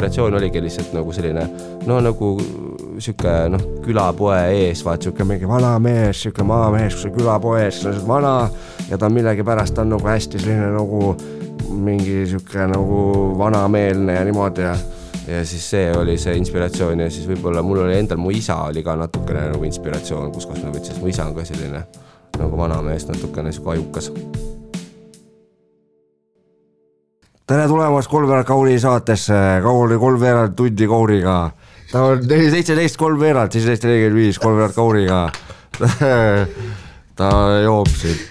inspiratsioon oligi lihtsalt nagu selline, no nagu siuke, külapoe ees, vaat siuke mingi vana mees, siuke maamees, kus on külapoes, kes on vana ja ta millegi pärast on nagu hästi selline nagu mingi siuke nagu vanameelne ja niimoodi ja siis see oli see inspiratsioon ja siis võib-olla mul oli endal, mu isa oli ka natukene nagu inspiratsioon, kus ma võtsin, mu isa on ka selline nagu vanamees, natukene siuke ajukas. Tere tulemast Kolmveerad Kauri saatesse, Kauri kolmveerad tundi Kauriga. Ta on 17 kolmveerad, 17.45 Kolmveerad Kauriga. Ta joob siin.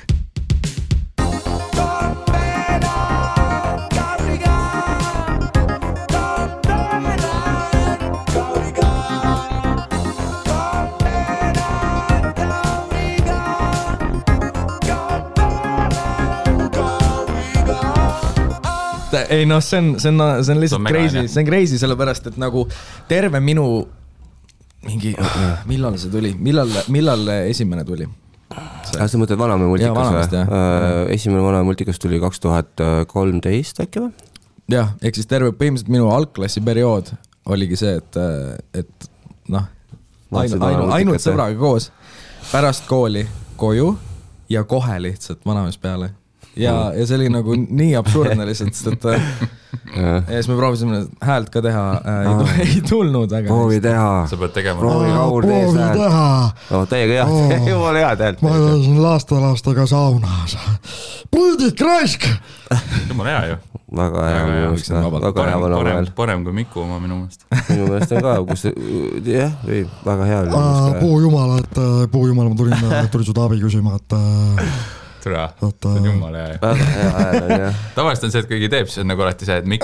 Ei see on lihtsalt crazy, see on crazy sellepärast, et nagu terve minu mingi, millal see tuli, millal esimene tuli? Sa mõtled Vanamäe multikas või? Esimene Vanamäe multikas tuli 2013 äkki või? Jah, ehk siis terve põhimõtteliselt minu algklassi periood oligi see, et ainult sõbraga koos pärast kooli koju ja kohe lihtsalt Vanamäes peale. Ja see oli nagu nii absurdne lihtsalt, sest ja siis me proovisime häält ka teha, ei tulnud väga. Proovi teha. Sa pead tegema. Proovi teha. No teiega jah, jumala hea häält. Ma olen lastega saunas. Puldik raisk! Jumala hea ju. Väga hea. Parem kui Miku oma minu meelest. Minu meelest on ka, kus jah, väga hea oli. Puujumala, ma tulin su taabi küsima, et Tura, see on jumala hea. Tavaliselt on see, et kõigi teeb, see on nagu alati see, et Mikk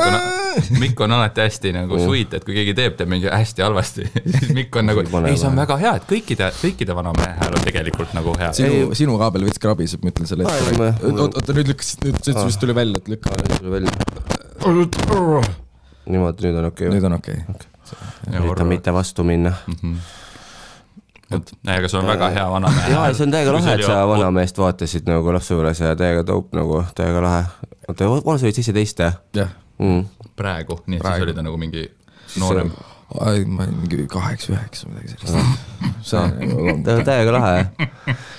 on alati hästi nagu sweet, et kui keegi teeb mingi hästi halvasti, siis Mikk on nagu, ei, see on väga hea, et kõikide Vanamäe hääl on tegelikult nagu hea. Sinu kaabel võts krabiseb, ma ütlen selle ette. Oota, nüüd vist tuli välja, et lükka. Niimoodi, nüüd on okei. Nüüd on okei. Üritan mitte vastu minna. Aga see on väga hea Vanamäe. Jaa, see on täiega lahe, et sa Vanamäest vaatasid nagu lapsuures ja täiega taup nagu, täiega lahe. Vana sa olid 17? Jah. Praegu, nii et siis oli ta nagu mingi noorem. Mingi 8-9 midagi sellist. See on täiega lahe.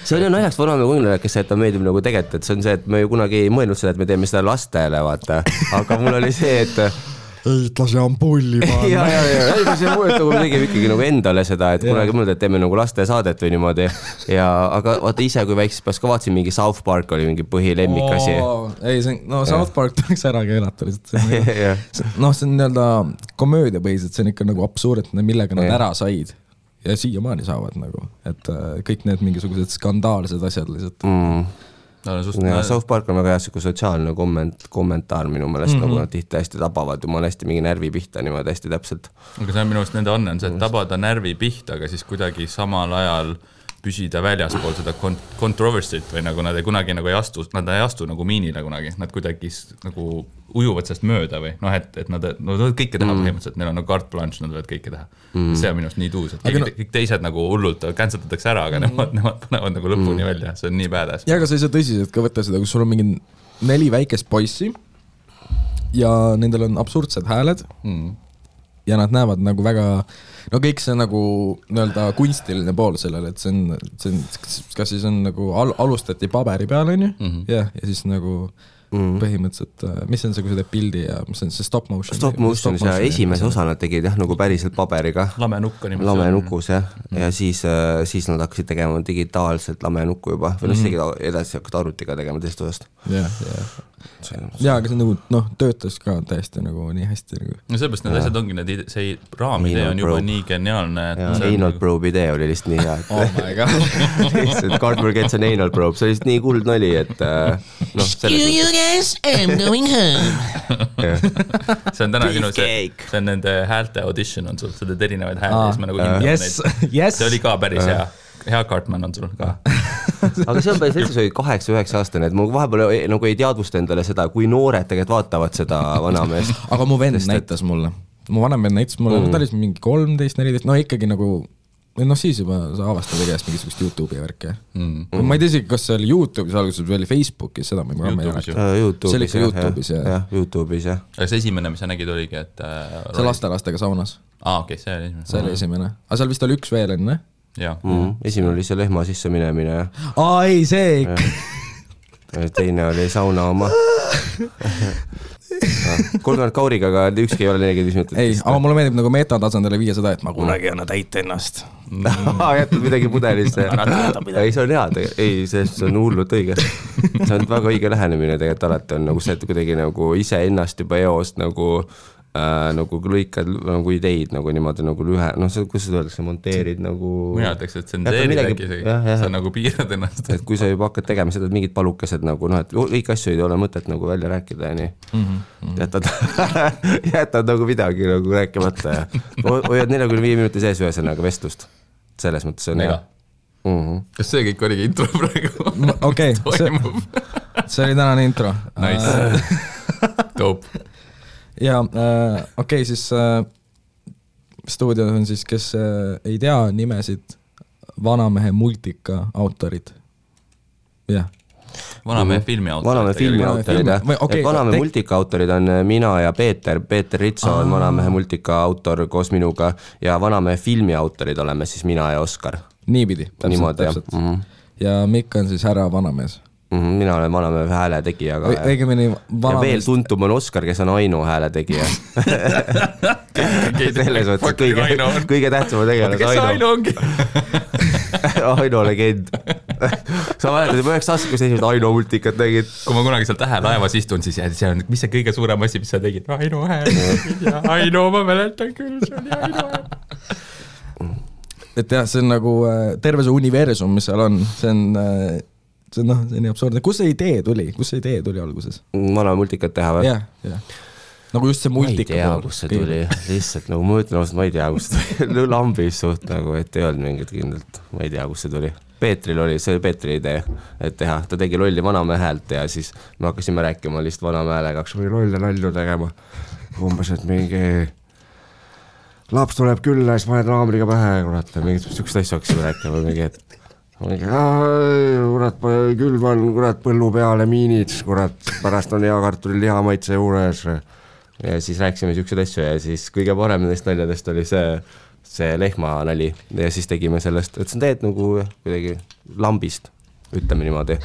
See oli naljaks Vanamäe kuningale, kes see, et ta meeldib nagu tegelikult, et see on see, et me ju kunagi ei mõelnud seda, et me teeme seda lastele, vaata. Aga mul oli see, et eitlasi ampulli panna. Ja, see mõelda, kui me tegime ikkagi nagu endale seda, et kunagi mõelda, et teeme nagu laste saadet või niimoodi. Aga vaata ise, kui väikses pärast ka vaatasin, mingi South Park oli mingi põhilemmikasi. Ei, South Park tuleks ära keelata lihtsalt. See on nii-öelda komöödia põhiselt, see on ikka nagu absurdne, millega nad ära said. Ja siiamaani saavad nagu, et kõik need mingisugused skandaalsed asjad lihtsalt. South Park on väga hea siuke sotsiaalne kommentaar minu meelest, nagu nad tihti hästi tabavad ja ma olen hästi mingi närvi pihta niimoodi hästi täpselt. Aga see on minu meelest nende on see, et tabada närvi pihta, aga siis kuidagi samal ajal püsida väljaspool seda controversy't või nagu nad ei kunagi nagu ei astu nagu miinile kunagi, nad kuidagi nagu ujuvad sellest mööda või et nad võivad kõike teha põhimõtteliselt, neil on nagu carte blanche, nad võivad kõike teha. See on minust nii tuus, et kõik teised nagu hullult canceldatakse ära, aga nemad panevad nagu lõpuni välja, see on nii badass. Ja aga sa ei saa tõsiselt ka võtta seda, kus sul on mingi 4 väikest poissi ja nendel on absurdsed hääled ja nad näevad nagu väga kõik see nagu nii-öelda kunstiline pool sellele, et see on kas siis on nagu alustati paberi peal, on ju? Ja siis nagu põhimõtteliselt, mis on see, kui sa teed pildi ja mis on see stop motion? Stop motion ja esimese osa nad tegid nagu päriselt paberiga. Lamenukus, jah. Ja siis nad hakkasid tegema digitaalselt lamenukku juba. Või siis edasi hakkad arvutiga tegema teist osast. Ja, aga see nagu, töötas ka täiesti nagu nii hästi. No seepärast need asjad ongi, see raamidee on juba nii geniaalne. Anal probe idee oli lihtsalt nii hea. Oh my god. Cardboard Gets on anal probe, see oli lihtsalt nii kuld nali, et Yes, I'm going home. See on täna sinu see on nende häälte audition on sul, sa teed erinevaid hääli, siis ma nagu hindab neid. See oli ka päris hea Cartman on sul ka. Aga see on päris lihtsalt, see oli 8-9 aastane, et ma vahepeal nagu ei teadvusta endale seda, kui noored tegelikult vaatavad seda Vanameest. Aga mu vend näitas mulle. Mu vanem vend näitas mulle, ta oli mingi 13-14, ikkagi nagu noh siis juba sa avastad igast mingisugust YouTube'i värke ma ei tea isegi, kas see oli YouTube'is alguses või oli Facebookis, seda ma ei mäleta. See oli ikka YouTube'is jah. YouTube'is jah. Aga see esimene, mis sa nägid, oligi, et see lastelastega saunas. Okei, see oli esimene. See oli esimene. Aga seal vist oli üks veel enne? Esimene oli see lehma sisse minemine ja ei, see ikka. Teine oli sauna oma 30 kauriga, aga ükski ei ole 45 minutit. Ei, aga mulle meeldib nagu metatasandile viia seda, et ma kunagi anna täita ennast. Jätnud midagi pudelisse. Ei, see on hea, ei, see on hullult õige. See on väga õige lähenemine tegelikult alati on nagu see, et kuidagi nagu ise ennast juba eost nagu lõikad nagu ideid nagu niimoodi nagu lühe, noh, kus seda öeldakse, monteerid nagu... Mina ütleks, et tsenseerid äkki sa nagu piirad ennast. Et kui sa juba hakkad tegema seda, et mingid palukesed nagu, noh, et kõik asju ei ole mõtet nagu välja rääkida ja nii. Jätad nagu midagi nagu rääkimata ja hoiad 45 minuti sees ühesõnaga vestlust. Selles mõttes on hea. Kas see kõik oligi intro praegu? Okei, see oli tänane intro. Nice. Dope. Ja okei, siis stuudios on siis, kes ei tea nimesid, Vanamehe multika autorid. Jah. Vanamehe filmi autorid. Vanamehe filmi autorid, jah. Vanamehe multika autorid on mina ja Peeter Ritso on Vanamehe multika autor koos minuga ja Vanamehe filmi autorid oleme siis mina ja Oskar. Niipidi, täpselt. Ja Mikk on siis härra Vanamees. Mina olen Vanamehe hääle tegija ja veel tuntum on Oskar, kes on Aino hääle tegija selles mõttes kõige tähtsama tegelas kes Aino ongi? Aino legend sa mäletad juba 9 aastat, kus esimesed Aino multikat tegid. Kui ma kunagi seal Tähelaevas istun, siis see on, mis see kõige suurem asi, mis sa tegid? Aino hääl ja Aino, ma mäletan küll, see oli Aino hääl. Et jah, see on nagu terve see universum, mis seal on, see on nii absurdne. Kus see idee tuli alguses? Vanamehe multikat teha või? Jah. Nagu just see multika. Ma ei tea, kus see tuli. Lihtsalt nagu ma ütlen, ma ei tea, kus see tuli. Lambis suht nagu, et ei olnud mingit kindlalt. Ma ei tea, kus see tuli. Peetril oli, see oli Peetri idee, et teha. Ta tegi lolli Vanamehe häält ja siis me hakkasime rääkima lihtsalt Vanamehe häälega. Hakkas või lolle nalju tegema. Umbes, et mingi laps tuleb külla ja siis paned raamriga pähe. Kurat, mingit sükst asju hakkasime rääkima mingi, et kurat, külvan, kurat, põllu peale miinid, kurat, pärast on hea kartuli liha maitse juures ja siis rääkisime siuksed asju ja siis kõige parem nendest naljadest oli see lehma nali ja siis tegime sellest, et see on teed nagu kuidagi lambist, ütleme niimoodi.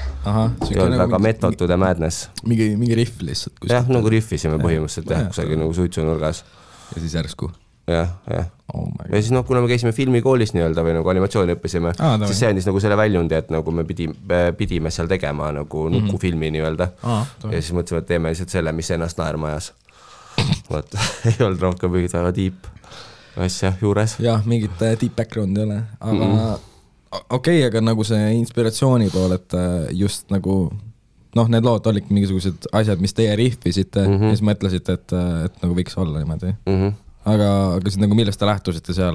Ei olnud väga method to the madness. Mingi riff lihtsalt. Jah, nagu riffisime põhimõtteliselt kusagil nagu suitsunurgas. Ja siis järsku. Jah. Ja siis kuna me käisime filmikoolis nii-öelda või nagu animatsiooni õppisime, siis see andis nagu selle väljundi, et nagu me pidime seal tegema nagu nukufilmi nii-öelda. Ja siis mõtlesime, et teeme lihtsalt selle, mis ennast naerma ajas. Võt, ei olnud rohkem mingit väga deep asja juures. Jah, mingit deep background ei ole, aga okei, aga nagu see inspiratsiooni pool, et just nagu need lood olid mingisugused asjad, mis teie riffisite ja siis mõtlesite, et nagu võiks olla niimoodi. Aga siis nagu millest te lähtusite seal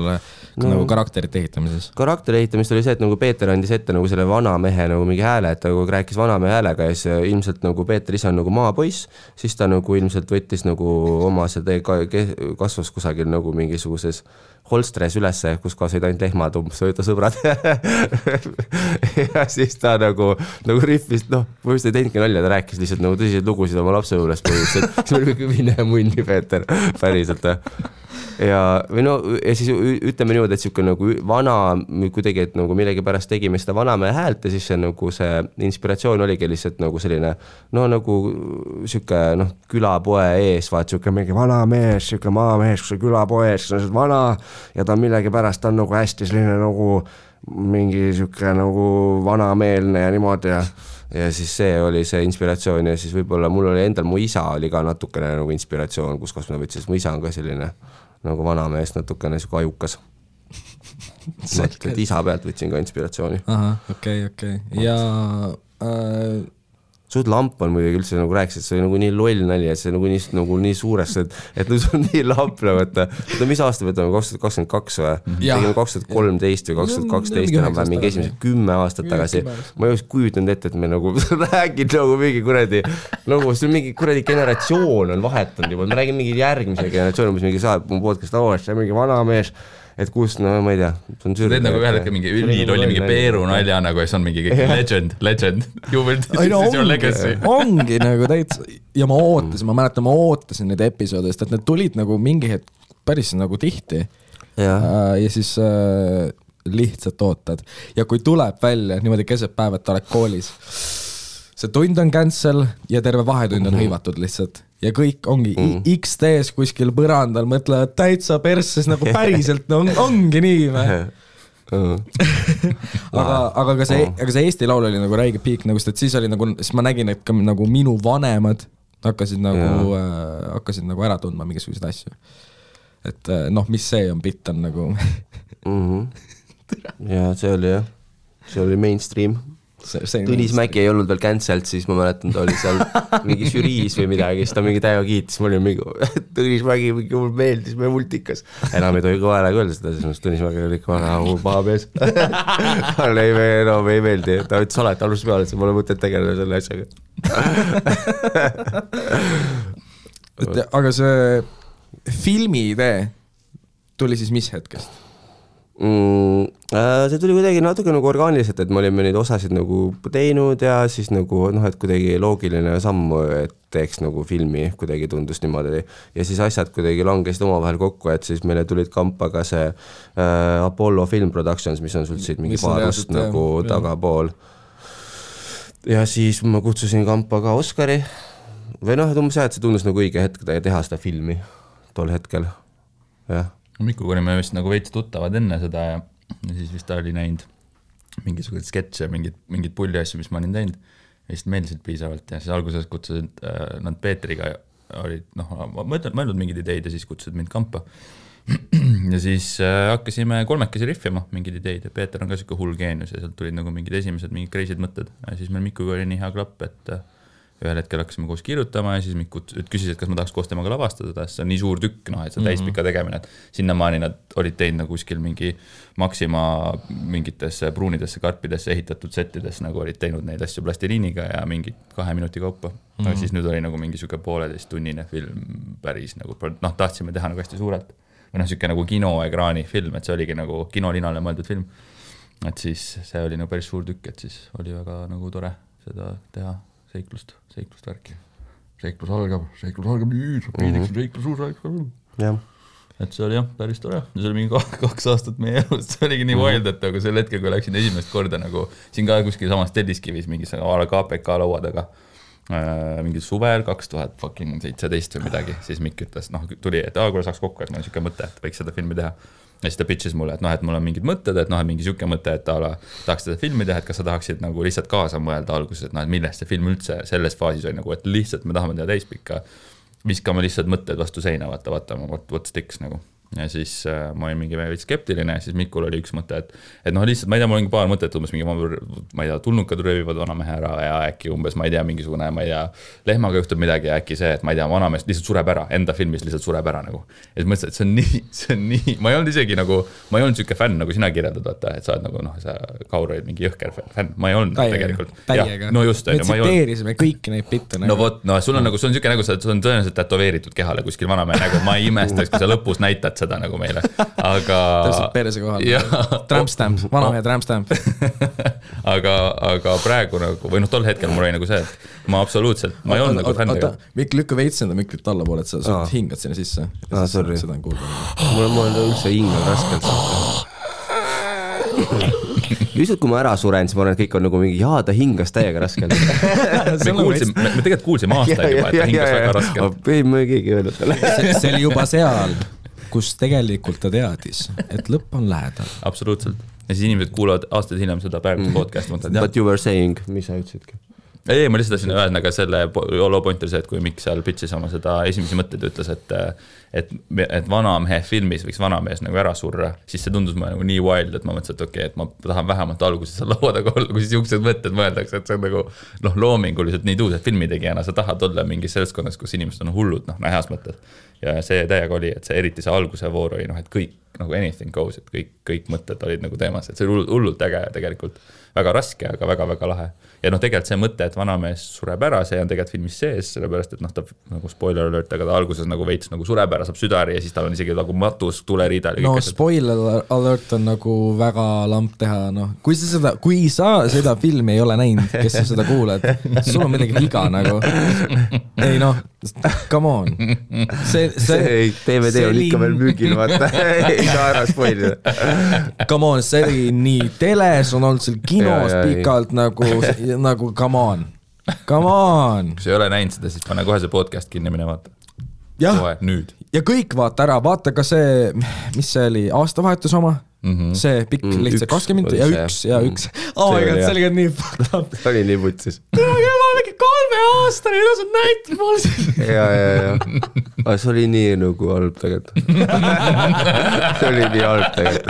nagu karakterite ehitamises? Karakteri ehitamist oli see, et nagu Peeter andis ette nagu selle Vanamehe nagu mingi hääle, et ta nagu rääkis Vanamehe häälega ja siis ilmselt nagu Peeter ise on nagu maapoiss, siis ta nagu ilmselt võttis nagu oma see kasvas kusagil nagu mingisuguses holstres ülesse, kus kaasaid ainult lehmad umbes ta sõbrad ja siis ta nagu riffist, ma just ei teinudki nalja, ta rääkis lihtsalt nagu tõsiseid lugusid oma lapse juures põhimõtteliselt, siis oli kõik mine munni Peeter, päriselt ja siis ütleme niimoodi, et siuke nagu vana kuidagi, et nagu millegi pärast tegime seda Vanamehe häält ja siis see nagu see inspiratsioon oligi lihtsalt nagu selline nagu siuke külapoe ees, vaat siuke mingi vanamees, siuke maamees, kus on külapoes, kes on vana ja ta millegi pärast on nagu hästi selline nagu mingi siuke nagu vanameelne ja niimoodi ja siis see oli see inspiratsioon ja siis võib-olla mul oli endal, mu isa oli ka natukene nagu inspiratsioon, kus ma võtsin, mu isa on ka selline nagu vanamees natukene siuke ajukas. Et isa pealt võtsin ka inspiratsiooni. Okei. Ja suht lamp on muidugi üldse nagu rääkis, et see oli nagu nii loll nali, et see nagu nii suurest, et see on nii lamp nagu, et mis aasta võtame, 2022 või? Tegime 2013 või 2012 enam mingi esimesed 10 aastat tagasi. Ma ei oleks kujutanud ette, et me nagu räägid nagu mingi kuradi, nagu see mingi kuradi generatsioon on vahetanud juba, me räägime mingi järgmise generatsioon, mis mingi saab mu podcast, see on mingi vanamees et kus, no ma ei tea, see on teed nagu ühel hetkel mingi ülilolli mingi Peeru nalja nagu ja see on mingi legend, you will this is your legacy. Ongi nagu täitsa ja ma ootasin neid episoode, sest et need tulid nagu mingi hetk päris nagu tihti ja siis lihtsalt ootad ja kui tuleb välja niimoodi keset päev, et ta oled koolis, see tund on cancel ja terve vahetund on hõivatud lihtsalt ja kõik ongi XD-s kuskil põrandal mõtlevad täitsa persses nagu päriselt no, ongi nii aga ka see Eesti laul oli nagu räige piik nagu, sest siis oli nagu, siis ma nägin, et ka nagu minu vanemad hakkasid nagu ära tundma mingisuguseid asju. Et noh, mis see on, bitt on nagu ja see oli mainstream. Tõnis Mäki ei olnud veel cancelled, siis ma mäletan, ta oli seal mingi žüriis või midagi, siis ta mingi täiega kiitis, ma olin mingi Tõnis Mäki mingi mul meeldis, me multikas. Enam ei tohi kõva häälega öelda seda, siis Tõnis Mäki oli ikka väga paha mees. Talle ei meeldi, ta ütles alati alguses peale, et see pole mõtet tegeleda selle asjaga. Aga see filmi idee tuli siis mis hetkest? See tuli kuidagi natuke nagu orgaaniliselt, et me olime neid osasid nagu teinud ja siis nagu noh, et kuidagi loogiline samm, et teeks nagu filmi, kuidagi tundus niimoodi ja siis asjad kuidagi langesid omavahel kokku, et siis meile tulid kampa ka see Apollo Film Productions, mis on sul siit mingi paarust nagu tagapool ja siis ma kutsusin kampa ka Oskari või noh, et see tundus nagu õige hetk teha seda filmi tol hetkel, jah. Mikuga olime vist nagu veits tuttavad enne seda ja siis vist ta oli näinud mingisugused sketše, mingid pulli asju, mis ma olin teinud ja vist meeldisid piisavalt ja siis alguses kutsusid nad Peetriga olid, noh, mõeldud mingid ideid ja siis kutsusid mind kampa ja siis hakkasime kolmekesi riffima mingid ideid ja Peeter on ka siuke hull geenius ja sealt tulid nagu mingid esimesed mingid crazy'd mõtted ja siis meil Mikuga oli nii hea klapp, et ühel hetkel hakkasime koos kirjutama ja siis Mikku küsis, et kas ma tahaks koos temaga lavastada, see on nii suur tükk, noh, et see täispika tegemine, et sinnamaani nad olid teinud nagu kuskil mingi Maxima mingitesse pruunidesse karpidesse ehitatud settides, nagu olid teinud neid asju plastiliiniga ja mingi 2 minuti kaupa. Aga siis nüüd oli nagu mingi siuke 1,5 tunnine film päris nagu, noh, tahtsime teha nagu hästi suurelt. Või noh, siuke nagu kinoekraani film, et see oligi nagu kinolinale mõeldud film. Et siis see oli nagu päris suur tükk, et siis oli väga nagu tore seda teha. Seiklust värki. Seiklus algab nüüd, meediks seiklus uus. Jah. Et see oli jah, päris tore. Ja see oli mingi 2 aastat meie elust. See oligi nii wild, et aga sel hetkel, kui läksin esimest korda nagu siin ka kuskil samas Telliskivis mingi KPK laua taga mingi suvel 2017 või midagi, siis Mikk ütles, noh, tuli, et kuule saaks kokku, et mul on siuke mõte, et võiks seda filmi teha. Ja siis ta pitches mulle, et noh, et mul on mingid mõtted, et noh, et mingi siuke mõte, et tahaks seda filmi teha, et kas sa tahaksid nagu lihtsalt kaasa mõelda alguses, et noh, et millest see film üldse selles faasis oli nagu, et lihtsalt me tahame teha täispikka, viskame lihtsalt mõtted vastu seina, vaata, what sticks nagu. Ja siis ma olin mingi veidi skeptiline ja siis Mikul oli üks mõte, et noh, lihtsalt, ma ei tea, mul on paar mõtet, umbes mingi, ma ei tea, tulnukad röövivad vanamehe ära ja äkki umbes, ma ei tea, mingisugune, ma ei tea, lehmaga juhtub midagi ja äkki see, et ma ei tea, vanamees lihtsalt sureb ära, enda filmis lihtsalt sureb ära nagu. Ja siis mõtlesin, et see on nii, ma ei olnud isegi nagu, ma ei olnud siuke fänn, nagu sina kirjeldad, vaata, et sa oled nagu, noh, sa Kaur olid mingi jõhker fänn, ma ei olnud tegelikult. Täiega. No just, me tsiteerisime kõiki neid bitte. No vot, no sul on nagu, sul on siuke nagu, sul on tõenäoliselt tätoveeritud kehale kuskil vanamehe nagu, ma ei imestaks, kui sa lõpus näitad seda nagu meile. Aga täpselt perse kohal. Trampstamp, vanamehe trampstamp. aga praegu nagu, või noh, tol hetkel mul oli nagu see, et ma absoluutselt, ma ei olnud nagu fännega. Mikk lükka veitsenda Miklit alla poole, et sa hingad sinna sisse. Sorry. Seda on kuulda. Mul on üldse hingel raskelt. Lihtsalt kui ma ära suren, siis ma arvan, et kõik on nagu mingi, ta hingas täiega raskelt. Me tegelikult kuulsime aastaid juba, et ta hingas väga raskelt. Ei, ma keegi öelnud talle. See oli juba seal, kus tegelikult ta teadis, et lõpp on lähedal. Absoluutselt. Ja siis inimesed kuulavad aastaid hiljem seda praegust podcasti. But you were saying, mis sa ütlesidki? Ei, ma lihtsalt tahtsin öelda ka selle low pointer see, et kui Mikk seal pitchis oma seda esimesi mõtteid ütles, et vanamehe filmis võiks vanamees nagu ära surra, siis see tundus mulle nagu nii wild, et ma mõtlesin, et okei, et ma tahan vähemalt alguses seal laua taga olla, kui siis juuksed mõtted mõeldakse, et see on nagu loominguliselt nii tuus, et filmitegijana sa tahad olla mingis seltskonnas, kus inimesed on hullud, heas mõttes. Ja see täiega oli, et see eriti see alguse voor oli, et kõik nagu anything goes, et kõik mõtted olid nagu teemas, et see oli hullult äge tegelikult. Väga raske, aga väga-väga lahe. Ja tegelikult see mõte, et vanamees sureb ära, see on tegelikult filmis sees, sellepärast, et ta nagu spoiler alert, aga ta alguses nagu veits nagu sureb ära, saab südari ja siis tal on isegi nagu matus, tuleriidal. No spoiler alert on nagu väga lamp teha, noh. Kui sa seda filmi ei ole näinud, kes sa seda kuuled, sul on midagi viga nagu. Ei noh, come on. See DVD on ikka veel müügil, vaata. Ei saa ära spoilida. Come on, see oli nii teles, on olnud seal kinos pikalt nagu come on. Kui sa ei ole näinud seda, siis pane kohe see podcast kinni mine vaata. Kohe, nüüd. Ja kõik vaata ära, vaata ka see, mis see oli, aastavahetus oma? See pikk lihtsalt 20 minutit ja üks. Oh my god, see oli ka nii fucked up. See oli nii putsis. Ma mingi 3 aastane, ja sa näitad mulle siin. Ja. Aga see oli nii nagu halb tegelikult. See oli nii halb tegelikult.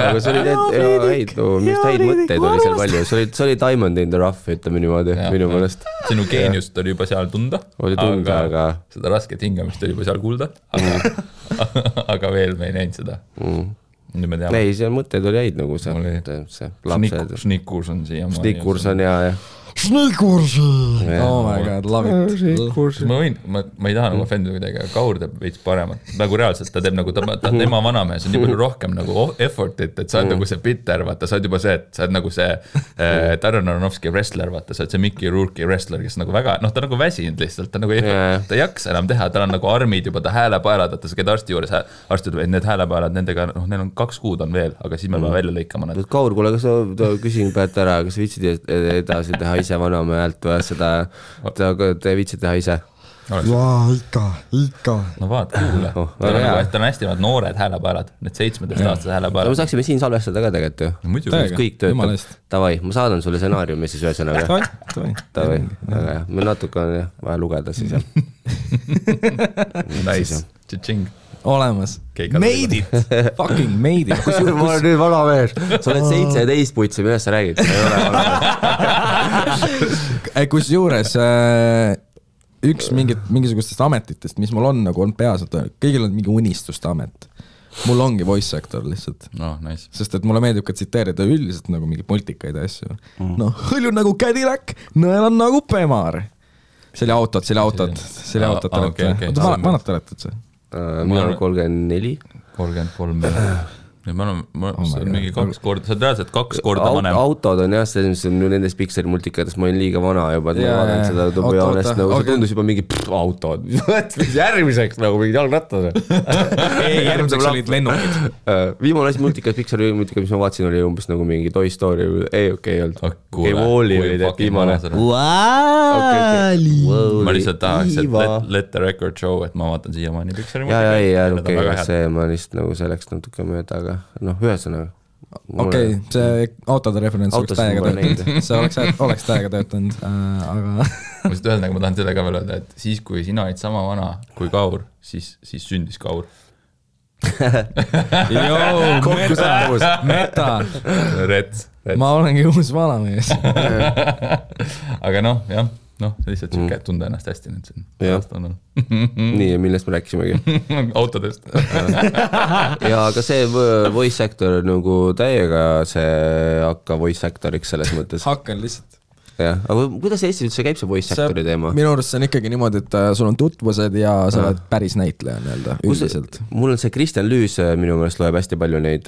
Aga see oli minu mõtteid oli seal palju. See oli Diamond in the Rough, ütleme niimoodi, minu mõelest. Sinu geeniust oli juba seal tunda. Oli tunda, aga... Seda rasket hingamist oli juba seal kuulda. Aga veel me ei näinud seda. Ei, seal mõtted oli häid nagu see lapsed. Snickurs on siia. Snickurs on ja. Snickurs! Oh my god, love it. Ma ei taha nagu offendida kuidagi, aga Kaur teeb veits paremat. Nagu reaalselt ta teeb nagu, tema vanamees on nii palju rohkem nagu effortit, et sa oled nagu see bitter, vaata, sa oled juba see, et sa oled nagu see Darren Aronofsky wrestler, vaata, sa oled see Mickey Rourke'i wrestler, kes nagu väga, ta nagu väsinud lihtsalt, ta nagu ta ei jaksa enam teha, tal on nagu armid juba, ta häälepaelad, vaata, sa käid arsti juures, arsti ütleb, et need häälepaelad, nendega, neil on 2 kuud on veel, aga siis me peame välja lõikama nad. Kaur, kuule, kas sa küsin päät ära, kas viitsid edasi teha ise vanamehe häält või seda, te viitsid teha ise? Jaa, ikka. No vaata, kuule. Ta on hästi noored häälepaelad, need 17-aastased häälepaelad. Me saaksime siin salvestada ka tegelikult ju. Muidugi. Kõik töötab. Tavai, ma saadan sulle stsenaariumi siis ühesõnaga. Tavai. Me natuke on vaja lugeda siis. Nice. Tšing. Olemas. Made it. Fucking made it. Ma olen nüüd vana mees. Sa oled 17 putsi, millest sa räägid? Ei ole vana mees. Kus juures üks mingisugustest ametitest, mis mul on nagu on peas, kõigil on mingi unistuste amet. Mul ongi voice actor lihtsalt. Nice. Sest et mulle meeldib ka tsiteerida üldiselt nagu mingi multikaid asju. Hõlju nagu Cadillac, nõel on nagu Pemar. See oli autod. Vanad te olete see? Mina olen 34. 33. Ma olen mingi 2 korda, sa oled reaalselt 2 korda vanem. Autod on jah, see on nendes Pixari multikates, ma olen liiga vana juba, et ma vaatan seda tubujaanest, nagu see tundus juba mingi autod. Järgmiseks nagu mingid jalgrattad. Ei, järgmiseks olid lennukid. Viimane asi multikas, Pixari multikas, mis ma vaatsin, oli umbes nagu mingi Toy Story, ei olnud. Okei, Wall-E oli teeb viimane. Ma lihtsalt tahaks, et let the record show, et ma vaatan siiamaani Pixari multikas. See ma lihtsalt nagu selleks natuke mööda, aga ühesõnaga. Okei, see autode referents oleks täiega töötanud. See oleks täiega töötanud, aga... Ma lihtsalt öeldagi, ma tahan selle ka veel öelda, et siis kui sina olid sama vana kui Kaur, siis sündis Kaur. Meta. Rets. Ma olengi uus vanamees. Aga jah. Lihtsalt siuke, et tunda ennast hästi nüüd siin. Nii, millest me rääkisimegi? Autodest. Ja aga see voice actor nagu täiega see hakka voice actoriks selles mõttes. Hakkan lihtsalt. Jah, aga kuidas Eestis üldse käib see voice actori teema? Minu arust see on ikkagi niimoodi, et sul on tutvused ja sa oled päris näitleja nii-öelda üldiselt. Mul on see Kristjan Lüüs minu meelest loeb hästi palju neid,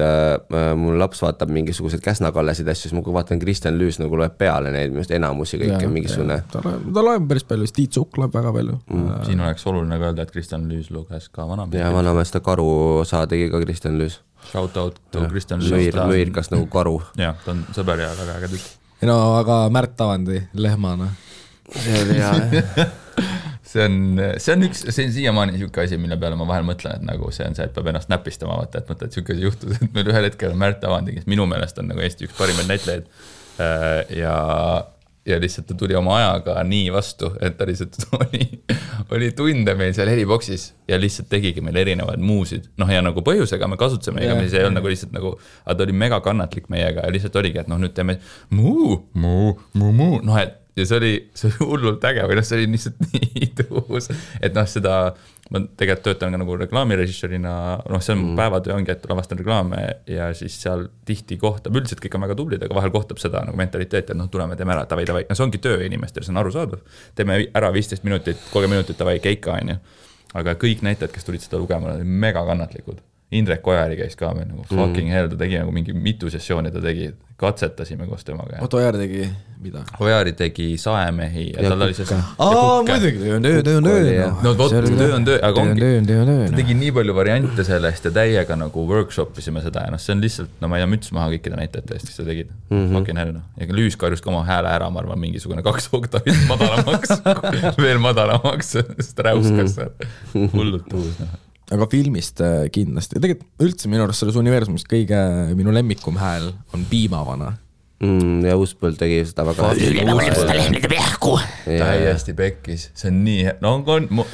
mul laps vaatab mingisugused Käsna-Kallesid asju, siis ma kui vaatan Kristjan Lüüs nagu loeb peale neid, minu enamusi kõike mingisugune. Ta loeb päris palju, Tiit Sukk loeb väga palju. Siin oleks oluline ka öelda, et Kristjan Lüüs luges ka vanamees. Ja vanamees ta karu osa tegi ka Kristjan Lüüs. Shout out to Kristjan Lüüs. Mõirkas nagu karu. Ja, ta on sõber ja väga äge tükk. No, aga Märt Avandi lehmana. See oli hea. See on siiamaani niisugune asi, mille peale ma vahel mõtlen, et nagu see on see, et peab ennast näpistama, vaata, et mõtled, et niisugune juhtus, et meil ühel hetkel on Märt Avandi, kes minu meelest on nagu Eesti üks parimaid näitlejaid ja lihtsalt ta tuli oma ajaga nii vastu, et ta lihtsalt oli tunde meil seal heliboksis ja lihtsalt tegigi meil erinevaid muusid. Ja nagu põhjusega me kasutasime, ega see ei olnud nagu lihtsalt nagu, aga ta oli mega kannatlik meiega ja lihtsalt oligi, et nüüd teeme muu. Ja see oli hullult äge või see oli lihtsalt nii tuus, et seda ma tegelikult töötan ka nagu reklaamirežissöörina, noh, see on päevatöö ongi, et lavastan reklaame ja siis seal tihti kohtab, üldiselt kõik on väga tublid, aga vahel kohtab seda nagu mentaliteeti, et noh, tuleme, teeme ära, tavai. No see ongi töö inimestel, see on arusaadav. Teeme ära 15 minutit, 30 minutit tavai keika, on ju. Aga kõik näitajad, kes tulid seda lugema, olid mega kannatlikud. Indrek Ojari käis ka meil nagu fucking hell, ta tegi nagu mingi mitu sessiooni, ta tegi, katsetasime koos temaga. Oota, Ojari tegi mida? Ojari tegi Saemehi ja tal oli see... muidugi, töö on töö. No vot, töö on töö, aga ongi, ta tegi nii palju variante sellest ja täiega nagu workshopisime seda ja noh, see on lihtsalt, no ma ei tea, müts maha kõikide näitajate eest, kes seda tegid. Fucking hell, noh. Ja Lüüs karjus ka oma hääle ära, ma arvan, mingisugune 2 oktavit madalamaks, veel madalamaks, sest räuskas hullult uus, noh. Aga filmist kindlasti. Tegelikult üldse minu arust selles universumist kõige minu lemmikum hääl on Piimavana. Ja Uuspõld tegi seda väga täiesti pekkis, see on nii no,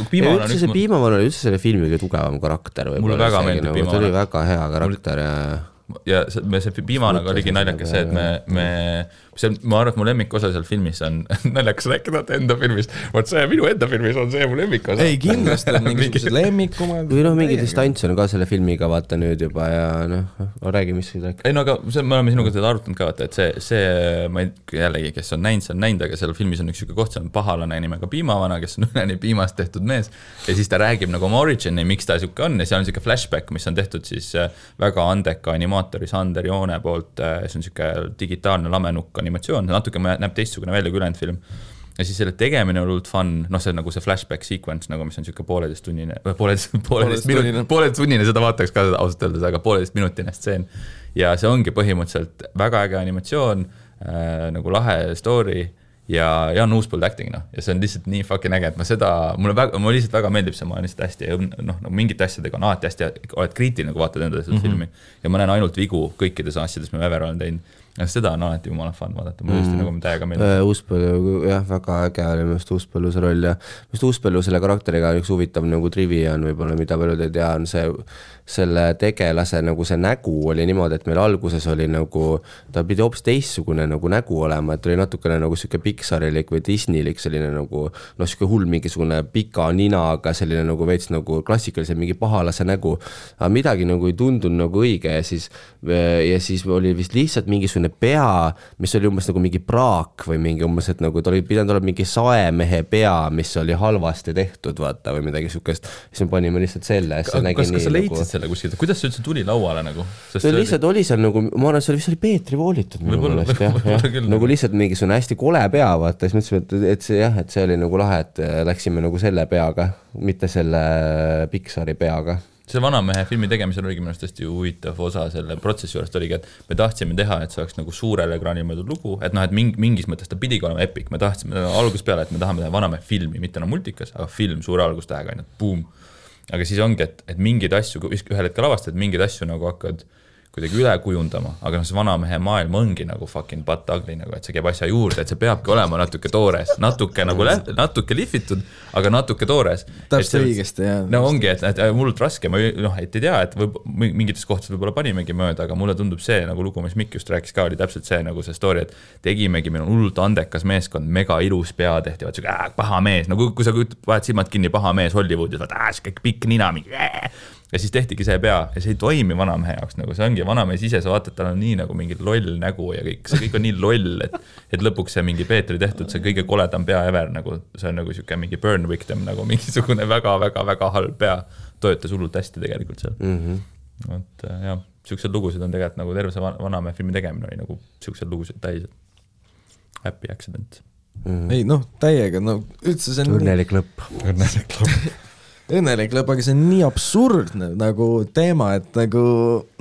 Piimavana oli üldse selle filmi kõige tugevam karakter. Mulle väga meeldib Piimavana. Ta oli väga hea karakter ja see Piimavanaga oligi naljakas see, et ma arvan, et mu lemmikosa seal filmis on naljakas rääkida enda filmist. Vaat see minu enda filmis on see mu lemmikosa. Ei, kindlasti on mingisugused lemmikumad. Või noh, mingi distants on ka selle filmiga vaata nüüd juba ja noh, räägi, mis rääk. Ei no aga me oleme sinuga seda arutanud ka vaata, et see ma jällegi, kes on näinud, aga seal filmis on üks siuke koht, see on pahalane nimega Piimavana, kes on üleni piimast tehtud mees ja siis ta räägib nagu oma origini, miks ta siuke on ja seal on siuke flashback, mis on tehtud siis väga andeka animaatori Sander Joone poolt, see on siuke digitaalne lamenukk animatsioon, natuke näeb teistsugune välja kui ülejäänud film. Ja siis selle tegemine on olnud fun, noh see on nagu see flashback sequence, nagu mis on siuke pooleteist tunnine, seda vaataks ka ausalt öeldes, aga 1,5 minutine stseen. Ja see ongi põhimõtteliselt väga äge animatsioon, nagu lahe story ja Jan Uuspõld acting, noh. Ja see on lihtsalt nii fucking äge, et mulle lihtsalt väga meeldib see, ma olen lihtsalt hästi, noh, mingite asjadega on alati hästi, oled kriitiline, kui vaatad enda seda filmi ja ma näen ainult vigu kõikides asjades, mis ma ever olen teinud. Ja seda on alati jumala fun vaadata, ma just nagu täiega meeldib. Uuspõllu, jah, väga äge oli just Uuspõllu see roll ja just Uuspõllu selle karakteriga üks huvitav nagu trivia on võib-olla, mida paljud ei tea, on selle tegelase nagu see nägu oli niimoodi, et meil alguses oli nagu, ta pidi hoopis teistsugune nagu nägu olema, et oli natukene nagu siuke Pixarilik või Disneylik selline nagu, noh siuke hull mingisugune pika ninaga selline nagu veits nagu klassikaliselt mingi pahalase nägu, aga midagi nagu ei tundunud nagu õige ja siis oli vist lihtsalt mingisugune pea, mis oli umbes nagu mingi praak või mingi umbes, et nagu ta oli pidanud olema mingi saemehe pea, mis oli halvasti tehtud, vaata, või midagi sukest. Siis me panime lihtsalt selle. Kas sa leidsid selle kuskilt? Kuidas see üldse tuli lauale nagu? See lihtsalt oli seal nagu, ma arvan, see oli Peetri voolitud minu mõelest, jah. Nagu lihtsalt mingisugune hästi kole pea, vaata. Siis mõtlesime, et see oli nagu lahe, et läksime nagu selle peaga, mitte selle Pixari peaga. See Vanamehe filmi tegemisel oligi minu hästi huvitav osa selle protsessi juurest oligi, et me tahtsime teha, et see oleks nagu suurele ekraanil mõeldud lugu, et noh, et mingis mõttes ta pidigi olema epic, me tahtsime alguses peale, et me tahame teha Vanamehe filmi, mitte enam multikas, aga film suure algustähega, ainult boom. Aga siis ongi, et mingid asju, ühel hetkel avastad, et mingid asju nagu hakkad kuidagi üle kujundama, aga see Vanamehe maailm ongi nagu fucking butt ugly, nagu, et see käib asja juurde, et see peabki olema natuke toores, natuke lihvitud, aga natuke toores. Täpselt õigesti, jah. No ongi, et mullult raske, ma noh, et ei tea, et mingites kohtades võib-olla panimegi mööda, aga mulle tundub see nagu lugu, mis Mikk just rääkis ka, oli täpselt see nagu see story, et tegimegi, meil on hullult andekas meeskond, mega ilus pea tehti, vaat siuke paha mees, no kui sa vahed silmad kinni paha mees Hollywoodis, vaat siuke pikk nina, ja siis tehtigi see pea ja see ei toimi Vanamehe jaoks, nagu see ongi Vanamees ise, sa vaatad, tal on nii nagu mingi loll nägu ja see kõik on nii loll, et lõpuks see mingi Peetri tehtud, see kõige koledam pea ever, nagu see on nagu siuke mingi burn victim, nagu mingisugune väga-väga-väga halb pea, toetas hullult hästi tegelikult seal. Et jah, siuksed lugusid on tegelikult nagu terve see Vanamehe filmi tegemine oli nagu siuksed lugusid täis, happy accident. Ei noh, täiega, no üldse see on õnnelik lõpp. Õnnelik lõpp, aga see on nii absurdne nagu teema, et nagu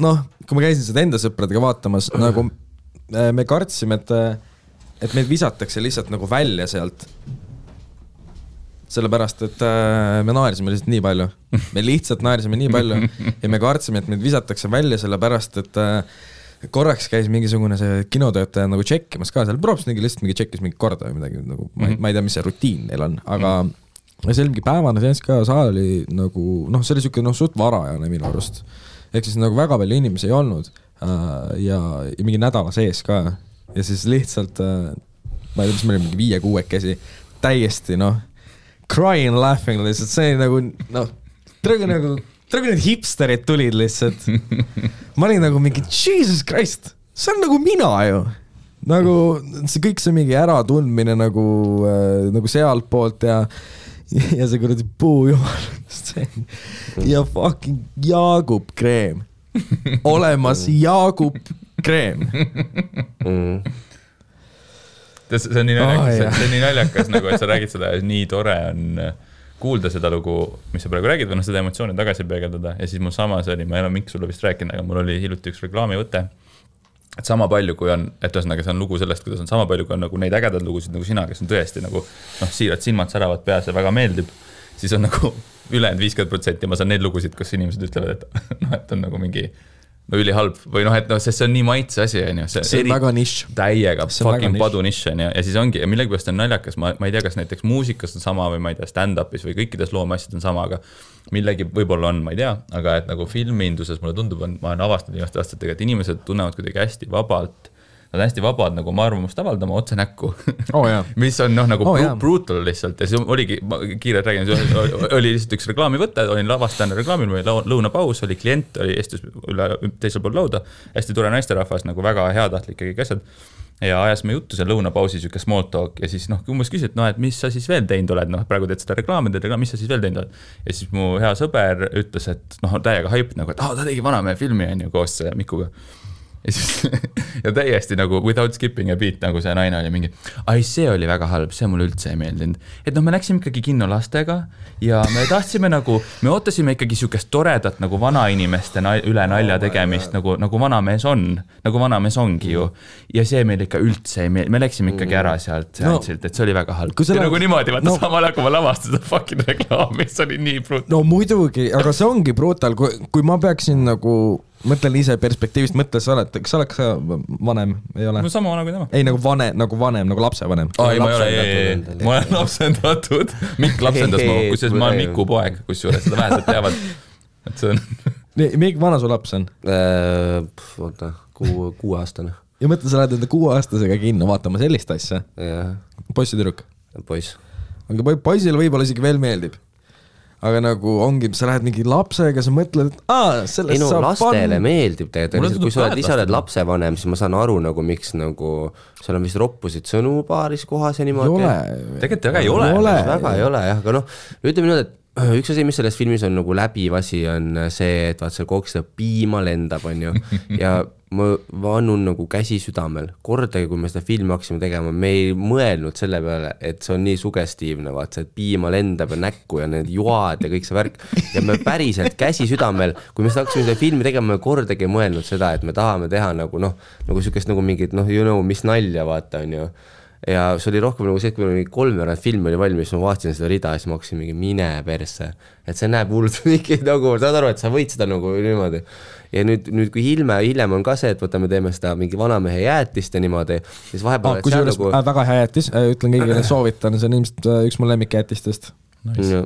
noh, kui ma käisin seda enda sõpradega vaatamas, nagu me kartsime, et meid visatakse lihtsalt nagu välja sealt. Sellepärast, et me naerisime lihtsalt nii palju. Me lihtsalt naerisime nii palju ja me kartsime, et meid visatakse välja sellepärast, et korraks käis mingisugune see kinotöötaja nagu tšekkimas ka seal, proovs lihtsalt mingi tšekkis mingi korda või midagi, nagu, ma ei tea, mis see rutiin neil on, aga ja see oli mingi päevane seens ka, saal oli nagu, noh, see oli siuke suht varajane minu arust. Ehk siis nagu väga palju inimesi ei olnud ja mingi nädala sees ka. Ja siis lihtsalt, ma ei tea, mis meil oli mingi 5-6 käsi, täiesti, noh, crying, laughing, lihtsalt see nagu, noh, Traga need hipsterid tulid lihtsalt. Ma olin nagu mingi, Jesus Christ, see on nagu mina ju. Nagu see kõik see mingi äratundmine nagu sealt poolt ja see kuradi puujumal ja fucking Jaagup kreem. Olemas Jaagup kreem. See on nii naljakas, nagu, et sa räägid seda, nii tore on kuulda seda lugu, mis sa praegu räägid, või seda emotsiooni tagasi peegeldada. Ja siis mul samas oli, ma ei ole mingi sulle vist rääkinud, aga mul oli hiljuti üks reklaamivõte, et sama palju, kui on, et ühesõnaga see on lugu sellest, kuidas on sama palju, kui on nagu neid ägedad lugusid nagu sina, kes on tõesti nagu, siirad silmad säravad peas ja väga meeldib, siis on nagu ülejäänud 50% ma saan neid lugusid, kus inimesed ütlevad, et on nagu mingi ülihalb või sest see on nii maitse asi, see on väga nišš. Täiega fucking padu nišš, ja siis ongi, ja millegipärast on naljakas, ma ei tea, kas näiteks muusikas on sama või ma ei tea, stand-upis või kõikides loomeasjad on sama, aga millegi võib-olla on, ma ei tea, aga et nagu filminduses mulle tundub, ma olen avastanud viimaste aastatega, et inimesed tunnevad kuidagi hästi vabalt, nad on hästi vabad nagu oma arvamust avaldama otse näkku, mis on nagu brutal lihtsalt ja siis oligi, kiirelt räägin, oli lihtsalt üks reklaamivõte, olin lavastajana reklaamil, meil lõunapaus, oli klient, oli estus üle teisel pool lauda, hästi tore naisterahvas, nagu väga heatahtlik ja kõik asjad ja ajasime juttu seal lõunapausi, siuke small talk ja siis umbes küsid, et mis sa siis veel teinud oled, praegu teed seda reklaami, mis sa siis veel teinud oled ja siis mu hea sõber ütles, et täiega hype nagu, et ta tegi Vanamehe filmi koos Mikuga. Ja täiesti nagu without skipping a beat nagu see naine oli mingi, see oli väga halb, see mulle üldse ei meeldinud. Et me läksime ikkagi kinno lastega ja me tahtsime nagu, me ootasime ikkagi siukest toredat nagu vanainimeste üle nalja tegemist, nagu Vanamees on, nagu Vanamees ongi ju. Ja see meil ikka üldse ei meeldinud, me läksime ikkagi ära sealt seantsilt, et see oli väga halb. Ja nagu niimoodi, vaata samal kui ma lavastada fucking reklaami, see oli nii brutal. No muidugi, aga see ongi brutal, kui ma peaksin nagu mõtlen ise perspektiivist, kas sa oled vanem, ei ole? No sama vana kui tema. Ei, nagu vanem, nagu lapsevanem. Ei, ma olen lapsendatud. Mikk lapsendas ma, kusjuures ma olen Miku poeg, kusjuures seda vähesed teavad. Et see on... Mikk, vana su laps on? Oota, 6-aastane. Ja mõtle, sa lähed enda 6-aastasega kinno vaatama sellist asja? Poiss ja tüdruk? Poiss. Aga poisile võib-olla isegi veel meeldib. Aga nagu ongi, sa lähed mingi lapsega, sa mõtled, et sellest saab lastele meeldib tegelikult, kui sa oled lapsevanem, siis ma saan aru nagu miks nagu seal on vist roppusid sõnu paaris kohas ja niimoodi. Tegelikult väga ei ole. Väga ei ole, jah, aga ütleme nüüd, et üks asi, mis selles filmis on nagu läbiv asi, on see, et vaat seal kogu seda piima lendab, on ju, ja ma vannun nagu käsi südamel. Kordagi, kui me seda filmi hakkasime tegema, me ei mõelnud selle peale, et see on nii sugestiivne, vaat see, et piima lendab ja näkku ja need joad ja kõik see värk. Ja me päriselt käsi südamel, kui me hakkasime seda filmi tegema, me kordagi ei mõelnud seda, et me tahame teha nagu sükest nagu mingit, mis nalja vaata, on ju. Ja see oli rohkem nagu see, et kui oli 3 film oli valmis, ma vaatasin seda rida ja siis ma hakkasin mingi mine persse. Et see näeb hullult mingi nagu, saad aru, et sa võid seda nagu niimoodi. Ja nüüd kui hiljem on ka see, et võtame teeme seda mingi Vanamehe jäätist ja niimoodi, siis vahepeal... Kui see nagu... väga hea jäätis, ütlen kõigile soovitan, see on ilmselt üks mu lemmik jäätistest. Nice.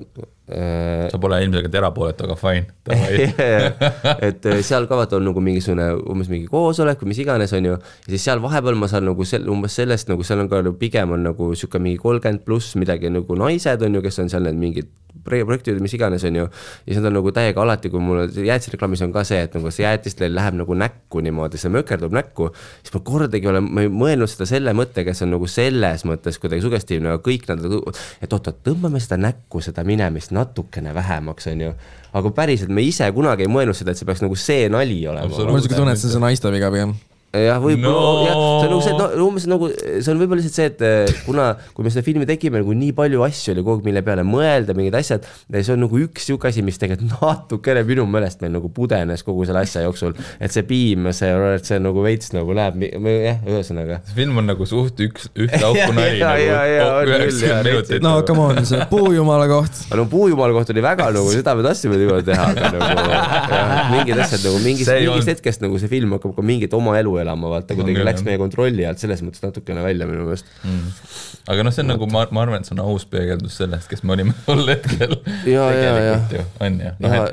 Sa pole ilmselt erapooletu, aga fine. Et seal kavat on nagu umbes mingi koosolek või mis iganes on ju, ja siis seal vahepeal ma saan nagu umbes sellest, nagu seal on ka pigem on nagu siuke mingi 30+ midagi nagu naised on ju, kes on seal need mingid projektid, mis iganes on ju, ja see on nagu täiega alati, kui mul jäätisreklaamis on ka see, et nagu see jäätist läheb nagu näkku niimoodi, see mökerdub näkku, siis ma kordagi olen mõelnud seda selle mõtte, kes on nagu selles mõttes kuidagi sugestiivne, aga kõik nad, et tõmbame seda näkku, seda minemist natukene vähemaks, on ju. Aga päriselt me ise kunagi ei mõelnud seda, et see peaks nagu see nali olema. Ma isegi tunnen, et see on naiste viga pigem. jah, võib-olla, see on võib-olla lihtsalt see, et kui me seda filmi tegime, nagu nii palju asju oli kogu, mille peale mõelda, mingid asjad, ja see on nagu üks siuke asi, mis tegelikult natukene minu meelest meil nagu pudenes kogu selle asja jooksul, et see piim, see nagu veits nagu läheb, ühesõnaga. See film on nagu suht üht auku nali nagu. No, come on, see puujumala koht. No puujumala koht oli väga nagu, seda me tahtsime juba teha, aga nagu mingid asjad nagu mingist hetkest nagu see film hakkab ka mingit oma elu elama, vaata, kuidagi läks meie kontrolli alt selles mõttes natukene välja minu meelest. Aga see on nagu, ma arvan, et see on aus peegeldus sellest, kes me olime tol hetkel. Ja.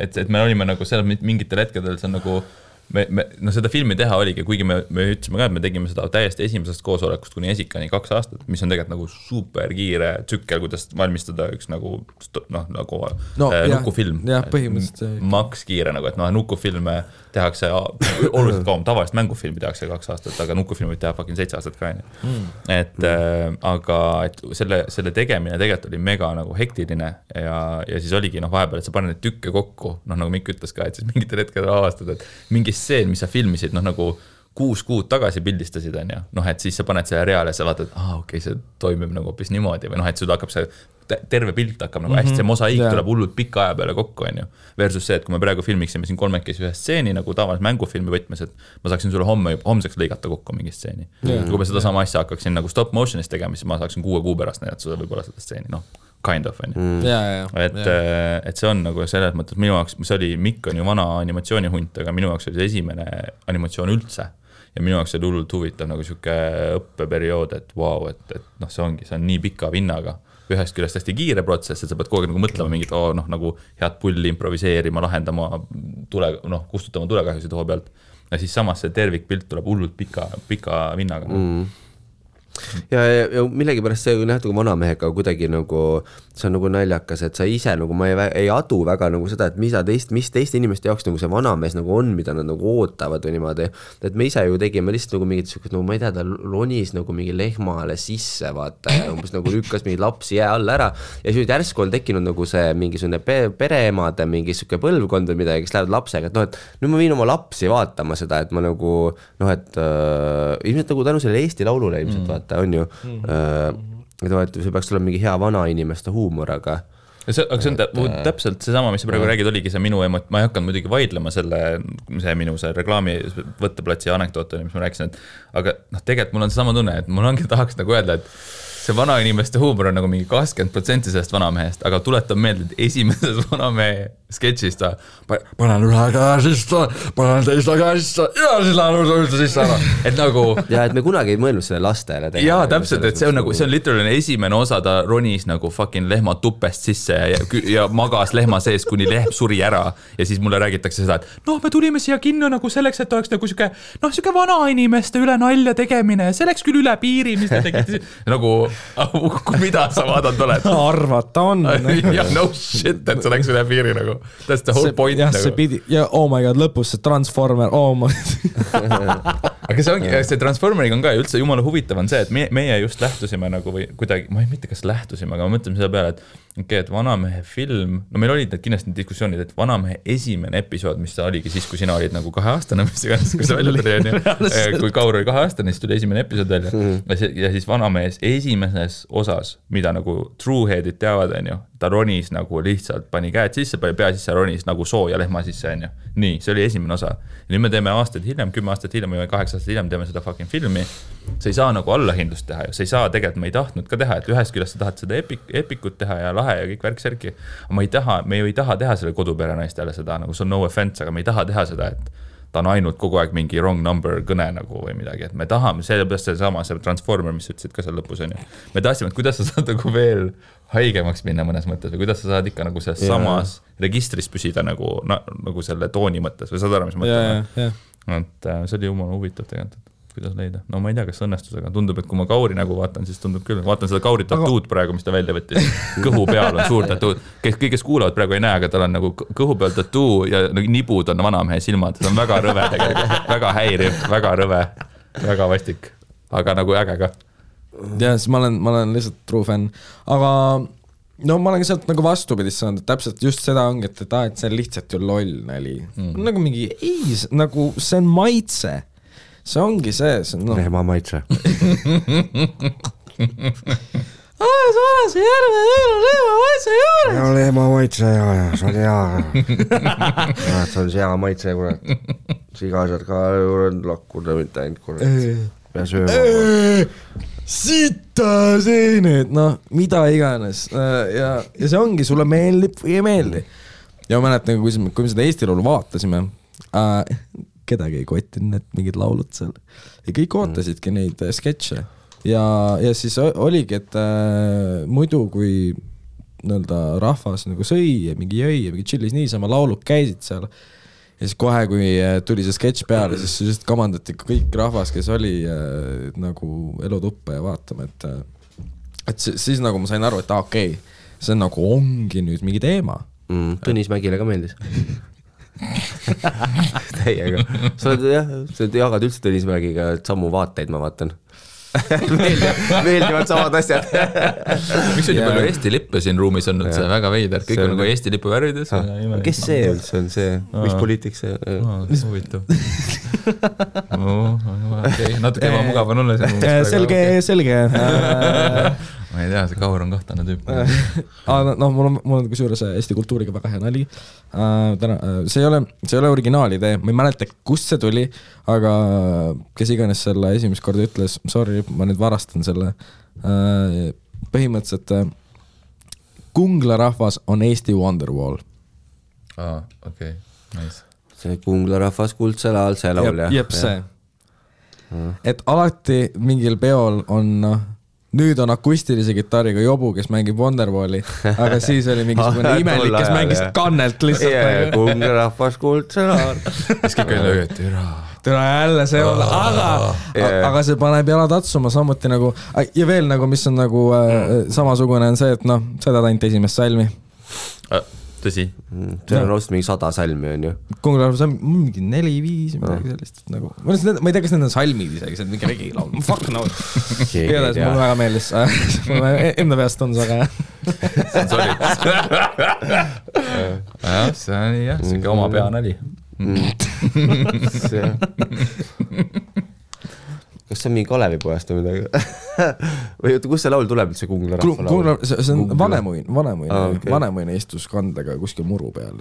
Et me olime nagu seal mingitel hetkedel, see on nagu no seda filmi teha oligi, kuigi me ütlesime ka, et me tegime seda täiesti esimesest koosolekust kuni Esikani 2 aastat, mis on tegelikult nagu super kiire tsükkel, kuidas valmistada üks nagu nukufilm. Jah, põhimõtteliselt. Maks kiire nagu, et nukufilme tehakse oluliselt kauem, tavalist mängufilmi tehakse 2 aastat, aga nukufilmi teha 7 aastat ka. Aga et selle tegemine tegelikult oli mega nagu hektiline ja siis oligi vahepeal, et sa paned neid tükke kokku, nagu Mikk ütles ka, et siis mingitel hetkel avastad, et mingi stseen, mis sa filmisid, nagu 6 kuud tagasi pildistasid, on ju. Et siis sa paned selle reale ja sa vaatad, okei, see toimib nagu hoopis niimoodi või et sul hakkab see terve pilt hakkab nagu hästi, see mosaiik tuleb hullult pika aja peale kokku, on ju. Versus see, et kui me praegu filmiksime siin 3-kesi ühe stseeni nagu tavalis mängufilmi võtmes, et ma saaksin sulle homseks lõigata kokku mingi stseeni. Kui ma seda sama asja hakkaksin nagu stop motionis tegema, siis ma saaksin 6 kuu pärast näidata sulle võib-olla seda stseeni, kind of, on ju. Et see on nagu selles mõttes, minu jaoks, see oli, Mikk on ju vana animatsioonihunt, aga minu jaoks oli see esimene animatsioon üldse. Ja minu jaoks oli hullult huvitav nagu siuke õppeperiood, et vau, et see on nii pika vinnaga. Ühest küljest hästi kiire protsess, et sa pead kogu aeg nagu mõtlema mingit, nagu head pulli improviseerima, lahendama, kustutama tulekahjusid hoo pealt. Ja siis samas see tervikpilt tuleb hullult pika vinnaga. Ja millegipärast see nähtu kui vanamehega kuidagi nagu, see on nagu naljakas, et sa ise nagu, ma ei adu väga nagu seda, et mis teiste inimeste jaoks nagu see vanamees nagu on, mida nad nagu ootavad või niimoodi, et me ise ju tegime lihtsalt nagu mingit sükust, nagu ma ei tea, ta ronis nagu mingi lehmale sisse, vaata, ja umbes nagu lükkas mingi lapsi jää all ära ja siis järsku on tekkinud nagu see mingisugune pereemade mingi süke põlvkond või midagi, kes lähevad lapsega, et nüüd ma viin oma lapsi vaatama seda, et ma nagu et ilmselt nagu tänu selle Eesti laulule ilmselt vaata, on ju, see peaks olema mingi hea vana inimeste huumor, aga see on täpselt seesama, mis sa praegu räägid, oligi see minu ma ei hakanud muidugi vaidlema see minu reklaami võtteplatsi anekdoot, mis ma rääkisin, aga tegelikult mul on seesama tunne, et mul ongi tahaks nagu öelda, et see vana inimeste huumor on nagu mingi 20% sellest vanamehest, aga tuletan meelde, et esimeses vanamehe sketšist panen ühe käe sisse, panen teise käe sisse ja siis lähen üldse sisse ära. Et nagu ja et me kunagi ei mõelnud selle lastele jaa, täpselt, et see on nagu, see on literaalne esimene osa, ta ronis nagu fucking lehma tupest sisse ja magas lehma sees, kuni lehm suri ära ja siis mulle räägitakse seda, et me tulime siia kinno nagu selleks, et oleks nagu siuke vana inimeste üle nalja tegemine, see läks küll üle piiri, mis te tegite nagu mida sa vaadanud oled? Arvata on. Ja no shit, et see läks üle piiri nagu. That's the whole point. Ja see pidi, ja oh my god, lõpus see Transformer, Aga see ongi, see Transformeriga on ka üldse jumala huvitav on see, et meie just lähtusime nagu või kuidagi, ma ei mitte kas lähtusime, aga ma mõtleme selle peale, et et vanamehe film, meil olid need kindlasti diskussioonid, et vanamehe esimene episood, mis ta oligi siis, kui sina olid nagu 2-aastane, mis iganes, kui see välja tuli, kui Kaur oli 2-aastane, siis tuli esimene episood välja ja siis vanamehes esimeses osas, mida nagu trueheadid teavad, on ju, ta ronis nagu lihtsalt pani käed sisse, pani pea sisse, ronis nagu sooja lehma sisse, on ju. Nii, see oli esimene osa. Ja nüüd me teeme aastaid hiljem, 10 aastat hiljem või 8 aastat hiljem teeme seda fucking filmi. Sa ei saa nagu allahindlust teha ja sa ei saa tegelikult, me ei tahtnud ka teha, et ühest küljest sa tahad seda epikut teha ja lahe ja kõik värk-särki. Me ju ei taha teha selle kodupere naistele seda, nagu see on no offense, aga me ei taha teha seda, et ta on ainult kogu aeg mingi wrong number kõne nagu või midagi, et me tahame, sellepärast see Transformer, mis ütlesid ka seal lõpus, on ju. Me tahtsime, et kuidas sa saad nagu veel haigemaks minna mõnes mõttes või kuidas sa saad ikka nagu selles samas registris püsida nagu selle tooni mõttes või saad aru, mis mõtlema. Et see oli jumala huvitav tegelikult, kuidas leida. No ma ei tea, kas õnnestusega. Tundub, et kui ma Kauri nägu vaatan, siis tundub küll. Vaatan seda Kauri tatuud praegu, mis ta välja võttis. Kõhu peal on suur tatuud. Kes kuulavad praegu ei näe, aga tal on nagu kõhu peal tatuu ja nibud on vanamehe silmad. See on väga rõve tegelikult. Väga häiriv, väga rõve, väga vastik. Aga nagu äge ka. Ja siis ma olen lihtsalt true fan. Aga no ma olen ka sealt nagu vastupidist saanud, et täpselt just seda ongi, et see on lihtsalt ju loll nali. Nagu mingi, nagu see on maitse. See ongi see on lehma maitse. See järve lehma maitse juures. Ja lehma maitse ja see on hea. See on hea maitse, kurat. Sigased ka lakkuda mitte ainult, kurat. Pea sööma. Sita seened, mida iganes. Ja see ongi, sulle meeldib või ei meeldi. Ja ma mäletan, kui me seda Eesti laulu vaatasime, kedagi ei kottinud need mingid laulud seal. Ja kõik ootasidki neid sketše. Ja siis oligi, et muidu kui rahvas nagu sõi ja mingi jõi ja mingi chillis niisama laulud käisid seal. ja siis kohe, kui tuli see sketš peale, siis just kamandati kõik rahvas, kes oli nagu elutuppa ja vaatama, et siis nagu ma sain aru, et okei, see on nagu ongi nüüd mingi teema. Tõnis Mägile ka meeldis. Täiega. Sa jagad üldse Tõnis Mägiga samu vaateid, ma vaatan. meeldivad samad asjad. Miks on nii palju Eesti lippe siin ruumis on, see väga veider, kõik on nagu Eesti lipu värvides. Kes see üldse on see, mis poliitik see? Mis huvitav. Natuke ebamugav on olla selge. Ma ei tea, see Kaur on kahtlane tüüp. Mul on kusjuures Eesti kultuuriga väga hea nali. See ei ole originaalidee, ma ei mäleta, kust see tuli, aga kes iganes selle esimest korda ütles, sorry, ma nüüd varastan selle, põhimõtteliselt Kungla rahvas on Eesti Wonderwall. Okei, nice. See Kungla rahvas kuldsel ajal, see laul, jah? Jep, see. Et alati mingil peol on nüüd on akustilise kitarriga jobu, kes mängib Wonderwalli, aga siis oli mingisugune imelik, kes mängis kannelt lihtsalt. Kungla rahvas kuldsel ajal. Siis kõik oli lööd, türa jälle see olla, aga see paneb jala tatsuma samuti nagu, ja veel nagu, mis on nagu samasugune on see, et seda ainult esimest salmi. Tõsi. See on rost mingi 100 salmi on ju. Kungla rahvas on mingi 4-5 midagi sellist nagu. Ma ei tea, kas need on salmid isegi, see on mingi regilaul. Fuck no. Igatahes mul väga meeldis. Mul enda peast on see aga. See on solid. See on jah, see on oma pea nali. Kas see on mingi Kalevipojast või midagi? Või kus see laul tuleb, see Kungla rahva laul? See on vanemuine istus kandega kuskil muru peal.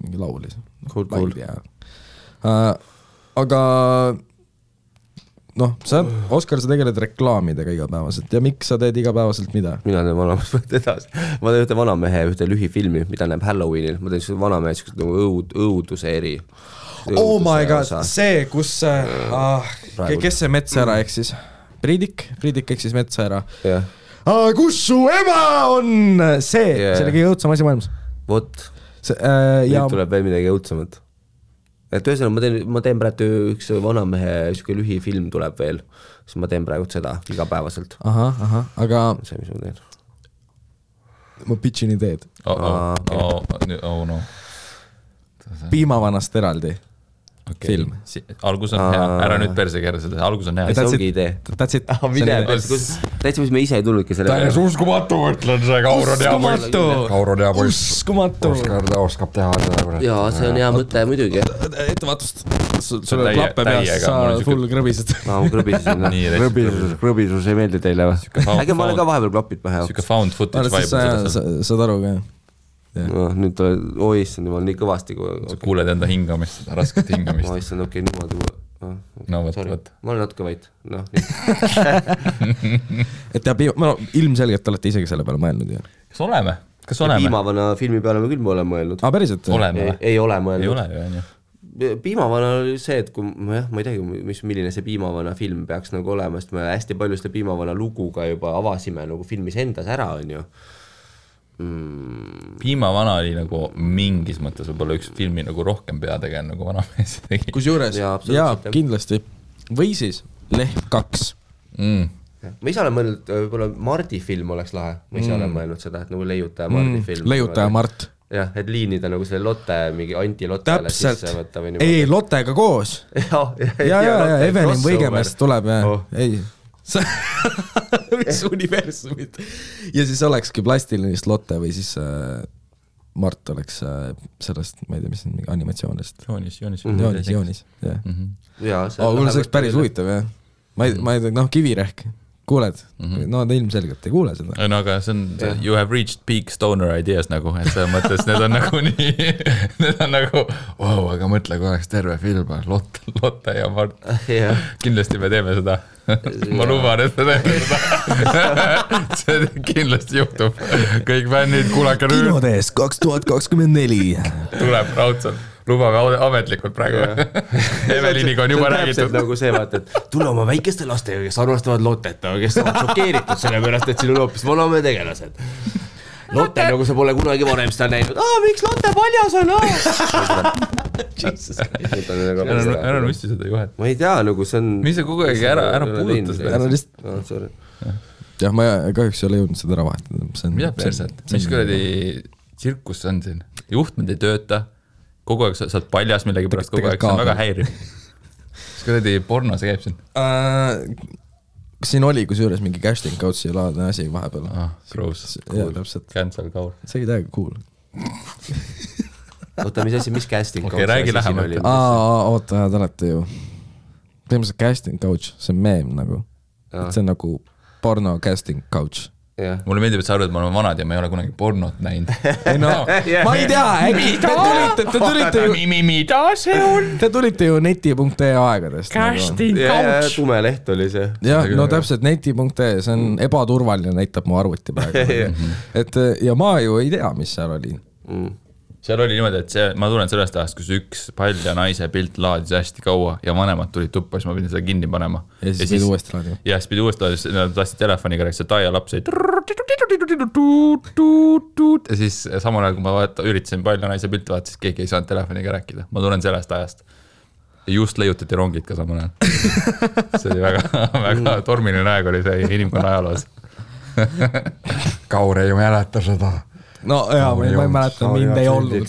Mingi laulis. Cool. Aga Oskar, sa tegeled reklaamidega igapäevaselt ja miks sa teed igapäevaselt mida? Mina teen vanamees edasi. Ma teen ühte vanamehe ühte lühifilmi, mida näeb Halloweenil. Ma teen vanamehe õuduse eri. Oh my god, see, kus kes see metsa ära eksis? Priidik eksis metsa ära. Kus su ema on? See oli kõige õudsam asi maailmas. Vot, nüüd tuleb veel midagi õudsamat. Et ühesõnaga, ma teen praegu üks vanamehe lühifilm tuleb veel, siis ma teen praegu seda igapäevaselt. Aga see, mis ma teen. Ma pitchin ideed. No. Piimavanast eraldi film. Algus on hea, ära nüüd perse kerra seda, algus on hea. See ongi idee. That's it. Täitsa, mis me ise ei tulnudki selle. Täies uskumatu, ütlen see Kaur on hea poiss. Uskumatu. Oskab teha seda. Jaa, see on hea mõte muidugi. Ettevaatust. Sul on klappe peas, sa full krõbised. Ma krõbisin. Krõbisus ei meeldi teile või? Äge ma olen ka vahepeal klapid pähe. Siuke found footage vibe. Saad aru ka? Nüüd issand, jumal nii kõvasti. Sa kuuled enda hingamist, seda rasket hingamist. Issand, okei, niimoodi. No võt. Ma olen natuke vait. Et ilmselgelt olete isegi selle peale mõelnud. Kas oleme? Piimavana filmi peale me küll oleme mõelnud. Päriselt? Ei ole mõelnud. Ei ole ju, on ju. Piimavana oli see, et kui ma ei teagi, milline see Piimavana film peaks nagu olema, sest me hästi palju seda Piimavana luguga juba avasime nagu filmis endas ära, on ju. Piimavana oli nagu mingis mõttes võib-olla üks filmi nagu rohkem peategeen nagu vanamees tegi. Kusjuures, jaa, kindlasti. Või siis Lehm 2. Ma ise olen mõelnud, võib-olla Mardi film oleks lahe. Ma ise olen mõelnud seda, et nagu Leiutaja Mardi film. Leiutaja Mart. Jah, et liinida nagu selle Lotte, mingi anti-Lottele sisse võtta või niimoodi. Ei, Lottega koos. Ja, Evelin Võigemest tuleb, ei. Mis universumid. Ja siis olekski plastilist Lotte või siis Mart oleks sellest, ma ei tea, mis on mingi animatsioonist. Joonis. Kuule, see oleks päris huvitav, jah. Ma ei tea, Kivirehk. Kuuled? No ta ilmselgelt ei kuule seda. No aga see on, you have reached peak stoner ideas nagu, et see mõttes, need on nagu nii, need on nagu, wow, aga mõtle, kui oleks terve film, Lotte ja Mart. Kindlasti me teeme seda. Ma luban, et me teeme seda. See kindlasti juhtub. Kõik fännid, kuulake nüüd. Kinodes 2024. Tuleb raudselt. Lubame ametlikult praegu. Eveliniga on juba räägitud. Nagu see vaata, et tule oma väikeste lastega, kes armastavad Lottet, kes on šokeeritud selle pärast, et siin on hoopis vaname tegelased. Lotte nagu sa pole kunagi varem seda näinud. Miks Lotte paljas on? Ära nussi seda juhet. Ma ei tea, nagu see on... Mis sa kogu aeg ära puudutas? Ära lihtsalt... Jah, ma kahjuks ei ole jõudnud seda ära vahetada. Mida perset? Mis kuradi tsirkus on siin? Juhtmed ei tööta. Kogu aeg sa oled paljas millegi pärast kogu aeg. See on väga häiriv. Mis kuradi porno see käib siin? Siin oli kusjuures mingi casting couch'i laadne asi vahepeal. Gross. Cancel Kaur. See oli täiega cool. Oota, mis asi, mis casting couch? Okei, räägi lähemalt. Oota, te olete ju. Põhimõtteliselt casting couch, see on meem nagu. See on nagu porno casting couch. Mulle meeldib, et sa arvad, et ma olen vanad ja ma ei ole kunagi pornot näinud. Ma ei tea, äkki te tulite ju... Mida see on? Te tulite ju neti.ee aegadest. Casting couch. Tume leht oli see. Jah, no täpselt neti.ee, see on ebaturvaline, näitab mu arvuti praegu. Ja ma ju ei tea, mis seal oli. Seal oli niimoodi, et ma tulen sellest ajast, kus üks palja naise pilt laadis hästi kaua ja vanemad tulid tuppa, siis ma pidin seda kinni panema. Ja siis pidi uuesti laadima. Ja siis pidi uuesti laadima, nad tahtsid telefoniga rääkida, see taia laps oli ja siis samal ajal, kui ma üritasin palja naise pilt vaata, siis keegi ei saanud telefoniga rääkida. Ma tulen sellest ajast. Ja just leiutati rongid ka samal ajal. See oli väga tormiline aeg oli see inimkonna ajaloos. Kaur ei mäleta seda. No jaa, ma ei mäleta, mind ei olnud.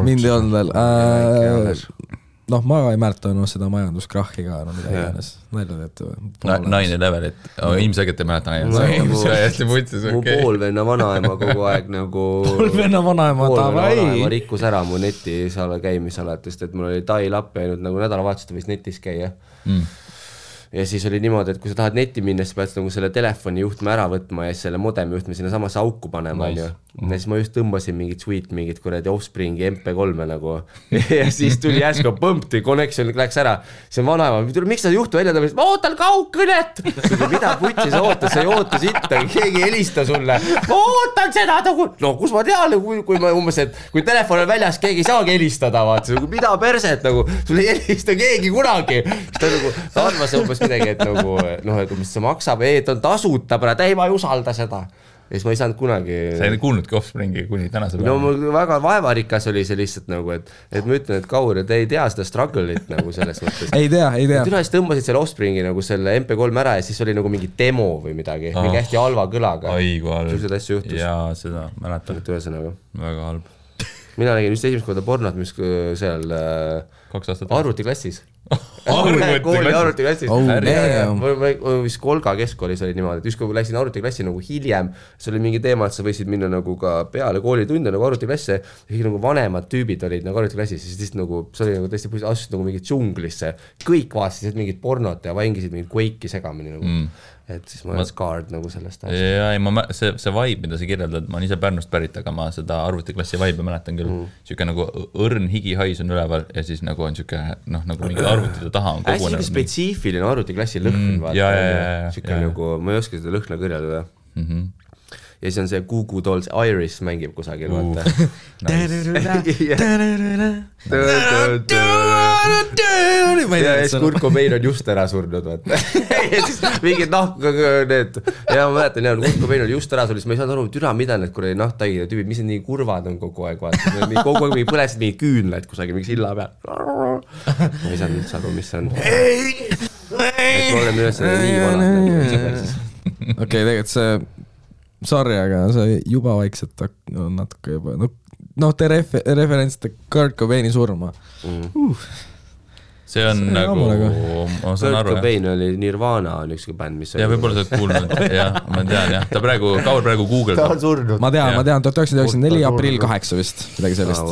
Mind ei olnud veel. Noh, ma ei mäleta seda majanduskrahhi ka, no mida iganes. Nalja teete või? 9-11, et ilmselgelt ei mäleta 9-11. Mu poolvenna vanaema kogu aeg nagu... Poolvenna vanaema vanaema rikkus ära mu netis käimisalatest, et mul oli tai lapp jäänud nagu nädalavahetused võis netis käia. Ja siis oli niimoodi, et kui sa tahad netti minna, siis pead nagu selle telefoni juhtme ära võtma ja selle modemi juhtme sinna samasse auku panema. Ja siis ma just tõmbasin mingit kuradi Offspringi MP3 nagu. Ja siis tuli järsku põmpti, connection läks ära. See on vanaema, miks sa juhtu välja tõmbasid? Ma ootan kaugkõnet! Mida putsi sa ootas? Sa ei oota sitta, keegi helista sulle. Ma ootan seda! No kus ma tean, kui ma umbes, et kui telefon on väljas, keegi ei saagi helistada. Mida perset? Sul ei helista keegi kunagi. Ta arvas umbes midagi, et nagu, et mis see maksab, et on tasuta, ei ma ei usalda seda. Ja siis ma ei saanud kunagi... Sa ei kuulnudki Offspringi kuni tänase päeva. No mul väga vaevarikas oli see lihtsalt nagu, et ma ütlen, et Kaur, te ei tea seda struggle'it nagu selles mõttes. Ei tea. Üles tõmbasid selle Offspringi nagu selle MP3 ära ja siis oli nagu mingi demo või midagi, mingi hästi halva kõlaga. Aigu halb. Sellised asju juhtus. Jaa, seda mäletan. Väga halb. Mina nägin just esimest korda pornot, mis seal arvutiklassis. Kooli arvutiklassis. Vist Kolga keskkoolis oli niimoodi, et just kui läksin arvutiklassi nagu hiljem, see oli mingi teema, et sa võisid minna nagu ka peale koolitunde nagu arvutiklasse ja nagu vanemad tüübid olid nagu arvutiklassis ja siis nagu, see oli nagu tõesti asusid nagu mingit džunglisse. Kõik vaatasid mingit pornot ja vangisid mingit Quake'i segamini nagu. Et siis ma olen scarred nagu sellest asjast. See vibe, mida sa kirjeldad, ma olen ise Pärnust pärit, aga ma seda arvutiklassi vibe mäletan küll. Siuke nagu õrn higihais on üleval ja siis nagu on siuke, nagu mingi arvutide taha on kogunenud. Hästi spetsiifiline arvutiklassi lõhn. Siuke nagu, ma ei oska seda lõhna kõrjada. Ja siis on see Goo Goo Dolls Iris mängib kusagil, vaata. Ja siis Kurt Cobain on just ära surnud, vaata. Ja siis mingid need, ja ma mäletan, Kurt Cobain oli just ära surnud, siis ma ei saanud aru, türa, mida need kuradi nahtaigide tüübid, mis need nii kurvad on kogu aeg, vaata. Kogu aeg põlesid mingi küünlaid kusagil, mingi silla peal. Ma ei saanud üldse aru, mis see on. Et ma olen üles nii vanad. Okei, tegelikult see sorry, aga see juba vaikselt on natuke juba, te referentsite Kurt Cobaini surma. See on nagu, ma saan aru. Kurt Cobain oli Nirvana on ükski bänd, mis ja võib-olla sa oled kuulnud, jah, ma tean, jah. Kaur praegu Google. Ta on surnud. Ma tean, 1994 aprill 8 vist, midagi sellist.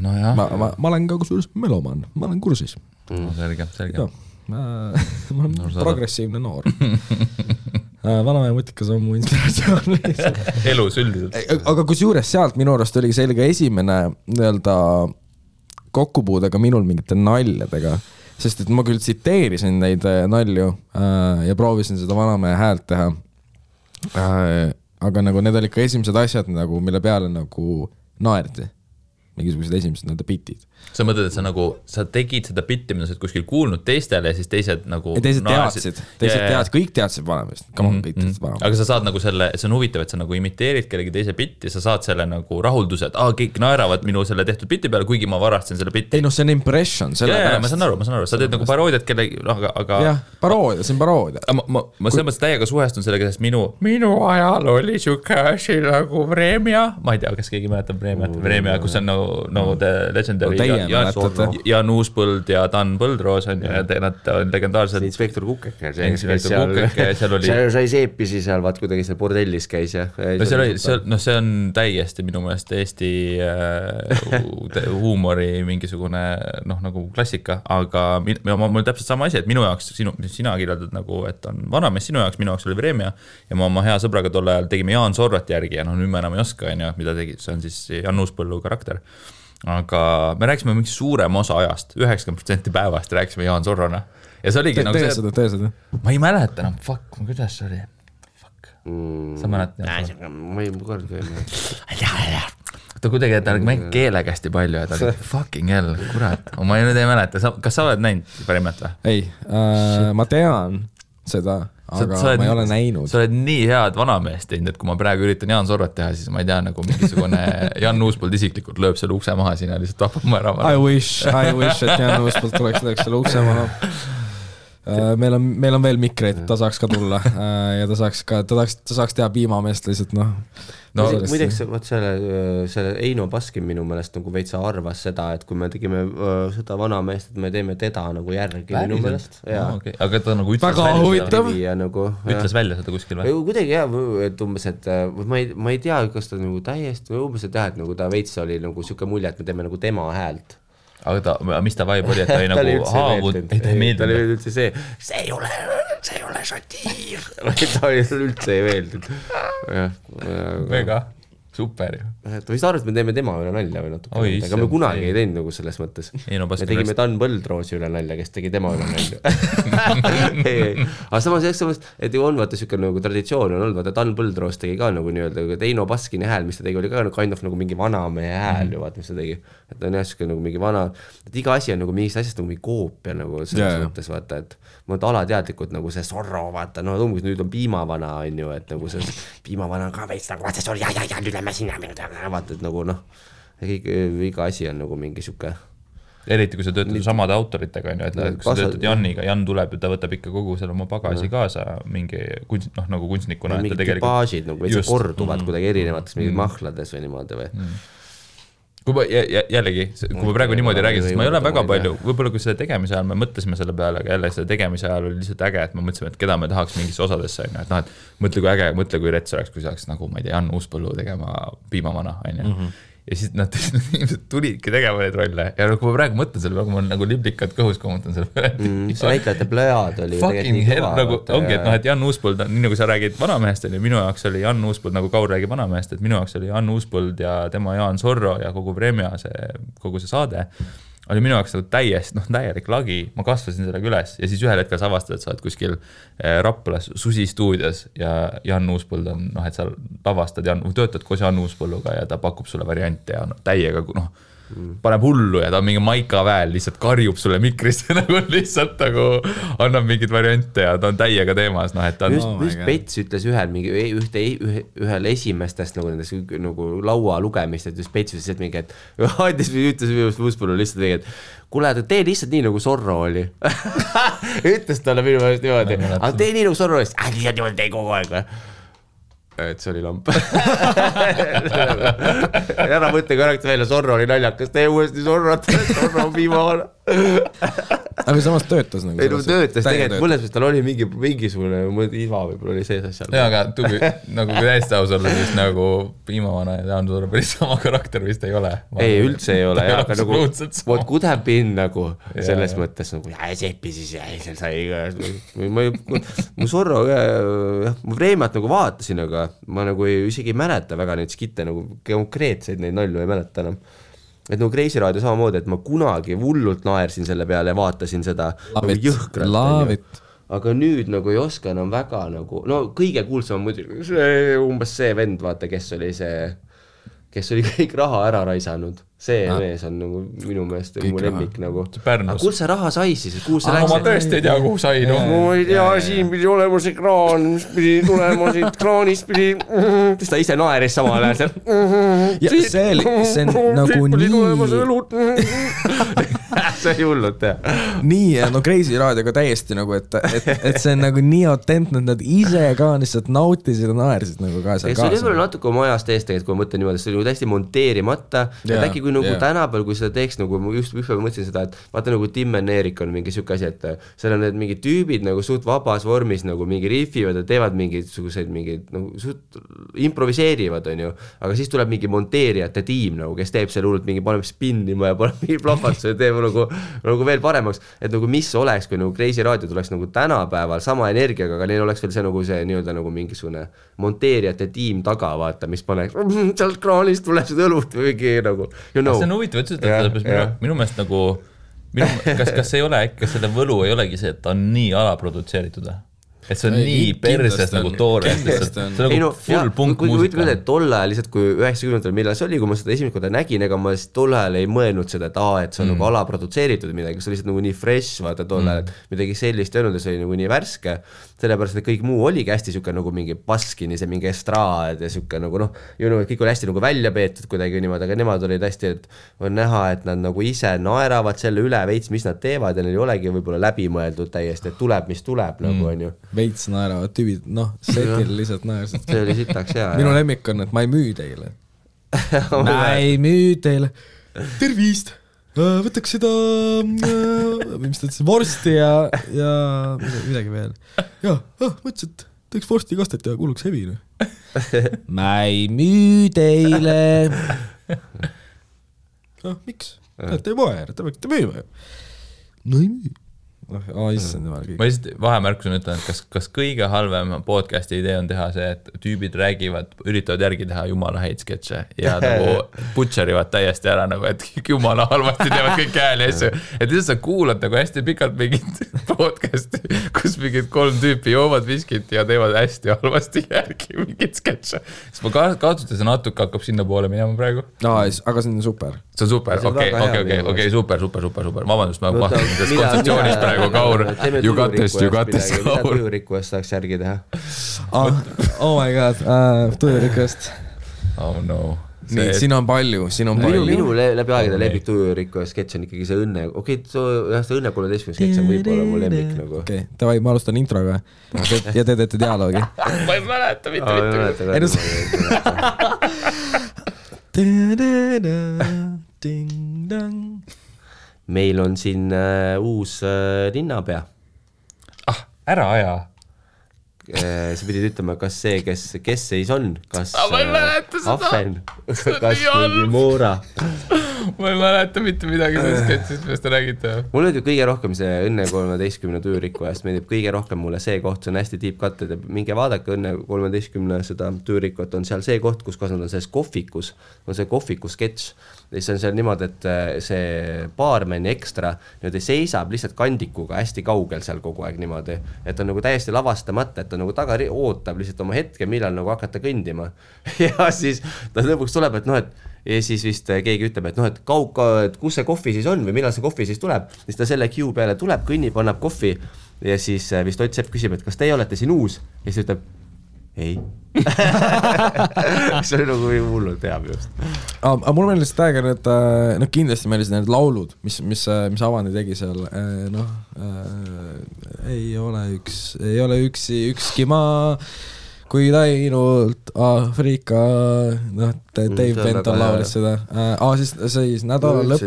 No jah. Ma olen ka kusjuures meloman, ma olen kursis. Selge. Ma olen progressiivne noor. Vanamehe mutikas on mu inspiratsioon. Elus üldiselt. Aga kusjuures sealt minu arust oli sellega esimene kokkupuudega minul mingite naljadega, sest et ma küll tsiteerisin neid nalju ja proovisin seda vanamehe häält teha. Aga nagu need olid ka esimesed asjad, nagu, mille peale nagu naerdi. mingisugused esimesed nii-öelda bitid. Sa mõtled, et sa tegid seda bitti, mida sa oled kuskil kuulnud teistele ja siis teised nagu ja teised teadsid, kõik teadsid Vanameest, kõik teadsid Vanameest. Aga sa saad nagu selle, see on huvitav, et sa nagu imiteerid kellegi teise bitti, sa saad selle nagu rahulduse, et kõik naeravad minu selle tehtud bitti peale, kuigi ma varastasin selle bitti. Ei no see on impression. Ma saan aru, sa teed nagu paroodiat kellegi, aga... Jah, paroodia, see on paroodia. Ma selles mõttes täiega suhestun sellega, sest minu ajal oli siuke asi nagu Vremja, ma ei tea, kas keegi mäletab Vremja, kus on nagu the legendary Jan Uuspõld ja Dan Põldroos on ja nad on legendaarsed. Inspektor Kukeke, seal oli... sai seepisi seal, vaat kuidagi seal bordellis käis ja... see on täiesti minu meelest Eesti huumori mingisugune nagu klassika, aga mul täpselt sama asi, et minu jaoks, sina kirjeldad nagu, et on Vanamees, sinu jaoks, minu jaoks oli Vremja ja ma oma hea sõbraga tol ajal tegime Jaan Sorrat järgi ja nüüd me enam ei oska, mida tegi, see on siis Jan Uuspõllu karakter. Aga me rääkisime mingi suurem osa ajast, 90% päevast rääkisime Jaan Sorrona. Ja see oligi nagu see... Tee seda. Ma ei mäleta enam, kuidas see oli? Sa mäletad? Ma ei kord ei mäleta. Ta kuidagi, et ta mängib keelega hästi palju ja ta oli fucking hell, kurat. Ma nüüd ei mäleta. Kas sa oled näinud Vremet või? Ei, ma tean seda... aga ma ei ole näinud. Sa oled nii head Vanameest teinud, et kui ma praegu üritan Jaan Sorrat teha, siis ma ei tea, nagu mingisugune Jan Uuspõld isiklikult lööb selle ukse maha siin ja lihtsalt tapab ma ära. I wish, et Jan Uuspõld tuleks selle ukse maha. Meil on veel mikreid, ta saaks ka tulla ja ta saaks teha piimameest lihtsalt, Muideks, selle Eino Baskin minu meelest nagu veitsa arvas seda, et kui me tegime seda Vanameest, et me teeme teda nagu järgi minu meelest. Aga ta nagu ütles välja seda kuskil või? Kuidagi jah, et umbes, et ma ei tea, kas ta nagu täiesti või umbes, et jah, et nagu ta veits oli nagu siuke mulje, et me teeme nagu tema häält. Aga mis ta vibe oli, et ta oli nagu haavud, ta ei meeldinud. Ta oli üldse see ei ole satiir. Ta oli üldse ei meeldinud. Väga super ju. Ta vist arvas, et me teeme tema üle nalja või natuke. Aga me kunagi ei teinud nagu selles mõttes. Me tegime Dan Põldroosi üle nalja, kes tegi tema üle nalja. Aga samas, et ju on vaata siuke nagu traditsioon on olnud, vaata Dan Põldroos tegi ka nagu nii-öelda, et Eino Baskini hääl, mis ta tegi, oli ka kind of nagu mingi vanamehe hääl ju vaata, mis ta tegi. Et on jah siuke nagu mingi vana, et iga asi on nagu mingist asjast nagu mingi koopia nagu selles mõttes vaata, et ma olen alateadlikult nagu see Sorro vaata, umbes nüüd on piimavana on ju, et nagu see piimavana ka veits nagu vaata, sorry, nüüd lähme sinna, vaata, et nagu iga asi on nagu mingi siuke. Eriti kui sa töötad samade autoritega, on ju, et kui sa töötad Janniga, Jan tuleb ja ta võtab ikka kogu selle oma bagasi kaasa mingi nagu kunstnikuna. Mingid tüpaažid nagu veits korduvad kuidagi erinevates mingid mahlades või niimoodi või. Jällegi, kui ma praegu niimoodi räägin, sest ma ei ole väga palju, võib-olla kui selle tegemise ajal me mõtlesime selle peale, aga jälle selle tegemise ajal oli lihtsalt äge, et me mõtlesime, et keda me tahaks mingisse osadesse, et mõtle kui äge, mõtle kui rets oleks, kui saaks nagu, ma ei tea, Jan Uuspõllu tegema piimavana, on ju. Ja siis nad tulidki tegema neid rolle ja kui ma praegu mõtlen selle peale, kui ma nagu liblikad kõhus kommentan selle peale. See näitlejate plöjad oli fucking hell, nagu ongi, et Jan Uuspõld, nii nagu sa räägid Vanamehest, minu jaoks oli Jan Uuspõld, nagu Kaur räägib Vanamehest, et minu jaoks oli Jan Uuspõld ja tema Jaan Sorro ja kogu Vremja, kogu see saade oli minu jaoks nagu täielik lagi, ma kasvasin sellega üles ja siis ühel hetkel sa avastad, et sa oled kuskil Raplas Susi stuudios ja Jan Uuspõld on, et sa lavastad, töötad koos Jan Uuspõlluga ja ta pakub sulle variante ja täiega, paneb hullu ja ta on mingi Maika väel, lihtsalt karjub sulle mikrisse nagu lihtsalt nagu annab mingid variante ja ta on täiega teemas, et ta on... Just Pets ütles ühel esimestest nagu nendes nagu laua lugemist, et just Pets ütles, et mingi, et ütles Uuspõllu lihtsalt mingi, et kuule, tee lihtsalt nii nagu Sorro oli. Ütles talle minu meelest niimoodi, aga tee nii nagu Sorro oli, lihtsalt niimoodi tee kogu aeg või? Et see oli lamp. Ära mõtle korraks välja, Sorro oli naljakas, tee uuesti Sorro on viimavana. Aga samas töötas nagu. Ei, töötas tegelikult, mõnes mõttes tal oli mingisugune iva võib-olla oli sees asjal. Ja, aga nagu kui täiesti aus olla, siis nagu piimavana ja Jaan Sorro päris sama karakter vist ei ole. Ei, üldse ei ole, aga nagu what could have been nagu selles mõttes nagu seppi siis ja seal sai mu Sorro mu Vreemat nagu vaatasin, aga ma nagu isegi ei mäleta väga neid skitte, nagu konkreetseid neid nalju ei mäleta enam. Et nagu Kreisi raadio samamoodi, et ma kunagi hullult naersin selle peale ja vaatasin seda nagu jõhkralt. Aga nüüd nagu ei oska enam väga nagu, kõige kuulsam muidugi umbes see vend, vaata, kes kes oli kõik raha ära raisanud. See mees on nagu minu meelest mu lemmik nagu. Aga kus see raha sai siis? Ma tõesti ei tea, kuhu sai. Ma ei tea, siin pidi olema see kraan, mis pidi tulema siit kraanist pidi. Ta ise naeris samal ajal. See on nagu nii... See oli hullult, jah. Nii, no Crazy Radioga täiesti nagu, et see on nagu nii autentne, et nad ise ka lihtsalt nautisid ja naersid nagu ka seal kaasa. See oli natuke oma ajast eest, kui ma mõtlen niimoodi, see oli täiesti monteerimata. Et äkki kui nagu tänapäeval, kui seda teeks, nagu ma just ühpäev mõtlesin seda, et vaata nagu Tim and Erik on mingi siuke asi, et seal on need mingid tüübid nagu suht vabas vormis nagu mingi riffivad ja teevad mingisuguseid mingid nagu suht improviseerivad, on ju, aga siis tuleb mingi monteerijate tiim nagu, kes teeb seal hullult mingi paneb spinnima ja paneb mingi plahvatuse ja teeb nagu veel paremaks, et nagu mis oleks, kui nagu Crazy Radio tuleks nagu tänapäeval sama energiaga, aga neil oleks veel see nagu see nii-öelda nagu mingisugune monteerijate tiim taga, vaata, mis paneks sealt kraanist tuleb seda õlut või mingi nagu see on huvitav, et minu meelest nagu kas ei ole äkki, kas selle võlu ei olegi see, et ta on nii alaprodutseeritud? Et see on nii perses nagu toores, see on nagu full punk muusika. Ütleme, et tolle ajal lihtsalt, kui 90-ndal millal see oli, kui ma seda esimest korda nägin, ega ma tolle ajal ei mõelnud seda, et see on nagu alaprodutseeritud midagi, see oli lihtsalt nagu nii fresh, vaata tolle ajal, et midagi sellist ei olnud ja see oli nagu nii värske, sellepärast, et kõik muu oligi hästi siuke nagu mingi paskini, see mingi estraad ja siuke nagu kõik oli hästi nagu välja peetud kuidagi niimoodi, aga nemad olid hästi, et on näha, et nad nagu ise naeravad selle üle veits, mis nad teevad ja neil ei olegi võib-olla läbimõeldud täiesti, et tuleb, mis tuleb nagu on ju. Veits naeravad tüübid, setil lihtsalt naersid. See oli sitaks hea. Minu lemmik on, et ma ei müü teile. Ma ei müü teile. Tervist! Võtaks seda, mis ta ütles, vorsti ja midagi veel. Ja, mõtlesin, et teeks vorsti kastet ja kuuluks hevi. Ma ei müü teile. Miks? Te ei poe, te võite müüma. No ei müü. Ma lihtsalt vahemärkusena ütlen, et kas kõige halvem podcasti idee on teha see, et tüübid räägivad, üritavad järgi teha jumala häid sketše ja nagu butcherivad täiesti ära, nagu, et jumala halvasti teevad kõik hääli asju. Et lihtsalt sa kuulad nagu hästi pikalt mingit podcasti, kus mingid 3 tüüpi joovad viskit ja teevad hästi halvasti järgi mingit sketše. Siis ma kaotuste see natuke hakkab sinna poole minema praegu. Aga see on super. See on super, okei, super. Vabandust, ma vaatan selles kontseptsioonis praegu Kaur, you got this, Kaur. Mida tujurikkuest saaks järgi teha? Oh my god, tujurikkuest. Oh no. Nii, siin on palju. Minu läbi aegade lemmik tujurikkuest sketš on ikkagi see õnne. Okei, see õnne 13 sketš on võib-olla mu lemmik nagu. Okei, davai, ma alustan introga ja te teete dialoogi. Ma ei mäleta mitte. Meil on siin uus linnapea. Ära aja. Sa pidid ütlema, kas see, kes seis on, kas ma ei mäleta seda. Ahven, kas mingi Moora. Ma ei mäleta mitte midagi sellest sketšist, mis te räägite. Mulle meeldib kõige rohkem see Õnne 13 tüürikkuest, meeldib kõige rohkem mulle see koht, see on hästi deep cut, et minge vaadake Õnne 13 seda tüürikut, on seal see koht, kus nad on selles kohvikus, on see kohviku sketš. Ja see on seal niimoodi, et see baarmeni ekstra niimoodi seisab lihtsalt kandikuga hästi kaugel seal kogu aeg niimoodi, et on nagu täiesti lavastamata, et on nagu taga ootab lihtsalt oma hetke, millal nagu hakata kõndima. Ja siis ta lõpuks tuleb, et ja siis vist keegi ütleb, et kus see kohvi siis on või millal see kohvi siis tuleb. Siis ta selle queue peale tuleb, kõnnib, annab kohvi ja siis vist Ott Sepp küsib, et kas teie olete siin uus? Ja siis ütleb, ei. See oli nagu hullult hea just. Aga mul on lihtsalt aega need, kindlasti meil need laulud, mis Avani tegi seal, ei ole ükski maa, kui ainult Aafrika, Dave Benton laulis seda. Siis nädalalõpp.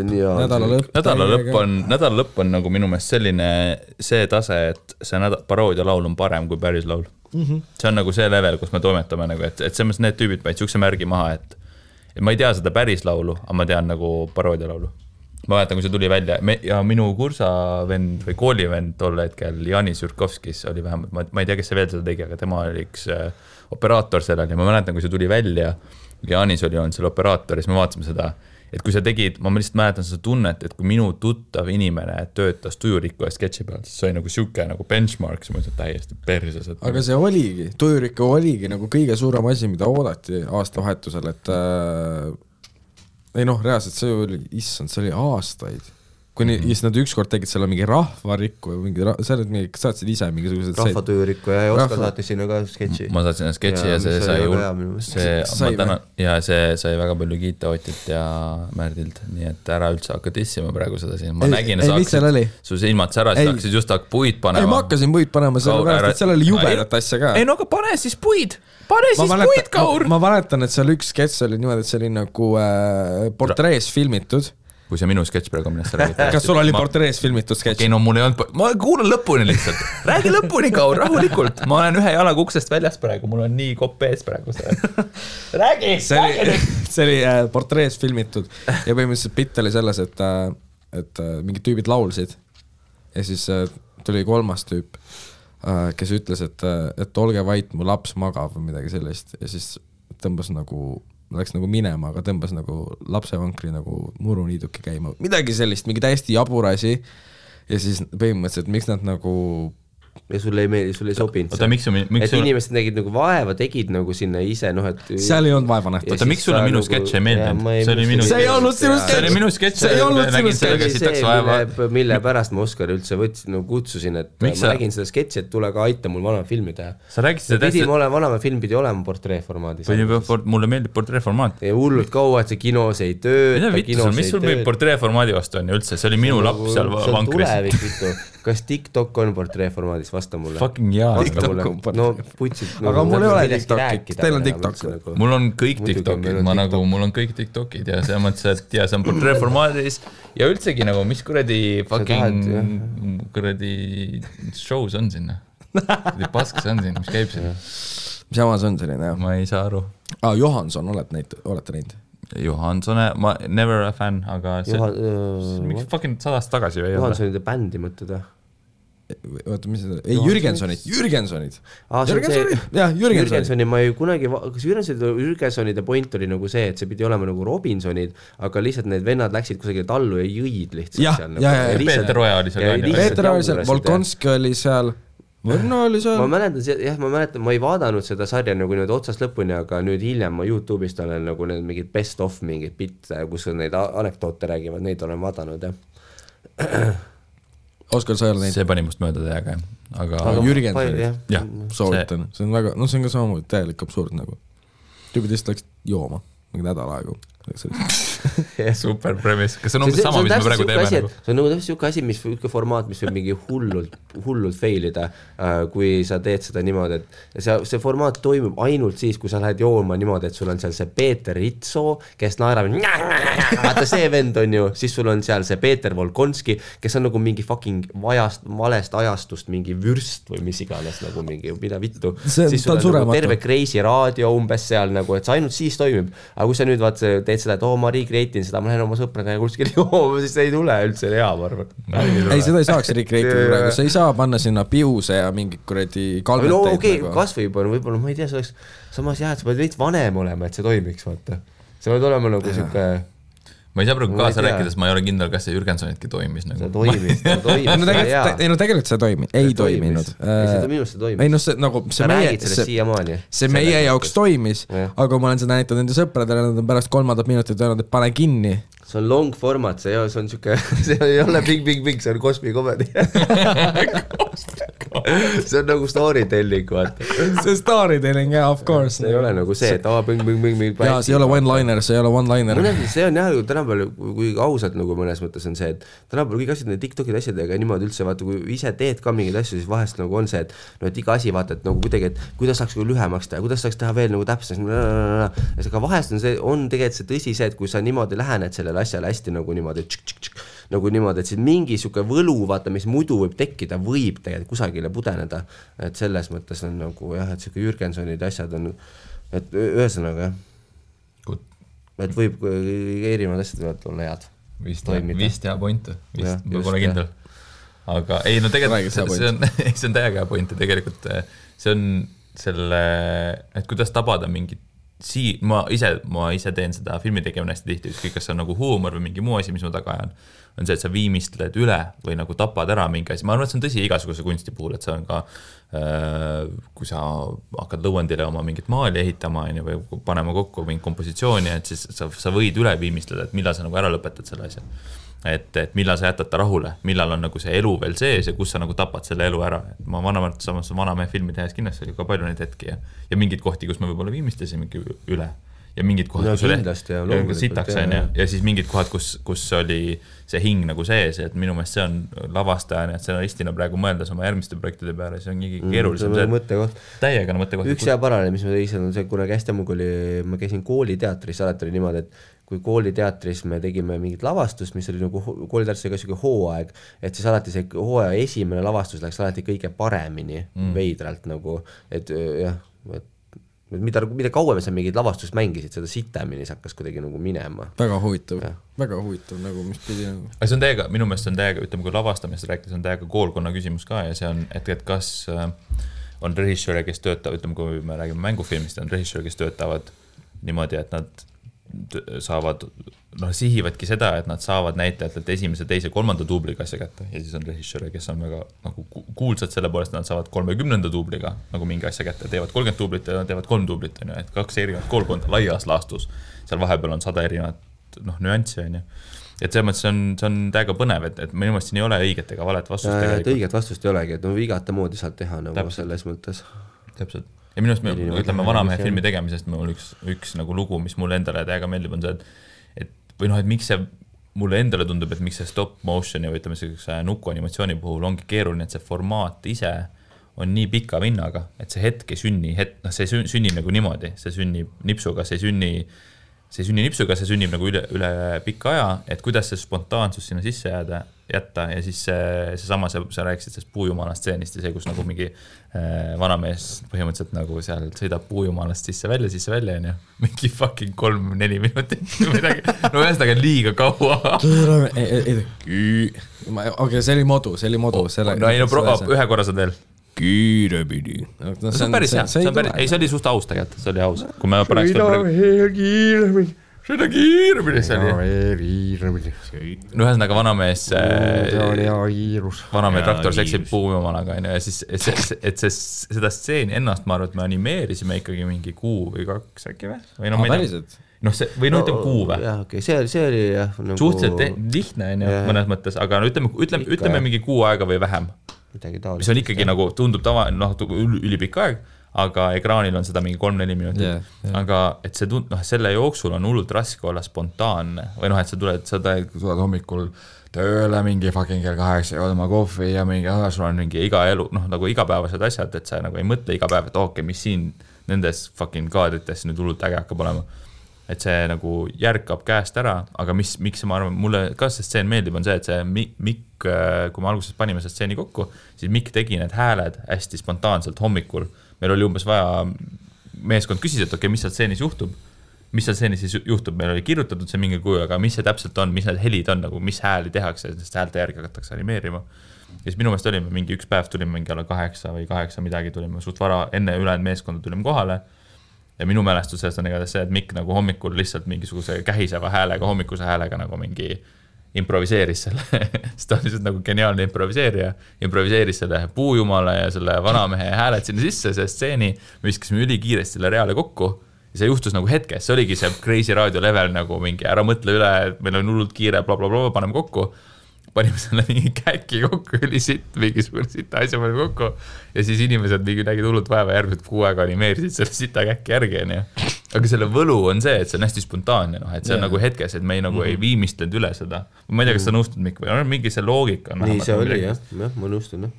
Nädalalõpp on nagu minu meelest selline see tase, et see paroodia laul on parem kui päris laul. See on nagu see level, kus me toimetame, nagu, et selles need tüübid paid siukse märgi maha, et ma ei tea seda päris laulu, aga ma tean nagu paroodia laulu. Ma mäletan, kui see tuli välja ja minu kursavend või koolivend tol hetkel Janis Jurkovskis oli vähemalt, ma ei tea, kes see veel seda tegi, aga tema oli üks operaator sellel ja ma mäletan, kui see tuli välja ja Janis oli seal operaator ja siis me vaatasime seda et kui sa tegid, ma lihtsalt mäletan seda tunnet, et kui minu tuttav inimene töötas Tujurikku ja sketši peal, siis see oli nagu siuke nagu benchmark, siis ma ütlen täiesti perses. Aga see oligi, Tujurikku oligi nagu kõige suurem asi, mida oodati aastavahetusel, et ei noh, reaalselt see oli, issand, see oli aastaid. Kuni siis nad ükskord tegid selle mingi rahvarikku sa saatsid ise mingisugused rahvatujurikku ja Oskar saatis sinna ka sketši. Ma saatsin sketši ja see sai väga palju kiita Otilt ja Märdilt, nii et ära üldse hakka tissima praegu seda siin. Ma nägin, su silmad särasid, hakkasid just puid panema. Ei, ma hakkasin puid panema, sellepärast, et seal oli jubedat asja ka. Ei, no aga pane siis puid, puid, Kaur! Ma mäletan, et seal üks sketš oli niimoodi, et see oli nagu portrees filmitud. Kui see minu sketš praegu minest räägid. Kas sul oli portrees filmitud sketš? Okei, no mul ei olnud, ma kuulan lõpuni lihtsalt. Räägi lõpuni, Kaur, rahulikult. Ma olen ühe jalaga uksest väljas praegu, mul on nii kopp ees praegu. Räägi! See oli portrees filmitud ja põhimõtteliselt pitt oli selles, et mingid tüübid laulsid ja siis tuli kolmas tüüp, kes ütles, et olge vait, mu laps magab või midagi sellist ja siis tõmbas nagu läks nagu minema, aga tõmbas nagu lapsevankri nagu muruniiduki käima. Midagi sellist, mingi täiesti jaburasi ja siis põhimõtteliselt, miks nad nagu ja sulle ei meeldi, sulle ei sobinud see. Et inimesed nägid nagu vaeva, tegid nagu sinna ise, noh, et seal ei olnud vaeva nähtud. Oota, miks sulle minu sketš ei meeldinud? See ei olnud sinu sketš. See oli minu sketš. See ei olnud sinu sketš. Mille pärast ma Oskar üldse võtsin, nagu kutsusin, et ma nägin seda sketši, et tule ka aita mul vanama filmi teha. Sa rääkisid seda tähtsalt. Vanama film pidi olema portreeformaadis. Mulle meeldib portreeformaat. Ja hullult kaua, et see kinos ei tööta. Mis sul meil portreeformaadi vastu on üldse? See oli minu laps seal vankris. Kas TikTok on portreeformaadis? Vasta mulle. Fucking jaa. No putsid. Aga mul ei ole TikTokid. Teil on TikTok. Mul on kõik TikTokid. Mul on kõik TikTokid ja see mõttes, et ja see on portreeformaadis ja üldsegi nagu, mis kuradi fucking kuradi shows on sinna. Paskas on siin, mis käib sinna. Mis jamas on selline, jah? Ma ei saa aru. Johanson, olete näinud? Johansone, ma never a fan, aga see mingi fucking 100 tagasi või ei ole. Johansonide bändi mõtted, jah? Oota, mis seda? Ei, Jürgensonid. Jah, Jürgensoni ma ei kunagi, kas Jürgensonide point oli nagu see, et see pidi olema nagu Robinsonid, aga lihtsalt need vennad läksid kusagile tallu ja jõid lihtsalt. Peeter Oja oli seal. Peeter oli seal, Volkonski oli seal. Ma mäletan, ma ei vaadanud seda sarja nagu nüüd otsast lõpuni, aga nüüd hiljem ma YouTube'ist olen nagu need mingid best of mingid bitte, kus neid anekdoote räägivad, neid olen vaadanud, jah. Oskar, sa ei ole neid? See pani must mööda teaga, aga Jürgensonid, soovitan. See on väga, see on ka samamoodi täielik absurd nagu. Tüübid lihtsalt läks jooma mingi nädal aegu. Super premise. Kas see on umbes sama, mis me praegu teeme? See on nagu täpselt siuke asi, formaat, mis võib mingi hullult failida, kui sa teed seda niimoodi, et see formaat toimub ainult siis, kui sa lähed jooma niimoodi, et sul on seal see Peeter Ritso, kes naerab, vaata see vend on ju, siis sul on seal see Peeter Volkonski, kes on nagu mingi fucking valest ajastust, mingi vürst või mis iganes, nagu mingi, mida vittu. Siis sul on nagu terve Crazy raadio umbes seal nagu, et see ainult siis toimib. Aga kui sa nüüd teed seda, et ma recreatin seda, ma lähen oma sõpraga ja kuskil jooma, siis ei tule üldse hea, ma arvan. Ei, seda ei saaks recreatin praegu, sa ei saa panna sinna piuse ja mingi kuradi kalmeteid. No okei, kas võib-olla, ma ei tea, see oleks samas jah, et sa pead veits vanem olema, et see toimiks, vaata. See pead olema nagu siuke... Ma ei saa praegu kaasa rääkides, ma ei ole kindel, kas see Jürgensonitki toimis. See toimis. Tegelikult see ei toiminud. Minust see toimis. Ei, no see nagu... See meie jaoks toimis, aga ma olen seda näitanud enda sõpradele, nad on pärast 3. minutit öelnud, et pane kinni. See on long format, see on siuke, see ei ole big, see on Cosby comedy. See on nagu storytelling, vaata. See storytelling, jah, of course. See ei ole nagu see, et bing. Jaa, see ei ole one-liner. See on jah, tänapäeval, kui ausalt nagu mõnes mõttes on see, et tänapäeval kõik asjad, need TikTokid asjadega niimoodi üldse, vaata, kui ise teed ka mingeid asju, siis vahest nagu on see, et iga asi vaata, et nagu kuidagi, et kuidas saaks lühemaks teha, kuidas saaks teha veel nagu täpselt. Aga vahest on tegelikult see tõsi see, et kui sa niimoodi lähened sellele asjale hästi nagu niimoodi, nagu niimoodi, et siis mingi siuke võlu, vaata, mis muidu võib tekkida, võib tegelikult kusagile pudeneda, et selles mõttes on nagu jah, et siuke Jürgensonid asjad on, et ühesõnaga jah, et võib erinevad asjad võivad olla head. Vist hea point, ma pole kindel. Aga ei, no tegelikult see on täiega hea point ja tegelikult see on selle, et kuidas tabada mingit ma ise teen seda filmi tegemine hästi tihti, ükskõik kas see on nagu huumor või mingi muu asi, mis ma taga ajan, on see, et sa viimistled üle või nagu tapad ära mingi asi. Ma arvan, et see on tõsi igasuguse kunsti puhul, et see on ka, kui sa hakkad lõuendile oma mingit maali ehitama või panema kokku mingi kompositsiooni, et siis sa võid üle viimistleda, et millal sa nagu ära lõpetad selle asja. Et millal sa jätad ta rahule, millal on nagu see elu veel sees ja kus sa nagu tapad selle elu ära. Et ma vanamehe filmi tehes kindlasti oli ka palju neid hetki ja mingid kohti, kus me võib-olla viimistlesimegi üle ja mingid kohad, kus oli sitaks ja siis mingid kohad, kus oli see hing nagu sees, et minu meelest see on lavastajana, et stsenaristina praegu mõeldes oma järgmiste projektide peale, see on nii keerulisem. Täiega mõttekoht. Üks hea parane, mis ma tõisin, on see, kunagi hästi ammu, kui ma käisin kooliteatris, alati oli niimoodi, et kui kooliteatris me tegime mingit lavastust, mis oli nagu kooliteatris oli ka selline hooaeg, et siis alati see hooaja esimene lavastus läks alati kõige paremini veidralt nagu, et jah, mida kauem sa mingid lavastust mängisid, seda sitemini see hakkas kuidagi nagu minema. Väga huvitav nagu, mis pidi nagu. See on täiega, minu meelest on täiega, ütleme, kui lavastamist rääkides on täiega koolkonna küsimus ka ja see on, et kas on režissööre, kes töötavad, ütleme, kui me räägime mängufilmist, on režissööre, kes töötavad niimoodi, et nad saavad, sihivadki seda, et nad saavad näitlejatelt esimese, teise, kolmanda duubliga asja kätte ja siis on režissööre, kes on väga nagu kuulsad selle poolest, nad saavad 30. duubliga nagu mingi asja kätte, teevad 30 duublit ja teevad 3 duublit, et 2 erinevat koolkonda laias laastus, seal vahepeal on 100 erinevat nüanssi, et selles mõttes see on täiega põnev, et minu meelest siin ei ole õiget ega valet vastust tegelikult. Õiget vastust ei olegi, et igata moodi saad teha nagu selles mõttes. Täpselt. Ja minu arust me ütleme vanamehe filmi tegemisest, mul üks nagu lugu, mis mulle endale täiega meeldib, on see, et miks see mulle endale tundub, et miks see stop motioni või ütleme sellise nukuanimatsiooni puhul ongi keeruline, et see formaat ise on nii pika vinnaga, et see hetk ei sünni, see sünnib nagu niimoodi, see sünnib nipsuga, see sünnib nagu üle pika aja, et kuidas see spontaansus sinna sisse jätta ja siis seesama, sa rääkisid sellest puujumala stseenist ja see, kus nagu mingi vanamees põhimõtteliselt nagu seal sõidab puujumalast sisse välja, mingi fucking 3-4 minutit või midagi, ühesõnaga liiga kaua. Okei, see oli modu. Ühe korra saad veel. Kiiremini. See on päris hea, see oli suht aus tegelikult, see oli aus. Kui me pärast seda kiiremini see oli. Ühesõnaga vanamees traktor seksib puujumalaga ja siis, et seda stseeni ennast ma arvan, et me animeerisime ikkagi mingi 1 või 2 äkki või? Päriselt? Või ütleme 6 või? Jah, okei, see oli jah. Suhteliselt lihtne mõnes mõttes, aga ütleme mingi 6 aega või vähem. Mis on ikkagi nagu tundub ülipikk aeg, aga ekraanil on seda mingi 3-4 minutit. Aga et selle jooksul on hullult raske olla spontaanne või et sa tuled hommikul tööle mingi fucking kell 8 ja oma kohvi ja mingi, sul on mingi iga elu, nagu igapäevased asjad, et sa nagu ei mõtle iga päev, et mis siin nendes fucking kaadrites nüüd hullult äge hakkab olema. Et see nagu järkab käest ära, aga miks ma arvan, mulle ka see stseen meeldib, on see, et see Mikk, kui me alguses panime see stseeni kokku, siis Mikk tegi need hääled hästi spontaanselt hommikul. Meil oli umbes vaja, meeskond küsis, et okei, mis seal stseenis juhtub, meil oli kirjutatud see mingi kujul, aga mis see täpselt on, mis need helid on, nagu mis hääli tehakse, sest häälte järgi hakatakse animeerima. Ja siis minu meelest olime mingi üks päev, tulime mingi alla 8 või 8 midagi, tulime suht vara, enne ülejäänud meeskonda tulime kohale. Ja minu mälestusest on igatahes see, et Mikk nagu hommikul lihtsalt mingisuguse kähiseva häälega, hommikuse häälega nagu mingi improviseeris selle, sest ta on lihtsalt nagu geniaalne improviseeris selle puujumale ja selle vanamehe hääled sinna sisse, see stseeni, me viskasime ülikiiresti selle reale kokku ja see juhtus nagu hetkes, see oligi see Crazy Radio level nagu mingi ära mõtle üle, et meil on hullult kiire, blablabla, paneme kokku. Panime selle mingi käki kokku, mingisugune sita asja panime kokku ja siis inimesed nägid hullult vaeva järgmised 6 aega animeerisid selle sita käki järgi. Aga selle võlu on see, et see on hästi spontaanne, et see on nagu hetkes, et me ei viimistlenud üle seda. Ma ei tea, kas sa nõustud, Mikk, või on mingi see loogika? Nii see oli, jah, ma nõustun.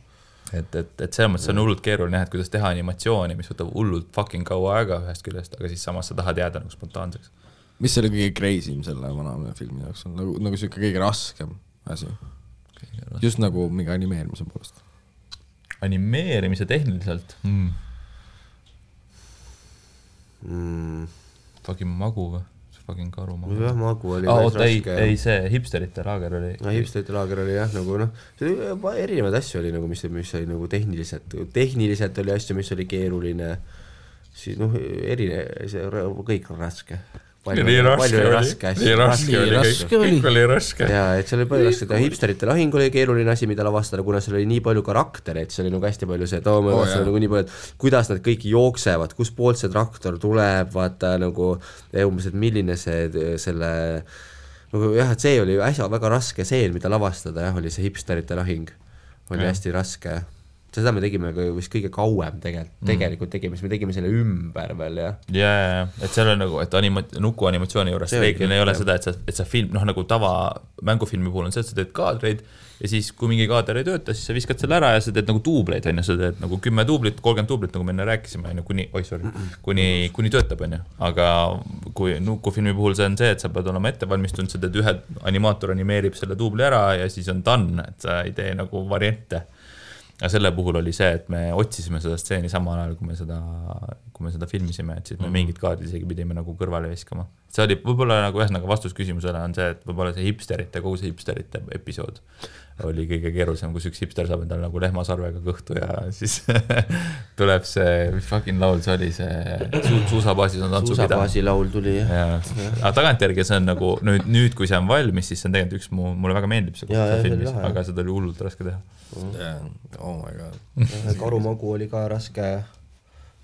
Et see on hullult keeruline, et kuidas teha animatsiooni, mis võtab hullult fucking kaua aega ühest küljest, aga siis samas sa tahad jääda nagu spontaanseks. Mis oli kõige crazy'm selle vanamehe filmi jaoks on? Nagu see kõige raskem asi. Just nagu mingi animeerimise poolest. Animeerimise tehniliselt? Fucking magu või? Fucking karu magu. Jah, magu oli raske. Ei, see hipsterite laager oli. Hipsterite laager oli jah, nagu erinevaid asju oli, nagu, mis oli nagu tehniliselt oli asju, mis oli keeruline. siis see kõik on raske. Nii raske oli raske. Ja, et seal oli palju raske. Hipsterite lahing oli keeruline asi, mida lavastada, kuna seal oli nii palju karaktereid, see oli nagu hästi palju see, nagu nii palju, et kuidas nad kõik jooksevad, kus poolt see traktor tuleb, vaata nagu umbes, et milline selle nagu jah, et see oli äsja väga raske seen, mida lavastada, jah, oli see hipsterite lahing. Oli hästi raske. Seda me tegime vist kõige kauem tegelikult tegime, siis me tegime selle ümber veel, jah. Jaa, et seal on nagu, et nuku animatsiooni juures reeglina ei ole seda, et sa film, nagu tava mängufilmi puhul on see, et sa teed kaadreid ja siis kui mingi kaader ei tööta, siis sa viskad selle ära ja sa teed nagu tuubleid, sa teed nagu 10 tuublit, 30 tuublit, nagu me enne rääkisime, kuni töötab, aga kui nukufilmi puhul see on see, et sa pead olema ettevalmistunud, sa teed ühe animaator animeerib selle tuubli ära ja siis on done, et sa ei tee nagu variante. Ja selle puhul oli see, et me otsisime seda stseeni samal ajal, kui me seda filmisime, et siis me mingid kaardid isegi pidime nagu kõrvale viskama. See oli võib-olla nagu ühesõnaga vastus küsimusele on see, et võib-olla see kogu see hipsterite episood oli kõige keerulisem, kus üks hipster saab endale nagu lehmasarvega kõhtu ja siis tuleb see, mis fucking laul see oli, see suusabaasis on tantsupidav. Suusabaasi laul tuli, jah. Aga tagantjärgi see on nagu, nüüd kui see on valmis, siis see on tegelikult mulle väga meeldib see filmis, aga seda oli hullult raske teha. Oh my god. Karumagu oli ka raske.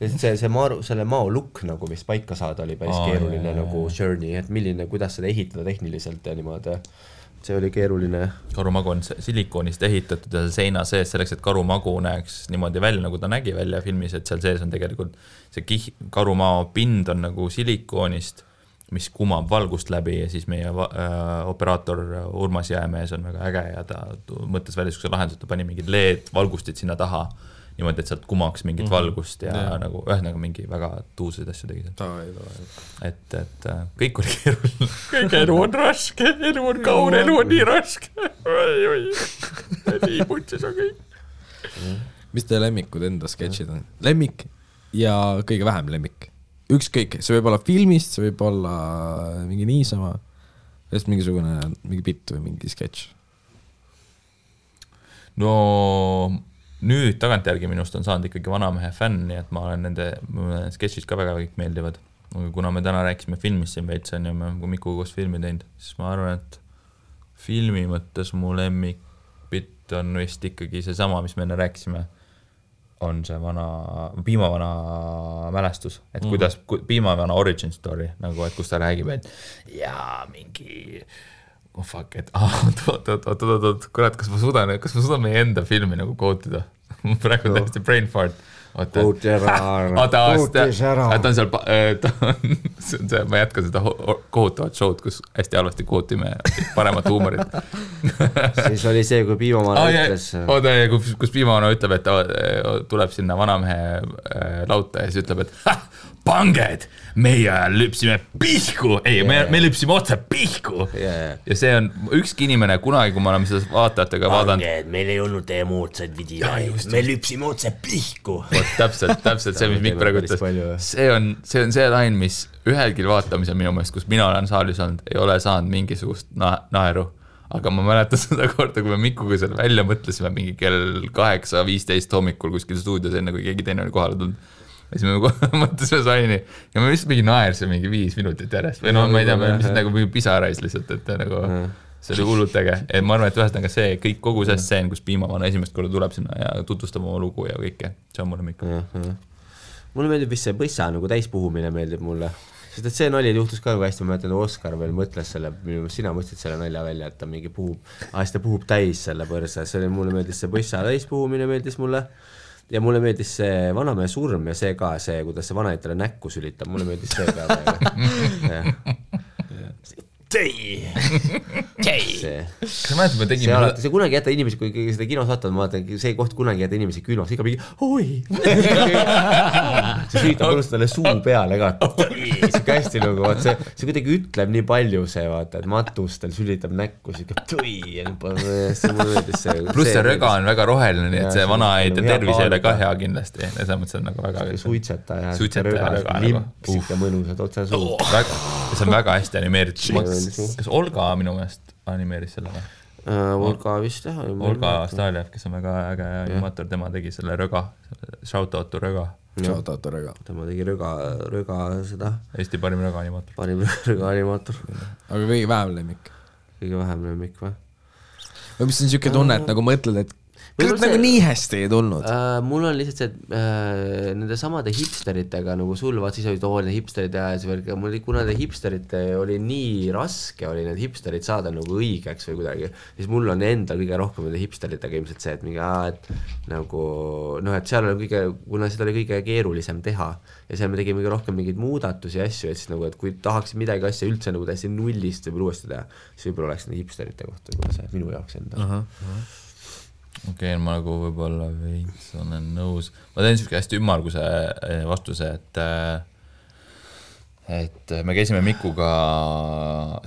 Selle mao lukk nagu vist paika saada oli päris keeruline nagu journey, et kuidas seda ehitada tehniliselt ja niimoodi. See oli keeruline. Karumagu on silikoonist ehitatud ja seina sees selleks, et karumagu näeks niimoodi välja, nagu ta nägi välja filmis, et seal sees on tegelikult see karumao pind on nagu silikoonist, mis kumab valgust läbi ja siis meie operaator Urmas Jäämees on väga äge ja ta mõttes välja sükse lahendus, ta pani mingid LED valgustid sinna taha niimoodi, et sealt kumaks mingit valgust ja nagu ühesõnaga mingi väga tuuseid asju tegi seal. Et kõik oli keeruline. Kõik elu on raske, elu on kaur, elu on nii raske. Nii putsis on kõik. Mis teie lemmikud enda sketšid on? Lemmik ja kõige vähem lemmik. Ükskõik, see võib olla filmist, see võib olla mingi niisama, mingi bitt või mingi sketš. No nüüd tagantjärgi minust on saanud ikkagi Vanamehe fänn, nii et ma olen nende sketšid ka väga kõik meeldivad. Aga kuna me täna rääkisime filmist siin veits on ja me Mikuga koos filmi teinud, siis ma arvan, et filmi mõttes mu lemmik bitt on vist ikkagi see sama, mis me enne rääkisime. On see piimavana mälestus, et kuidas piimavana origin story, nagu et kus ta räägib, et jaa, mingi kurat, kas ma suudan meie enda filmi nagu kootida? Praegu on täiesti brain fart. Kooti ära. Ta on seal, ma jätkan seda kohutavat showd, kus hästi halvasti kootime paremat huumorit. Siis oli see, kui Piimavana ütles. Kus Piimavana ütleb, et ta tuleb sinna Vanamehe lauta ja siis ütleb, et panged, meie lüpsime pihku, me lüpsime otse pihku. Ja see on ükski inimene kunagi, kui me oleme seda vaatajatega vaadanud. Panged, meil ei olnud teie moodsaid videoid, me lüpsime otse pihku. Täpselt see, mis Mikk praegu ütles. See on see lain, mis ühelgi vaatamisel minu meelest, kus mina olen saalis olnud, ei ole saanud mingisugust naeru. Aga ma mäletan seda korda, kui me Mikuga seal välja mõtlesime mingi kell 8:15 hommikul kuskil stuudios, enne kui keegi teine oli kohale tulnud. Ja siis me mõtlesime saini ja me vist mingi naersime mingi 5 minutit järjest või ma ei tea, me lihtsalt nagu pisarais lihtsalt, et nagu see oli hullult äge. Ma arvan, et ühesõnaga see kõik kogu see stseen, kus Piimavana esimest korda tuleb sinna ja tutvustab oma lugu ja kõike, see on mulle Mikk. Mulle meeldib vist see põssa nagu täispuhumine meeldib mulle, sest et see nali juhtus ka nagu hästi, ma mõtlen, Oskar veel mõtles selle, sina mõtlesid selle nalja välja, et ta mingi ta puhub täis selle põrsa, see oli, mulle meeldis see põssa täispuhumine meeldis mulle. Ja mulle meeldis see Vanamehe surm ja see ka, see, kuidas see vanaitele näkku sülitab, mulle meeldis see ka. Kas sa mäletad, me tegime see kunagi jätta inimesi, kui seda kinos vaatavad, ma vaatan, see koht kunagi jätta inimesi külmas, ikka mingi oi see süütab mõnust talle suu peale ka see hästi nagu, see kuidagi ütleb nii palju see, vaata, et matustel sülitab näkku see mulle meeldis see pluss see röga on väga roheline, nii et see vana ei tervis ei ole ka hea kindlasti ja see mõttes on nagu väga suitseta ja röga limpsik ja mõnusad otse suu see on väga hästi animeeritud. Kas Olga minu meelest animeeris selle või? Olga vist jah. Olga Staljev, kes on väga äge animaator, tema tegi selle röga, shoutout to röga. shout out Rõga. tema tegi Rõga seda. Eesti parim rõgaanimaator. Parim rõgaanimaator. Aga kõige vähem lemmik. Kõige vähem lemmik või? Või mis on siuke tunne, et nagu mõtled, et kas nagu nii hästi ei tulnud? Mul on lihtsalt see, et nende samade hipsteritega nagu sul, vaat siis olid need hipsterid ja mul kuna need hipsterite oli nii raske oli need hipsterid saada nagu õigeks või kuidagi, siis mul on endal kõige rohkem nende hipsteritega ilmselt see, et mingi et nagu et seal oli kuna seda oli kõige keerulisem teha ja seal me tegime kõige rohkem mingeid muudatusi ja asju, et siis nagu, et kui tahaks midagi asja üldse nagu täiesti nullist või uuesti teha, siis võib-olla oleks nende hipsterite kohta võib-olla see minu jaoks enda. Okei, ma nagu võib-olla veits olen nõus. Ma teen siuke hästi ümmarguse vastuse, et me käisime Mikuga,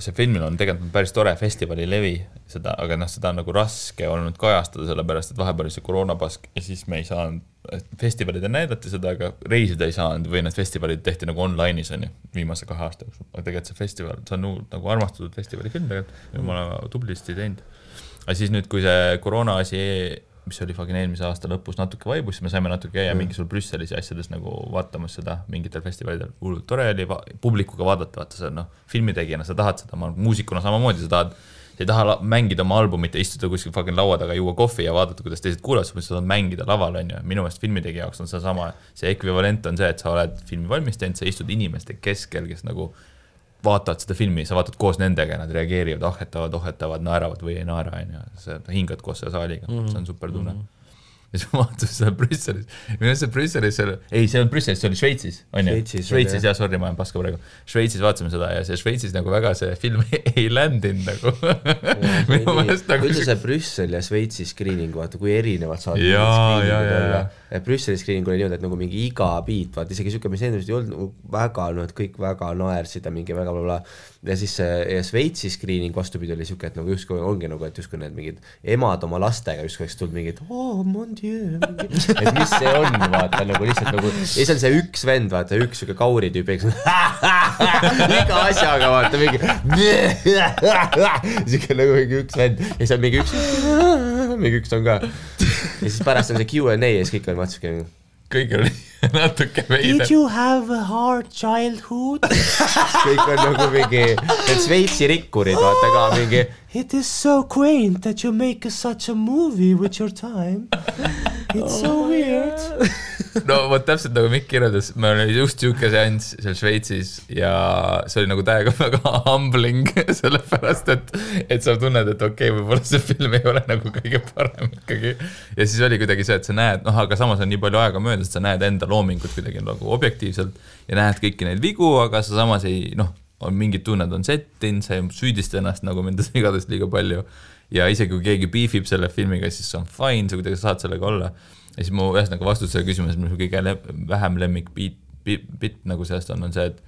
see filmil on tegelikult päris tore festivali levi, seda, aga seda on nagu raske olnud kajastada, sellepärast, et vahepeal oli see koroonapask ja siis me ei saanud, festivalid näidati seda, aga reisida ei saanud või need festivalid tehti nagu online'is on ju, viimase 2 aasta jooksul. Aga tegelikult see festival, see on nagu armastatud festivali film tegelikult ja ma olen tublisti teinud. Aga siis nüüd, kui see koroona asi, mis oli eelmise aasta lõpus natuke vaibus, siis me saime natuke käia mingisugusel Brüsselis ja asjades nagu vaatamas seda mingitel festivalidel. Tore oli publikuga vaadata, vaata see filmitegijana, sa tahad seda, muusikuna samamoodi, sa ei taha mängida oma albumit ja istuda kuskil laua taga, juua kohvi ja vaadata, kuidas teised kuulevad, sa tahad mängida laval, on ju. Minu meelest filmitegija jaoks on see sama, see ekvivalent on see, et sa oled filmi valmis teinud, sa istud inimeste keskel, kes nagu vaatavad seda filmi, sa vaatad koos nendega, nad reageerivad, ohetavad, naeravad või ei naera, sa hingad koos selle saaliga, see on super tunne. Ja siis ma vaatasin seda Brüsselis, minu see Brüsselis, see on Brüsselis, see oli Šveitsis, on ju? Šveitsis, jah, sorry, ma olen paska praegu. Šveitsis vaatasime seda ja see Šveitsis nagu väga see film ei ländinud nagu. Üldse see Brüssel ja Šveitsi screening, vaata, kui erinevad saad. Brüsseli screening oli niimoodi, et nagu mingi iga biit, vaata, isegi siuke, mis endast ei olnud väga, et kõik väga naersid ja mingi väga blablabla. Ja siis Šveitsi screening vastupidi oli siuke, et nagu justkui ongi nagu, et justkui need mingid emad oma lastega justkui oleks tulnud mingid, mon dieu, et mis see on, vaata, nagu lihtsalt nagu, ja siis on see üks vend, vaata, üks siuke kauri tüüp, iga asjaga, vaata, mingi siuke nagu mingi üks vend, ja siis on mingi üks on ka, ja siis pärast on see Q&A ja siis kõik on vaata kõik oli natuke veide. Did you have a hard childhood? kõik on nagu mingi, need Šveitsi rikkurid, vaata ka mingi it is so quaint that you make such a movie with your time. It's so weird. No vot täpselt nagu Mikk kirjeldas, me oli just siuke seanss seal Šveitsis ja see oli nagu täiega väga humbling sellepärast, et sa tunned, et okei, võib-olla see film ei ole nagu kõige parem ikkagi. Ja siis oli kuidagi see, et sa näed, aga samas on nii palju aega möödas, et sa näed enda loomingut kuidagi nagu objektiivselt ja näed kõiki neid vigu, aga sa samas ei, on mingid tunned on settin, sa ei süüdista ennast nagu mendas igadest liiga palju ja isegi kui keegi beefib selle filmiga, siis see on fine, sa kuidagi saad sellega olla. Ja siis mu ühesõnaga vastus selle küsimus, mis kõige vähem lemmik bit nagu sellest on see, et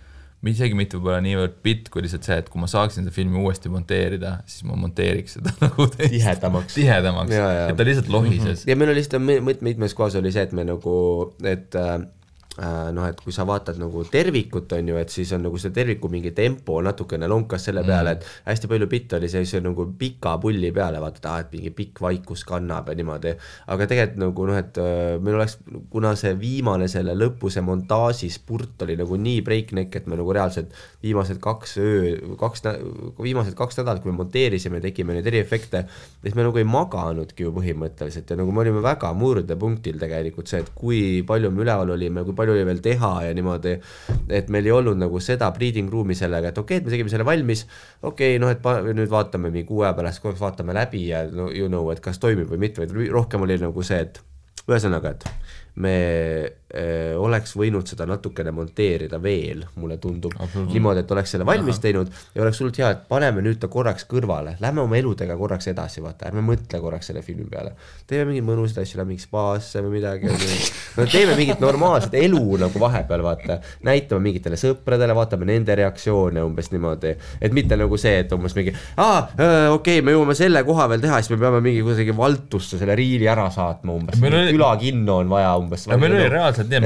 isegi mitte võib-olla niivõrd bit, kui lihtsalt see, et kui ma saaksin seda filmi uuesti monteerida, siis ma monteeriks seda nagu tihedamaks, et ta lihtsalt lohises. Ja meil oli lihtsalt mitmes kohas oli see, et me nagu, et et kui sa vaatad nagu tervikut on ju, et siis on nagu see terviku mingi tempo natukene lonkas selle peale, et hästi palju bitt oli see nagu pika pulli peale, vaata, et mingi pikk vaikus kannab ja niimoodi, aga tegelikult nagu et meil oleks, kuna see viimane selle lõpu, see montaaži spurt oli nagu nii breakneck, et me nagu reaalselt viimased 2 nädalat, kui me monteerisime, tegime neid eriefekte, siis me nagu ei maganudki ju põhimõtteliselt ja nagu me olime väga murdepunktil tegelikult see, et kui palju me üleval olime, kui palju oli veel teha ja niimoodi, et meil ei olnud nagu seda breeding room'i sellega, et okei, et me tegime selle valmis, okei, et nüüd vaatame mingi 6 aja pärast, kui vaatame läbi ja et kas toimib või mitte, või rohkem oli nagu see, et ühesõnaga, et me oleks võinud seda natukene monteerida veel, mulle tundub, niimoodi, et oleks selle valmis teinud ja oleks hullult hea, et paneme nüüd ta korraks kõrvale, lähme oma eludega korraks edasi, vaata, ärme mõtle korraks selle filmi peale, teeme mingid mõnusad asju, lähme mingi spaasse või midagi, teeme mingit normaalset elu nagu vahepeal, vaata, näitame mingitele sõpradele, vaatame nende reaktsioone umbes niimoodi, et mitte nagu see, et umbes mingi okei, me jõuame selle koha veel teha, siis me peame mingi kuidagi valtusse selle riili ära saatma umbes, külakinno on vaja umbes. Meil oli reaalselt nii,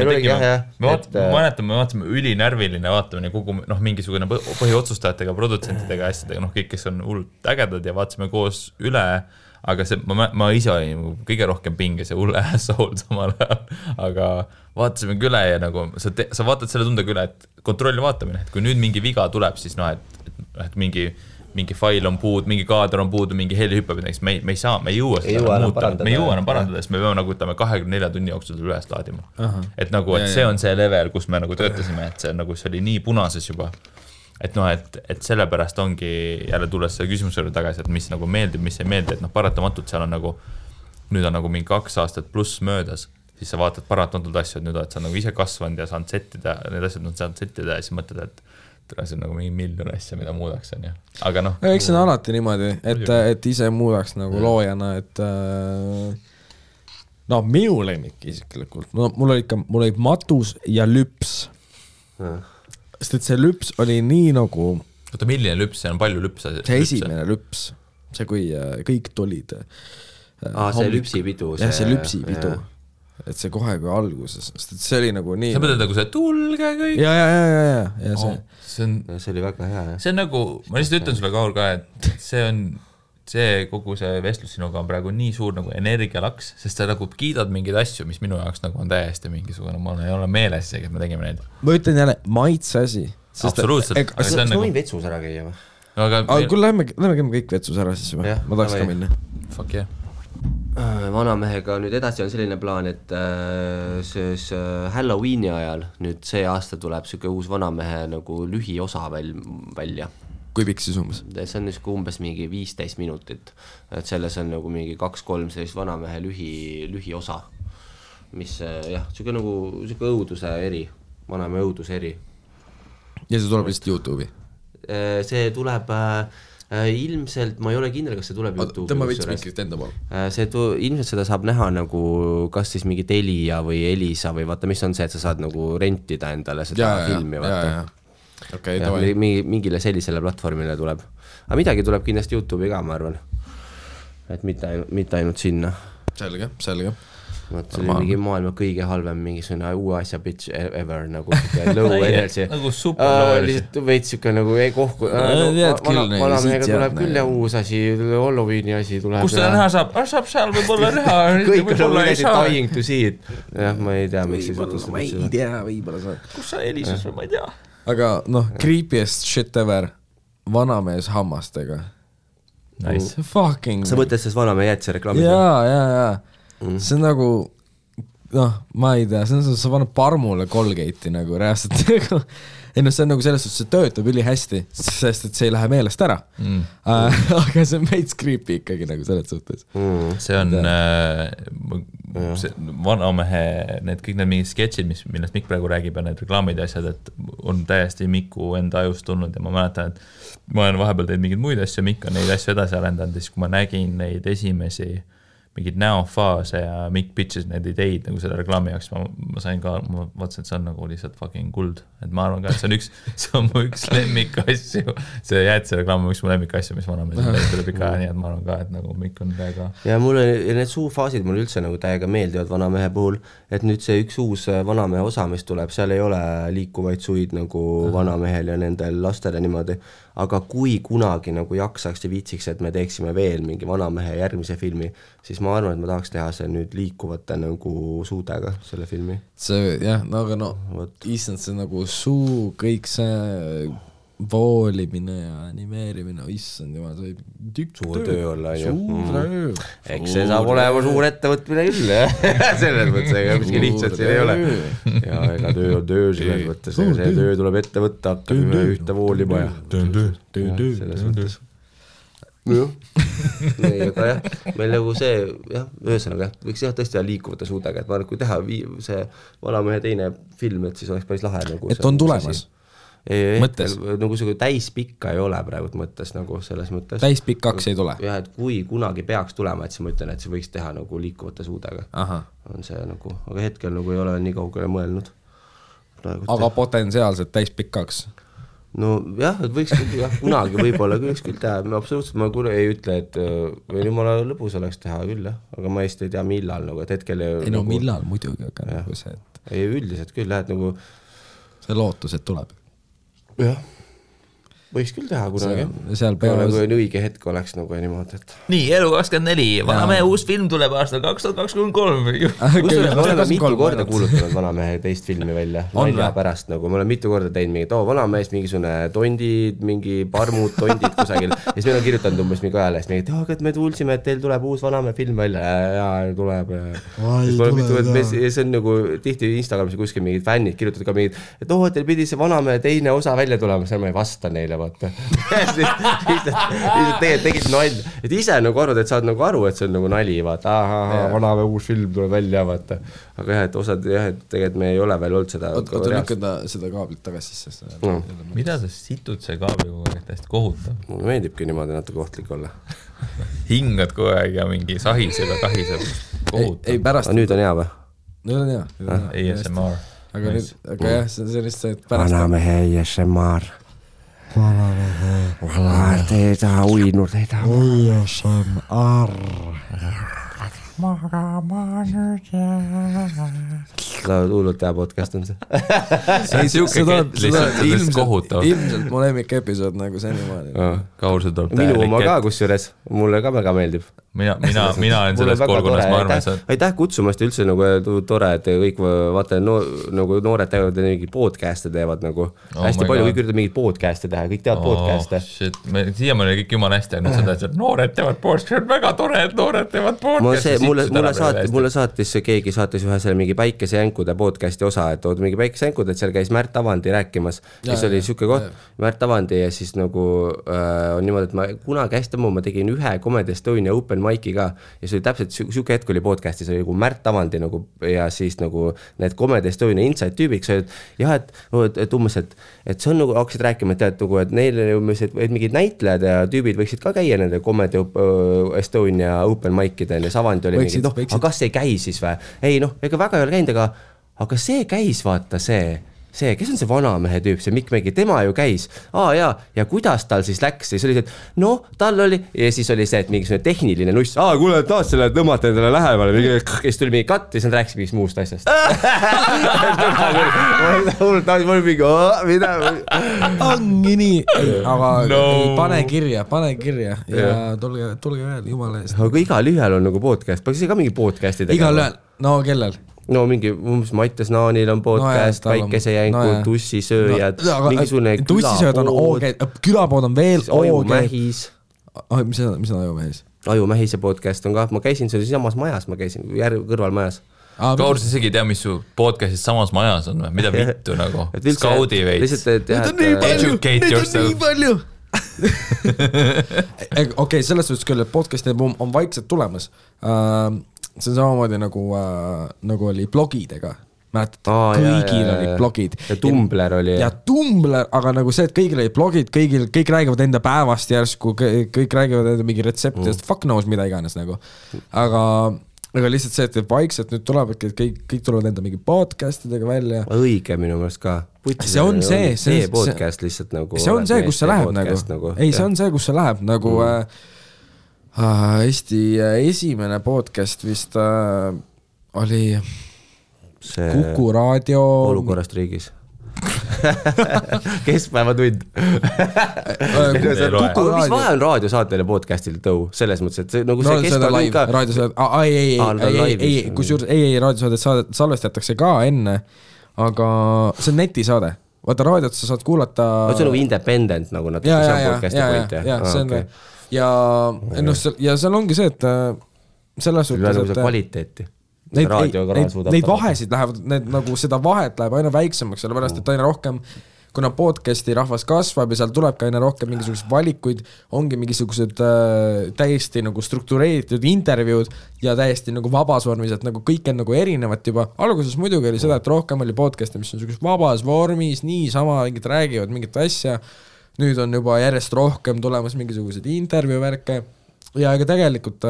me vaatasime ülinärviline, vaatame kogu mingisugune põhiotsustajatega, produtsentidega, asjadega, kõik, kes on hullult ägedad ja vaatasime koos üle, aga see, ma ise olin kõige rohkem pinges ja hulle asshole samal ajal, aga vaatasime üle ja nagu sa vaatad selle tundega üle, et kontrolli vaatamine, et kui nüüd mingi viga tuleb, siis et mingi fail on puud, mingi kaader on puudu, mingi heli hüppab, me ei saa, me ei jõua seda muuta, me ei jõua enam parandada, sest me peame nagu 24 tunni jooksul üles laadima. Et nagu, et see on see level, kus me nagu töötasime, et see nagu see oli nii punases juba. Et et sellepärast ongi jälle tulles selle küsimusele tagasi, et mis nagu meeldib, mis ei meeldi, et paratamatult seal on nagu, nüüd on nagu mingi 2 aastat pluss möödas, siis sa vaatad paratamatult asju, et nüüd oled sa nagu ise kasvanud ja saanud settida, need asjad on saanud settida ja siis mõtled, et see on nagu mingi miljon asja, mida muudaks, on ju. Aga noh. Eks see on alati niimoodi, et ise muudaks nagu loojana, et minu lemmik isiklikult. Mul oli matus ja lüps. Sest et see lüps oli nii nagu... Oota, milline lüps? See on palju lüpse. See esimene lüps. See, kui kõik tulid. See lüpsipidu. Jah, see lüpsipidu. Et see kohe kui alguses. Sest et see oli nagu nii... Sa mõtled nagu see tulge kõik? Ja see oli väga hea. See on nagu... Ma lihtsalt ütlen sulle, Kaur, ka, et see kogu see vestlus sinuga on praegu nii suur nagu energialaks, sest sa nagu kiidad mingeid asju, mis minu jaoks nagu on täiesti mingisugune, ma ei ole meeles seegi, et me tegime neid. Ma ütlen jälle, maitse asi. Absoluutselt. Sa võin vetsus ära käia või? Aga kui lähme käime kõik vetsus ära siis või? Ma tahaks ka minna. Fuck yeah. Vanamehega nüüd edasi on selline plaan, et Halloweeni ajal nüüd see aasta tuleb selline uus Vanamehe nagu lühiosa välja. Kui pikk siis umbes? See on umbes mingi 15 minutit, et selles on nagu mingi 2-3 sellist Vanamehe lühiosa, mis jah, selline nagu õuduse eri, Vanamehe õuduse eri. Ja see tuleb lihtsalt YouTube'i? See tuleb... ilmselt, ma ei ole kindel, kas see tuleb YouTube'i. Tõmba veits miskit enda pool. Ilmselt seda saab näha nagu kas siis mingi Telia või Elisa või vaata, mis on see, et sa saad nagu rentida endale seda filmi. Okay, mingile sellisele platvormile tuleb. Aga midagi tuleb kindlasti YouTube'i ka, ma arvan. Et mitte ainult sinna. Selge. See oli mingi maailma kõige halvem mingisugune uue asja bitch ever nagu low energy. Nagu super low energy. Lihtsalt veits siuke nagu ei kohku. Vanamehega tuleb küll ja uus asi, Halloweeni asi tuleb. Kus seda näha saab? Saab seal võib-olla näha. Kõik on nagu dying to see it. Jah, ma ei tea, miks siis jutus. Ma ei tea, võib-olla saab. Kus sa helises või ma ei tea. Aga creepiest shit ever. Vanamees hammastega. Nice. Fucking. Sa mõtled selles Vanamehe jätse reklaamid? Jaa. See on nagu, ma ei tea, sa paned parmule Colgate'i nagu reaalselt nagu, see on nagu selles suhtes, see töötab üli hästi, sest et see ei lähe meelest ära. Aga see on veits creepy ikkagi nagu selles suhtes. See on Vanamehe, kõik need mingid sketšid, millest Mikk praegu räägib ja need reklaamid ja asjad, et on täiesti Miku enda ajust tulnud ja ma mäletan, et ma olen vahepeal teinud mingeid muid asju, Mikk on neid asju edasi arendanud ja siis kui ma nägin neid esimesi mingid näofaase ja Mikk pitches need ideid nagu selle reklaami jaoks, ma sain ka, ma vaatasin, et see on nagu lihtsalt fucking kuld, et ma arvan ka, et see on mu üks lemmik asju, see jätse reklaam on üks mu lemmik asju, mis Vanamees tuleb ikka, nii et ma arvan ka, et nagu Mikk on täiega. Ja mulle need suufaasid mulle üldse nagu täiega meeldivad Vanamehe puhul, et nüüd see üks uus Vanamehe osa, mis tuleb, seal ei ole liikuvaid suid nagu Vanamehel ja nendel lastele niimoodi, aga kui kunagi nagu jaksaks ja viitsiks, et me teeksime veel mingi Vanamehe järgmise filmi, siis ma arvan, et ma tahaks teha see nüüd liikuvate nagu suudega selle filmi. See, jah, aga issand, see nagu suu, kõik see voolimine ja animeerimine, issand jumal, see suur töö olla, suur töö. Eks see saab olema suur ettevõtmine küll, selles mõttes, ega miski lihtsalt siin ei ole. Ja ega töö on töö selles mõttes, see töö tuleb ette võtta, hakkame ühte voolima ja selles mõttes. Aga jah, meil nagu see, jah, ühesõnaga, võiks jah tõesti liikuvate suudega, et ma arvan, kui teha see Vanamehe teine film, et siis oleks päris lahe nagu. Et on tulemas? Mõttes? Nagu see täispikka ei ole praegu mõttes nagu selles mõttes. Täispikkaks ei tule? Jah, et kui kunagi peaks tulema, et siis ma ütlen, et see võiks teha nagu liikuvate suudega. On see nagu, aga hetkel nagu ei ole nii kaugele mõelnud. Aga potentsiaalselt täispikkaks? No jah, et võiks kunagi võib-olla küll teha, absoluutselt ma ei ütle, et või jumala lõbus oleks teha küll, aga ma ei tea millal, nagu, et hetkel ei no millal muidugi, aga nagu see, et ei üldiselt küll, et nagu see lootus, et tuleb. Jah. võiks küll teha kunagi. Seal peavad nagu õige hetk oleks nagu niimoodi, et nii, Elu24, Vanamehe uus film tuleb aastal 2023. Kusjuures me oleme mitu korda kuulutanud Vanamehe teist filmi välja. Nalja pärast nagu, me oleme mitu korda teinud mingid, Vanamees mingisugune tondid, mingi parmud, tondid kusagil. Ja siis meil on kirjutanud umbes mingi ajalehest, et me kuulsime, et teil tuleb uus Vanamehe film välja. Ja tuleb. See on nagu tihti Instagramis kuskil mingid fännid kirjutavad ka mingid, et teil pidi see Vanamehe teine osa välja tulema, seal ma ei vasta neile, vaata. Lihtsalt tegid nalja. Et ise nagu arvad, et saad nagu aru, et see on nagu nali, vaata. Vanamehe uus film tuleb välja, vaata. Aga jah, et osad, jah, et tegelikult me ei ole veel olnud seda. Oota lükkada seda kaablit tagasi sisse. Mida sa situd see kaabli kogu aeg tähest kohutav? Mulle meeldibki niimoodi natuke ohtlik olla. Hingad kogu aeg ja mingi sahiseb ja kahiseb. Kohutav. Ei pärast. Nüüd on hea või? Nüüd on hea. ASMR. Aga jah, see on lihtsalt see, et pärast... Vanamehe ASMR. Te ei taha uinud, ei taha. ASMR. Magama nüüd hullult hea podcast on see. See on siuke kett lihtsalt kohutav. Ilmselt mu lemmik episood nagu senimaani. Kaurse tuleb minu oma ka kusjuures, mulle ka väga meeldib. Mina olen selles kolgunas, ma arvan, et aitäh kutsumast üldse nagu tore, et kõik vaata nagu noored teevad mingi podcast'e teevad nagu hästi palju, kõik üritab mingid podcast'e teha, kõik teevad podcast'e. Siia me oli kõik jumala hästi ainult seda, et noored teevad podcast'e, väga tore, et noored teevad podcast'e. Mulle saatis keegi saatis ühe selle mingi Päikesejänkude podcast'i osa, et tood mingi Päikesejänkud, et seal käis Märt Avandi rääkimas, kes oli siuke koht, Märt Avandi ja siis nagu on niimoodi, et ma kunagi hästi ma tegin ühe Comedy Estonia Open Mic'i ka ja see oli täpselt siuke hetk oli podcast'is, oli nagu Märt Avandi nagu ja siis nagu need Comedy Estonia Inside tüübiks olid, jah, et umbes, et see on nagu hakkasid rääkima, et tead nagu, et neile umbes, et mingid näitlejad ja tüübid võiksid ka käia nende Comedy Estonia Open Mic'ide ja Avandi oli mingi, aga kas see käis siis või? Ei ega väga ei ole käinud, aga see käis, vaata see, kes on see Vanamehe tüüp, see Mikk Mägi, tema ju käis. Ja kuidas tal siis läks? Siis oli see, et tal oli, ja siis oli see, et mingi tehniline nuss. Kuule, taas selle tõmmata endale lähemale. Ja siis tuli mingi katt ja siis nad rääkis mingist muust asjast. Mul mingi, mida? Ongi nii. Aga pane kirja ja tulge veel, jumala eest. Aga igal ühel on nagu podcast. Paksis ka mingi podcasti tegema? Igal ühel, no kellel? No mingi, Mattias Naanil on podcast, Päikesejänkud, Tussisööjad, mingisugune Tussisööjad on OG, külapood on veel OG. Ajumähis. Mis on Ajumähis? Ajumähise podcast on ka, ma käisin, see oli samas majas, ma käisin kõrvalmajas. Kaurs isegi tea, mis su podcastis samas majas on või? Mida vittu nagu? Skaudi veits. Educate yourself. Nii palju. Okei, selles suhtes küll, et podcasti on vaikselt tulemas. See on samamoodi nagu oli blogidega. Mäletad, kõigil olid blogid. Ja Tumblr oli. Ja Tumblr, aga nagu see, et kõigil olid blogid, kõik räägivad enda päevast järsku, kõik räägivad enda mingi retseptidest, fuck knows mida iganes nagu. Aga lihtsalt see, et vaikselt nüüd tuleb, et kõik tulevad enda mingi podcastidega välja. Õige minu meelest ka. See on see podcast lihtsalt nagu. See on see, kus see läheb nagu. Ei, see on see, kus see läheb nagu... Eesti esimene podcast vist oli see Kuku raadio Olukorrast riigis. Keskpäevatund. Mis vahe on raadiosaatele podcastil tõu? Selles mõttes, et nagu see keskpäevatund ka... Ei, kusjuures raadiosaadet salvestatakse ka enne, aga see on netisaade. Vaata raadiot sa saad kuulata... See on nagu independent nagu natuke, see on podcasti point. Ja see on ja seal ongi see, et selles suhtes, et kvaliteeti. Neid vahesid lähevad, nagu seda vahet läheb aina väiksemaks, sellepärast, et aina rohkem, kuna podcasti rahvas kasvab ja seal tuleb ka aina rohkem mingisugused valikuid, ongi mingisugused täiesti nagu struktureeritud intervjuud ja täiesti nagu vabas vormis, et nagu kõik on nagu erinevat juba. Alguses muidugi oli seda, et rohkem oli podcasti, mis on vabas vormis, niisama mingid räägivad mingit asja. Nüüd on juba järjest rohkem tulemas mingisugused intervjuuvärke ja ega tegelikult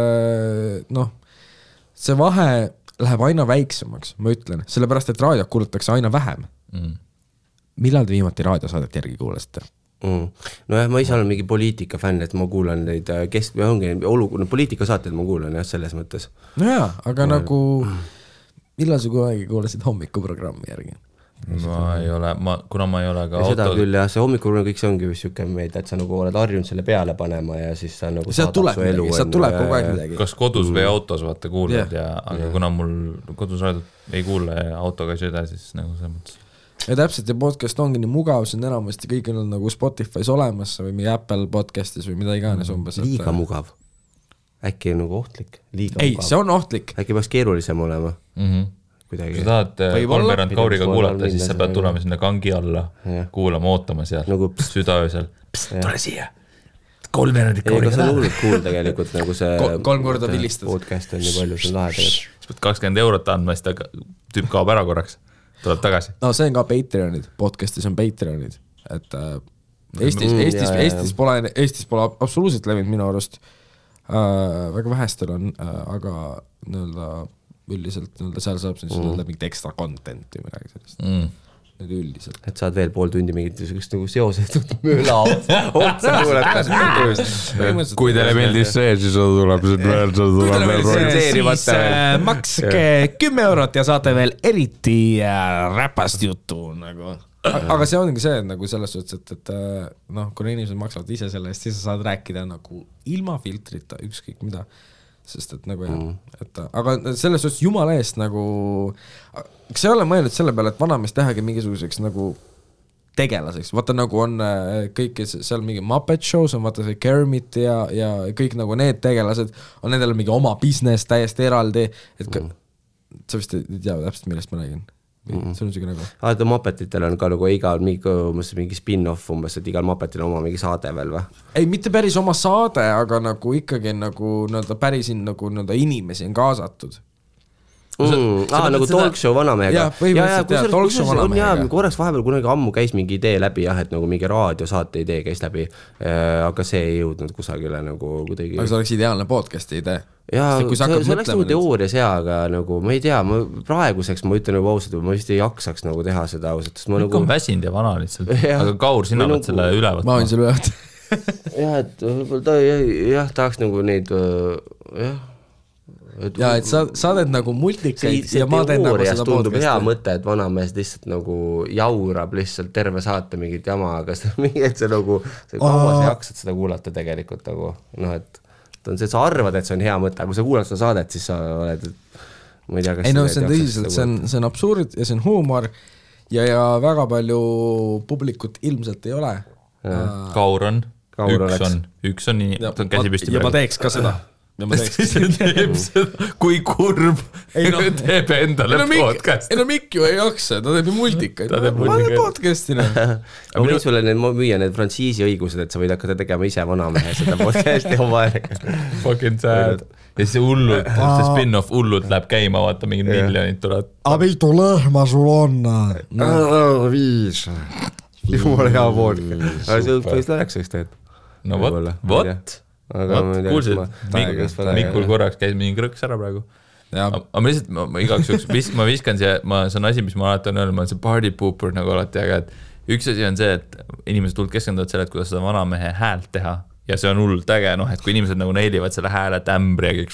see vahe läheb aina väiksemaks, ma ütlen, sellepärast, et raadiot kuulatakse aina vähem. Millal te viimati raadiosaadet järgi kuulasite? Nojah, ma ise olen mingi poliitika fänn, et ma kuulan neid poliitikasaateid ma kuulan jah, selles mõttes. Nojah, aga nagu millal sa kunagi kuulasid hommikuprogrammi järgi? ma ei ole, kuna ma ei ole ka ja seda auto... küll jah, see hommikul kõik see ongi vist siuke meid, et sa nagu oled harjunud selle peale panema ja siis sa nagu sealt tuleb midagi, sealt tuleb kogu aeg midagi. Kas kodus või autos vaata kuulad aga kuna mul kodus raadot ei kuule ja autoga ei sõida, siis nagu see mõttes. Ja täpselt, ja podcast ongi nii mugav, see on enamasti kõik on nagu Spotify's olemas või mingi Apple podcastis või mida iganes umbes. Liiga mugav. Äkki on nagu ohtlik? Liiga ei, mugav. see on ohtlik. Äkki peaks keerulisem olema? Kuidagi. Kui sa tahad kolmveerand Kauriga kuulata, siis sa pead tulema sinna kangi alla, kuulama, ootama seal, nagu südaöösel. Tule siia! Kolmveerand Kauriga taha. See on hullult cool tegelikult, nagu see 3 korda vilistad. Podcast on nii palju, see on lahe tegelikult. Siis pead 20 eurot andma, siis ta tüüp kaob ära korraks. Tuleb tagasi. No see on ka Patreonid, podcastis on Patreonid, et Eestis pole absoluutselt levinud minu arust, väga vähestel on, aga üldiselt seal saab mingit extra content või midagi sellist. Nüüd üldiselt. Et saad veel pool tundi mingit nagu seosetud mööla otsa kuulata. Kui teile meeldis see, siis tuleb siis makske 10 eurot ja saate veel eriti räpast juttu nagu. Aga see ongi see, et nagu selles suhtes, et kuna inimesed maksavad ise selle eest, siis sa saad rääkida nagu ilma filtrita, ükskõik mida. Sest et nagu aga selles suhtes jumala eest nagu, kas ei ole mõelnud selle peale, et vanamees tehagi mingisuguseks nagu tegelaseks, vaata nagu on kõik seal mingi Muppet Shows on vaata see Kermit ja kõik nagu need tegelased on nendel mingi oma business täiesti eraldi, et sa vist ei tea täpselt, millest ma räägin. See on siuke nagu Muppetitel on ka nagu igal mingi spin-off umbes, et igal Muppetil on oma mingi saade veel või? Ei, mitte päris oma saade, aga nagu ikkagi nagu päris nagu inimesi on kaasatud. Nagu talkshow vanamehega. põhimõtteliselt korraks vahepeal kunagi ammu käis mingi idee läbi et nagu mingi raadiosaate idee käis läbi, aga see ei jõudnud kusagile nagu kuidagi. Aga see oleks ideaalne podcasti idee. Jaa, see oleks nagu teoorias aga nagu ma ei tea, praeguseks ma ütlen nagu ausalt, ma vist ei jaksaks nagu teha seda ausalt. Kõik on väsinud ja vana lihtsalt, aga Kaur, sina võid selle üle võtta. Ma võin selle üle võtta. Jah, et võib-olla tahaks nagu neid ja et sa oled nagu multikaid ja ma teen nagu seda tundub hea mõte, et vanamees lihtsalt nagu jaurab lihtsalt terve saate mingit jama, aga see nagu kaua sa jaksad seda kuulata tegelikult nagu, et sa arvad, et see on hea mõte, aga kui sa kuulad seda saadet, siis sa oled ma ei tea, kas ei see on tõsiselt, see on absurd ja see on huumor ja väga palju publikut ilmselt ei ole. Kaur on, üks on nii, ta on käsi püsti ja ma teeks ka seda. Kui kurb teeb endale podcast. Mikk ju ei jaksa, ta teeb multikaid. Ma olen podcastina. Ma võin sulle müüa need frantsiisi õigused, et sa võid hakata tegema ise vanamehe seda podcasti oma aega. Fucking sad. Ja see hullult, see spin-off hullult läheb käima, vaata mingid miljonid tulevad. A mitu lehma sul on? 5. Jumala hea podcast. Aga see võis läheks üks teed. No vot. Kuulsid, Mikul korraks käis mingi krõks ära praegu. Aga ma lihtsalt, igaks juks, ma viskan siia, see on asi, mis ma alati on öelnud, ma olen see party pooper nagu alati, aga et üks asi on see, et inimesed hullult keskenduvad selle, et kuidas seda vanamehe häält teha ja see on hullult äge, et kui inimesed nagu neilivad selle hääle tämbri ja kõik,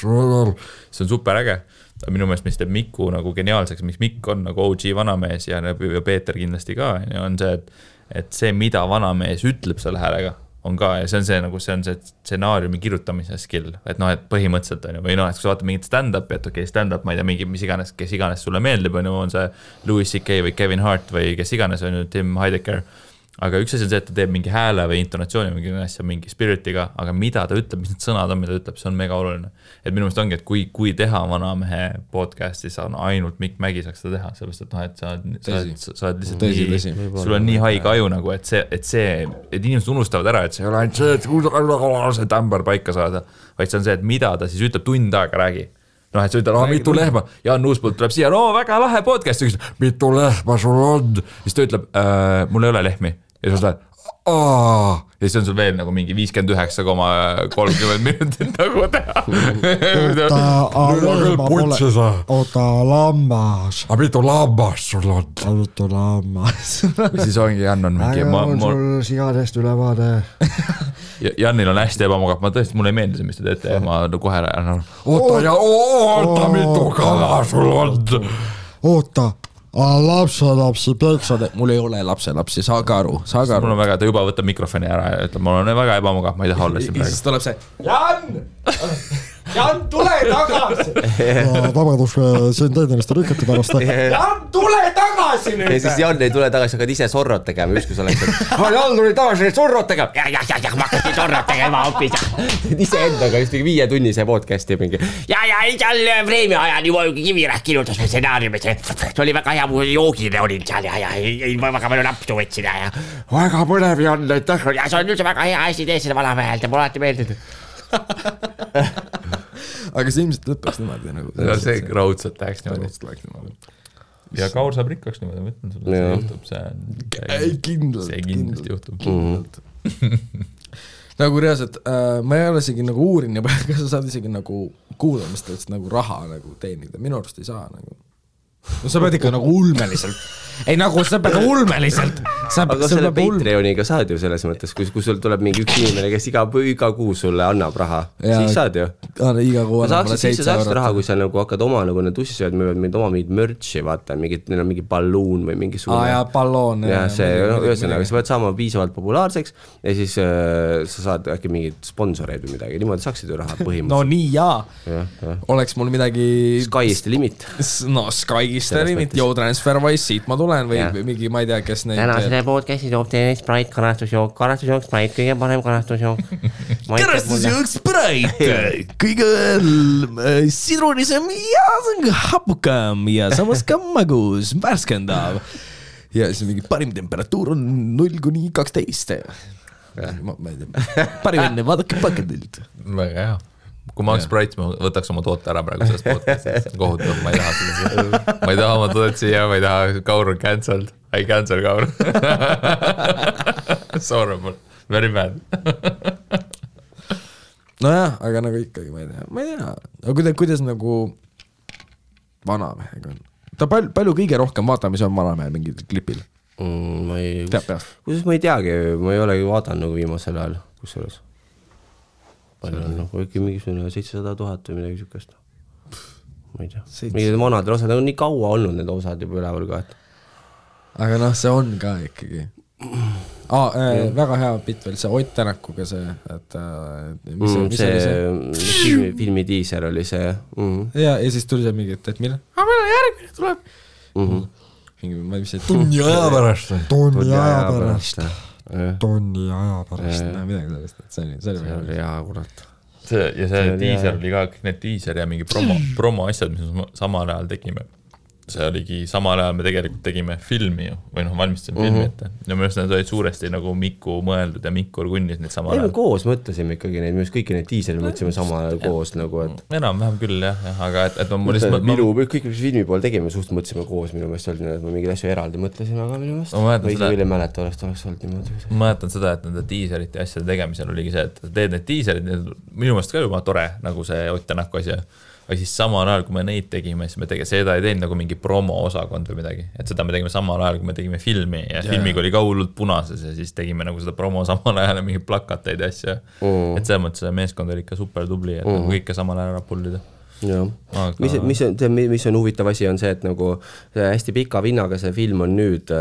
see on super äge. Minu meelest, mis teeb Miku nagu geniaalseks, miks Mikk on nagu OG vanamees ja Peeter kindlasti ka, on see, et see, mida vanamees ütleb selle häälega on ka ja see on see stsenaariumi kirjutamise skill, et et põhimõtteliselt on ju, või et kui sa vaatad mingit stand-upi, et okei, stand-up, ma ei tea, mingi, kes iganes sulle meeldib, on see Louis C.K. või Kevin Hart või kes iganes on ju Tim Heidecker, aga üks asi on see, et ta teeb mingi hääle või intonatsiooni mingi asja, mingi spiritiga, aga mida ta ütleb, mis need sõnad on, mida ta ütleb, see on mega oluline. Et minu meelest ongi, et kui teha vanamehe podcasti, siis ainult Mikk Mägi saaks seda teha, sellepärast, et sa oled lihtsalt nii, sul on nii haige aju nagu, et inimesed unustavad ära, et see ei ole ainult see, et see tämber paika saada, vaid see on see, et mida ta siis ütleb tund aega räägi. Et sa ütled, mitu lehma, Jaan Uuspult tuleb siia, väga lahe podcast, mitu lehma sul on, siis ta ütleb, mul ei ole lehmi ja sa lähed, ja siis on sul veel nagu mingi 59,30 minutit nagu teha. Oota lammas. A mitu lammas sul on? A mitu lammas. Siis ongi, Jan on mingi... on sul sigadest ülevaade. Jannil on hästi ebamugav, ma tõesti, mulle ei meeldi see, mis te teete ja ma kohe oota, mitu kala sul on. Oota, lapselapsi peksad, mul ei ole lapselapsi, saage aru. Mul on väga, ta juba võtab mikrofoni ära ja ütleb, mul on väga ebamugav, ma ei taha olla siin praegu. Siis tuleb see, Jan, tule tagasi. Vabadus, siin teeniliste rikati pärast. Jan, tule tagasi nüüd. Ja siis Jan ei tule tagasi, hakkad ise sorrot tegema, ükskõs oleks, et Jan tuli tagasi sorrot tegema. Ja, ma hakkasin sorrot tegema hoopis. Ise endaga just mingi 5-tunnise podcasti mingi. Ja, seal Vreemi ajal juba Kivirähk kirjutas me stsenaariumis. See oli väga hea, mu joogile olin seal ja väga palju napsu võtsin ja väga põnev Jan, aitäh. Ja see on üldse väga hea asi tee seda valamehelt ja mul alati meeldib. Aga see ilmselt lõppeks niimoodi nagu. See raudselt läheks niimoodi. Ja Kaur saab rikkaks niimoodi, ma ütlen sulle, see juhtub, see kindlasti juhtub. Nagu reaalselt, ma ei ole isegi nagu uurin ja kas sa saad isegi nagu kuulamistest nagu raha nagu teenida, minu arust ei saa nagu. No sa pead ikka nagu ulmeliselt. Ei nagu sa pead ulmeliselt. Aga selle Patreoniga saad ju selles mõttes, kui sul tuleb mingi üks inimene, kes iga kuu sulle annab raha, siis saad ju. Iga kuu annab mulle 7 eurot. Raha, kui sa nagu hakkad oma nagu need ussisööd, meil oma mingid merchi, vaata, neil on mingi balloon või mingi suune. Ja balloon. Ja see, ühesõnaga, sa pead saama piisavalt populaarseks ja siis sa saad äkki mingid sponsoreid või midagi, niimoodi saaksid ju raha põhimõtteliselt. No nii jaa. Oleks mul midagi... Sky'ist limit. No Sky'ist limit, Yo TransferWise, siit ma tulen või mingi, ma ei tea, kes neid... Täna selle podcasti toob teile Sprite karastusjook, Sprite, kõige parem karastusjook. Karastusjook Sprite, kõige sidrunisem ja hapukam ja samas ka magus, värskendav. Ja siis mingi parim temperatuur on 0-12. Ma ei tea, parim enne, vaadake paketilt. Väga hea. Kui ma oleks Sprite, ma võtaks oma toote ära praegu sellest podcastist. Kohutav, ma ei taha seda. Ma ei taha oma toodet siia, ma ei taha, Kaur on cancelled. I cancel Kaur. Sorry, very bad. Nojah, aga nagu ikkagi, ma ei tea. Aga kuidas nagu vanamehega on? Ta palju kõige rohkem vaatamisi on vanamehel mingil klipil? Ma ei... Teab peast? Kusjuures ma ei teagi, ma ei olegi vaadanud nagu viimasel ajal, kus selles. Palju on nagu ikka mingisugune 700 000 või midagi sükest. Ma ei tea. Mingid vanadel osad on nii kaua olnud need osad juba üleval ka. Aga noh, see on ka ikkagi. Väga hea bitt veel, see Ott Tänakuga see, et mis oli see? Filmi diiser oli see. Ja siis tuli see mingi, et mille? Meil järgmine tuleb. Tunni aja pärast. Tonni aja pärast. Midagi sellest, et see oli hea kurat. Ja see diiser oli ka, kõik need diiser ja mingi promo asjad, mis me samal ajal tegime. See oligi, samal ajal me tegelikult tegime filmi ju, või valmistasime filmi ette. Ja minu arust need olid suuresti nagu Mikku mõeldud ja Mikku kunnis neid samal ajal. Me koos mõtlesime ikkagi neid, minu arust kõiki neid diiseri mõtlesime samal ajal koos nagu, et... Enam-vähem küll jah, aga et ma lihtsalt... Kõik filmi pool tegime, suht mõtlesime koos minu meelest olnud, et ma mingid asju eraldi mõtlesime, aga minu meelest... Või küll ei mäleta, oleks olnud niimoodi. Ma mäletan seda, et nende diiserite asjade tegemisel oligi see, et teed need diiserid, minu meelest ka juba tore, nagu see Ott Tänaku asja. Või siis samal ajal, kui me neid tegime, siis me seda ei teinud nagu mingi promo osakond või midagi. Et seda me tegime samal ajal, kui me tegime filmi ja filmiga oli ka hullult punases ja siis tegime nagu seda promo samal ajal ja mingi plakateid ja asja. Et selles mõttes meeskond oli ikka super tubli, et nagu kõike samal ajal ära pullida. Mis on huvitav asi on see, et nagu hästi pika vinnaga see film on nüüd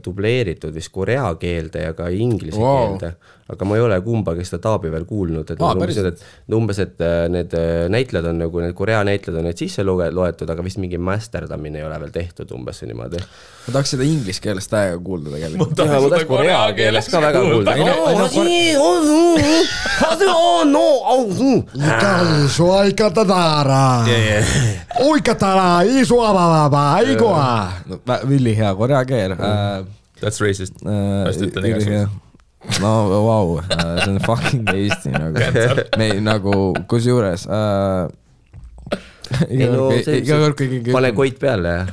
dubleeritud vist korea keelde ja ka inglise keelde, aga ma ei ole kumbagi seda taabi veel kuulnud, et umbes, et need näitled on nagu, need korea näitled on need sisse loetud, aga vist mingi masterdamine ei ole veel tehtud umbes niimoodi. Ma tahaks seda inglis keelest täiega kuulda tegelikult. Ma tahaks korea keelest ka väga kuulda. Uikatara, isuavavaba, igua. Villi hea korea keel. That's racist. Vast ütlen igasugust. No, wow, see on fucking Eesti nagu. Me nagu, kus juures... Pane koit peale, jah.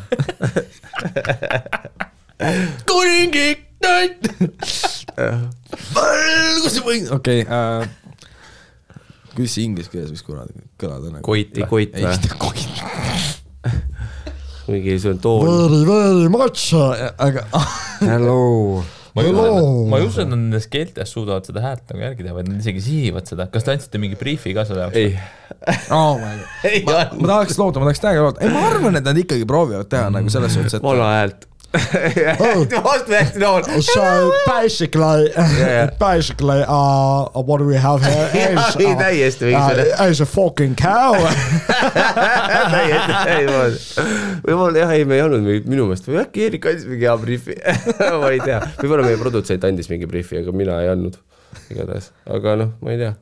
Kuningik, näit! Kus see võin? Okei, kuidas see inglis keeles võiks kõlada? Koit või? Koit. Mingi see on tool. Very much. Aga... Hello. ma ei usu, et nad nendes keeltes suudavad seda häält nagu järgi teha, vaid nad isegi sihivad seda. Kas te andsite mingi briefi ka selle jaoks? Ei. Ma tahaks loota, ma tahaks täiega loota. Ei, ma arvan, et nad ikkagi proovivad teha nagu selles suhtes, et vana häält. Vastu hästi nool. So basically what we have here is a fucking cow. Ei, me ei olnud minu meelest, või äkki Eerik andis mingi hea briefi. Ma ei tea, võib-olla meie produtsent andis mingi briefi, aga mina ei andnud igatahes, aga noh, ma ei tea.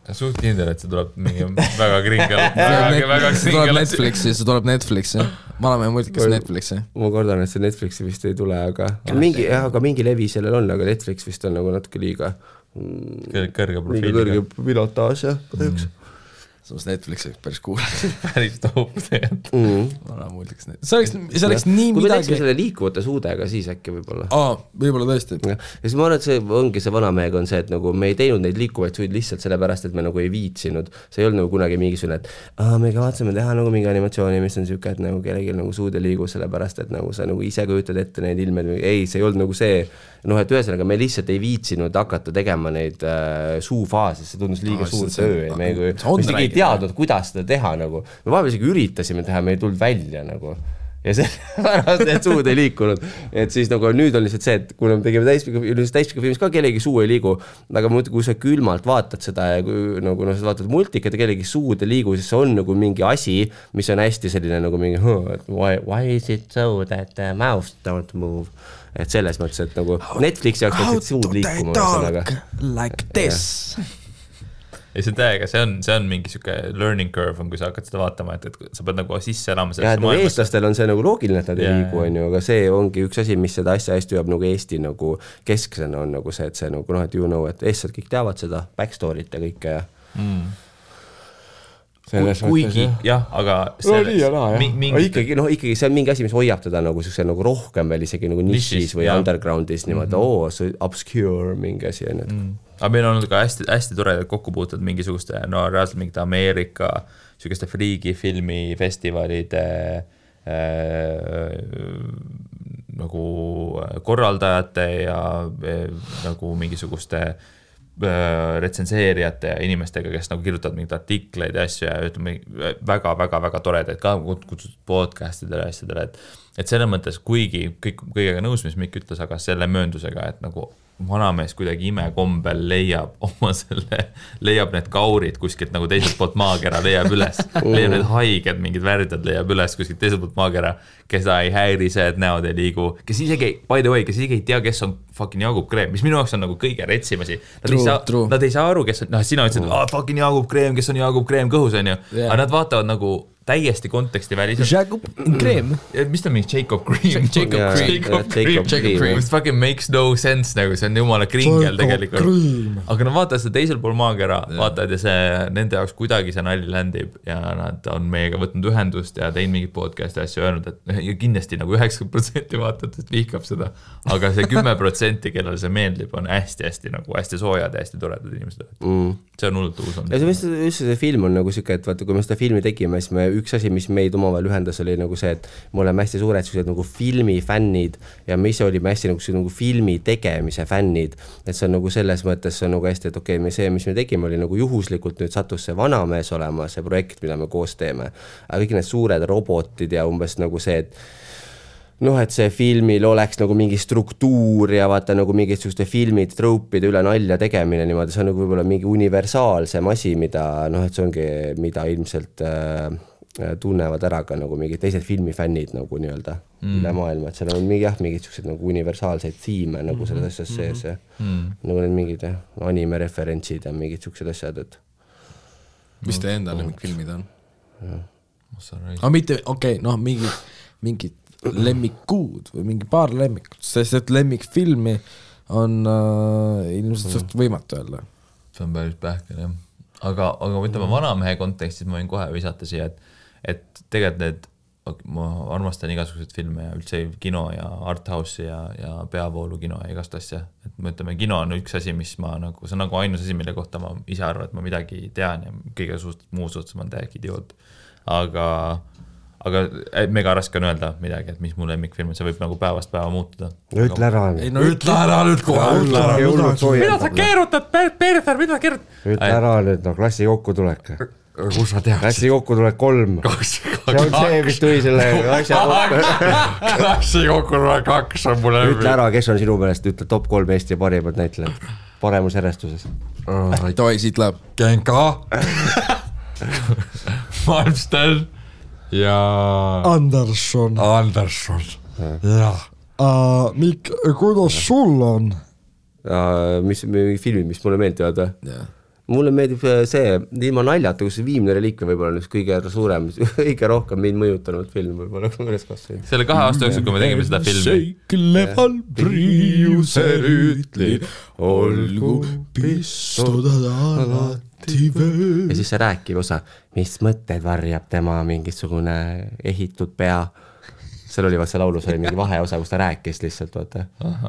Suht kindel, et see tuleb mingi väga kringel. See tuleb Netflixi, see tuleb Netflixi. Vanamehe multikas Netflixi. Ma kordan, et see Netflixi vist ei tule, aga mingi levi sellel on, aga Netflix vist on nagu natuke liiga kõrge profiiliga. Kõrge pilotaaž, jah, kahjuks. Samas Netflixi päris cool. Päris top tegelikult. Vana multikas Netflixi. See oleks nii kui midagi... me teeksime selle liikuvate suudega, siis äkki võib-olla. Võib-olla tõesti. Ja siis ma arvan, et see ongi see vanamehega on see, et nagu me ei teinud neid liikuvaid suid lihtsalt sellepärast, et me nagu ei viitsinud. See ei olnud nagu kunagi mingisugune, et me kavatseme teha nagu mingi animatsiooni, mis on siuke, et nagu kellelgi nagu suud ei liigu sellepärast, et nagu sa nagu ise kujutad ette neid ilmed. Ei, see ei olnud nagu see, et ühesõnaga me lihtsalt ei viitsinud hakata tegema neid suufaase, see tundus liiga suur töö. Me ei teadnud, kuidas seda teha nagu. Me vahepeal isegi üritasime teha, me ei tulnud välja nagu. Ja sellepärast need suud ei liikunud. Et siis nagu nüüd on lihtsalt see, et kui me tegime täispika filmis ka kellegi suu ei liigu, aga kui sa külmalt vaatad seda ja kui nagu sa vaatad multikat ja kellegi suud ei liigu, siis see on nagu mingi asi, mis on hästi selline nagu mingi why is it so that the mouth don't move? Et selles mõttes, et nagu Netflixi jaoks peaksid suud liikuma. Like this. Ja see täiega, see on mingi siuke learning curve on, kui sa hakkad seda vaatama, et sa pead nagu sisse elama sellesse maailmasse. Eestlastel on see nagu loogiline, et nad ei liigu, on ju, aga see ongi üks asi, mis seda asja hästi jääb nagu Eesti nagu kesksena on nagu see, et see nagu et you know, et eestlased kõik teavad seda backstory't ja kõike ja kuigi, jah, aga ikkagi see on mingi asi, mis hoiab teda nagu nagu rohkem veel isegi nagu nišis või undergroundis niimoodi, see obscure mingi asi on. Aga meil on olnud ka hästi toredad kokkupuutud mingisuguste, reaalselt mingite Ameerika sugeste friigifilmi festivalide nagu korraldajate ja nagu mingisuguste retsenseerijate ja inimestega, kes nagu kirjutavad mingid artikleid ja asju ja ütleme väga toredaid ka kutsutud podcastidele ja asjadele, et selles mõttes kuigi kõigega nõus, mis Mikk ütles, aga selle mööndusega, et nagu vanamees kuidagi imekombel leiab need kaurid kuskilt nagu teiselt poolt maakera leiab üles, leiab need haiged, mingid värdjad leiab üles kuskilt teiselt poolt maakera, keda ei häiri see, et näod ei liigu, kes isegi, by the way, kes isegi ei tea, kes on fucking Jaagup Kreem, mis minu jaoks on nagu kõige retsimasi. Nad ei saa aru, kes on, sina ütlesid, fucking Jaagup Kreem, kes on Jaagup Kreem kõhus, on ju, aga nad vaatavad nagu täiesti konteksti väliselt. Jacob Cream. Mis ta mingi Jacob Cream? Jacob Cream. Mis fucking makes no sense, nagu see on jumala kringel tegelikult. Aga nad vaatavad seda teisel pool maakera, vaatavad ja see nende jaoks kuidagi see nalli ländib ja nad on meiega võtnud ühendust ja teinud mingit podcasti asju öelnud, et ja kindlasti nagu 90% vaatajatest vihkab seda, aga see 10%, kellele see meeldib, on hästi nagu hästi soojad ja hästi toredad inimesed. See on hullult uus on. Ja see film on nagu siuke, et vaata, kui me seda filmi tegime, siis me üks asi, mis meid omavahel ühendas, oli nagu see, et me oleme hästi suured nagu filmifännid ja me ise olime hästi nagu filmi tegemise fännid, et see on nagu selles mõttes see on nagu hästi, et okei, see, mis me tegime, oli nagu juhuslikult nüüd sattus see vanamees olema, see projekt, mida me koos teeme, aga kõik need suured robotid ja umbes nagu see, et et see filmil oleks nagu mingi struktuur ja vaata nagu mingid sellised filmid, troopide üle nalja tegemine niimoodi, see on nagu võib-olla mingi universaalsem asi, mida et see ongi, mida ilmselt tunnevad ära ka nagu mingid teised filmifännid nagu nii-öelda üle maailma, et seal on mingid sellised nagu universaalseid tiime nagu selles asjas sees ja nagu need mingid anime-referentsid ja mingid sellised asjad, et mis te enda lemmikfilmid on? Aga mitte, mingid lemmikuud või mingi paar lemmikut, sest et lemmikfilmi on ilmselt suht võimatu öelda. See on päris pähkel, jah. Aga ütleme vanamehe kontekstis ma võin kohe visata siia, et tegelikult ma armastan igasuguseid filme ja üldse kino ja arthouse'i ja peavoolu kino ja igast asja. Et me ütleme, kino on üks asi, mis ma nagu, see on nagu ainus asi, mille kohta ma ise arvan, et ma midagi tean ja kõige muus suhtes ma olen täiega idioot. aga mega raske on öelda midagi, et mis mu lemmikfilm, see võib nagu päevast päeva muutuda. Ütle ära. Ütle ära nüüd kohe. Mida sa keerutad, Perfer, mida sa keerutad? Ütle ära nüüd, no klassi kokkutulek. Kus sa tead? Klassi kokkutulek 3. See on see, mis tuli selle asja kokku. Klassi kokkutulek 2 on mulle Ütle ära, kes on sinu meelest, ütle top 3 Eesti parimad näitlejad. Paremus järjestuses. Toi, siit läheb. Genka. Malmsten. Ja Anderson. Jah. Mikk, kuidas sul on? Mis filmid, mis mulle meeldivad? Mulle meeldib see, ilma naljata, kus see Viimne reliikve võib-olla on üks kõige suurem, kõige rohkem mind mõjutanud film võib-olla, kui ma üles kasvasin. Selle 2 aasta jooksul, kui me tegime seda filmi. Seikleval priiuse rüütli, olgu pistudad alati vöö. Ja siis see rääkiv osa, mis mõtted varjab tema mingisugune ehitud pea. Seal oli see laulus, oli mingi vaheosa, kus ta rääkis lihtsalt, vaata.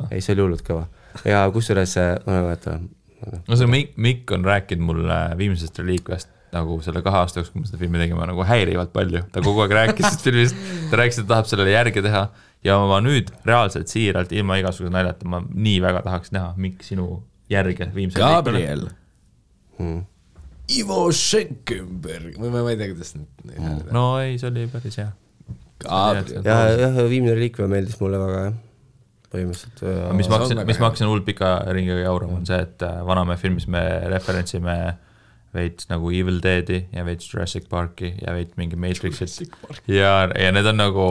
Ei, see oli hullult kõva. Ja kusjuures, ma vaata, no see Mikk on rääkinud mulle Viimsest reliikvest nagu selle 2 aasta jooksul, kui me seda filmi tegime, nagu häirivalt palju. Ta kogu aeg rääkis sellest filmist, ta rääkis, et tahab sellele järge teha ja ma nüüd reaalselt siiralt ilma igasuguse naljata, ma nii väga tahaks näha Mikk sinu järge Viimse Gabriel. Ivo Schenkenberg. Ma ei tea, kuidas nüüd. No ei, see oli päris hea. Gabriel. Ja Viimne reliikve meeldis mulle väga, jah. Põhimõtteliselt. Mis ma hakkasin hull pika ringiga jaurama on see, et Vanamäe filmis me referentsime veits nagu Evil Deadi ja veits Jurassic Parki ja veits mingi Matrixit. Ja need on nagu,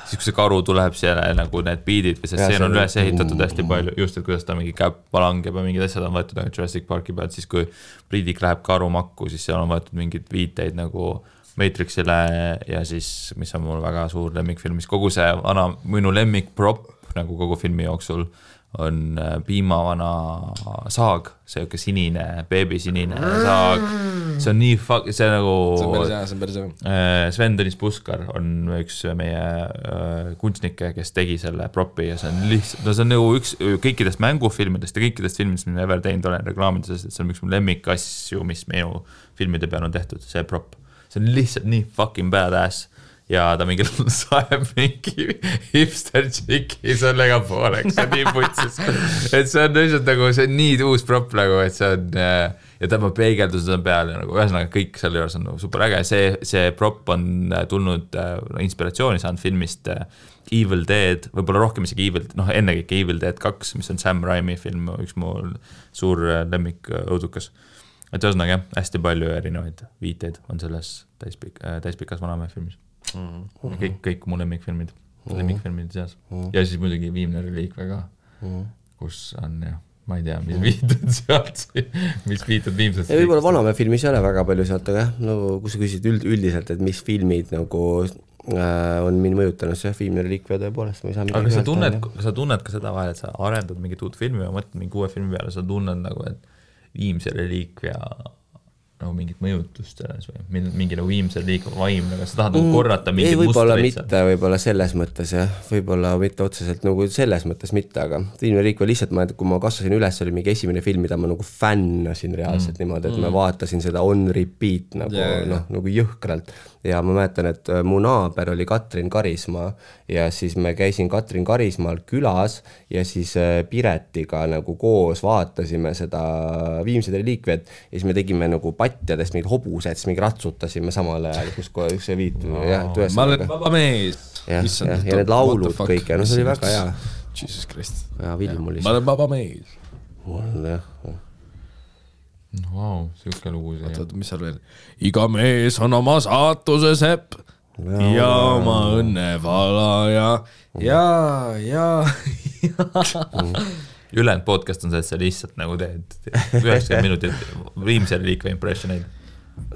siis kui see karu tuleb seal nagu need beatid või see stseen on üles ehitatud hästi palju, just et kuidas ta mingi käb palangeb ja mingid asjad on võetud Jurassic Parki pealt, siis kui Priidik läheb karu makku, siis seal on võetud mingid viiteid nagu Matrixile ja siis, mis on mul väga suur lemmikfilm, mis kogu see minu lemmik prop nagu kogu filmi jooksul on piimavana saag, see sinine, beebisinine saag, see on nii see nagu see on päris hea. Sven Tõnis Puskar on üks meie kunstnikke, kes tegi selle propi ja see on lihtsalt, no see on nagu üks kõikidest mängufilmidest ja kõikidest filmidest, mis ma ever teinud olen reklaamides, et see on üks mu lemmikasju, mis minu filmide peal on tehtud, see prop, see on lihtsalt nii fucking badass ja ta mingi saeb mingi hipster tšiki sellega pooleks, see on nii putsis, et see on lihtsalt nagu, see on nii uus prop nagu, et see on ja tema peegeldused on peal ja nagu ühesõnaga kõik selle juures on nagu super äge, see prop on tulnud inspiratsiooni saanud filmist Evil Dead, võib-olla rohkem isegi ennekõike Evil Dead 2, mis on Sam Raimi film, üks mu suur lemmik õudukas. Et ühesõnaga jah, hästi palju erinevaid viiteid on selles täispikas Vanamäe filmis. Kõik mu lemmikfilmid seas. Ja siis muidugi Viimne reliikve ka, kus on jah, ma ei tea, mis viitud sealt, mis viitud Viimsest. Ja võib-olla Vanamäe filmis ei ole väga palju sealt, aga jah, no kui sa küsid üldiselt, et mis filmid nagu on mind mõjutanud, see Viimne reliikve tõepoolest. Aga sa tunned ka seda vahel, et sa arendad mingit uut filmi ja mõtled mingi uue filmi peale, sa tunned nagu, et Viimse reliikve ja nagu mingit mõjutust selles või mingi nagu Viimse reliikve vaim, aga sa tahad nagu korrata mingit mustreid. Võib-olla selles mõttes jah, võib-olla mitte otseselt nagu selles mõttes mitte, aga Viimne reliikve lihtsalt, kui ma kasvasin üles, oli mingi esimene film, mida ma nagu fännasin reaalselt niimoodi, et ma vaatasin seda on repeat nagu jõhkralt ja ma mäletan, et mu naaber oli Katrin Karismaa ja siis me käisin Katrin Karismaal külas ja siis Piretiga nagu koos vaatasime seda Viimse reliikvet ja siis me tegime nagu patjadest mingid hobused, siis mingi ratsutasime samal ajal, kus see viitu. Ma olen vaba mees. Ja need laulud kõik ja see oli väga hea. Jesus Christ. Ja Vilmulis. Ma olen vaba mees. Jah. Vau, siuke lugu see. Oot, mis seal veel? Iga mees on oma saatuse sepp ja oma õnnevala ja. Ülejäänud podcast on see, et sa lihtsalt nagu teed 90 minutit Viimse reliikve impressioneid.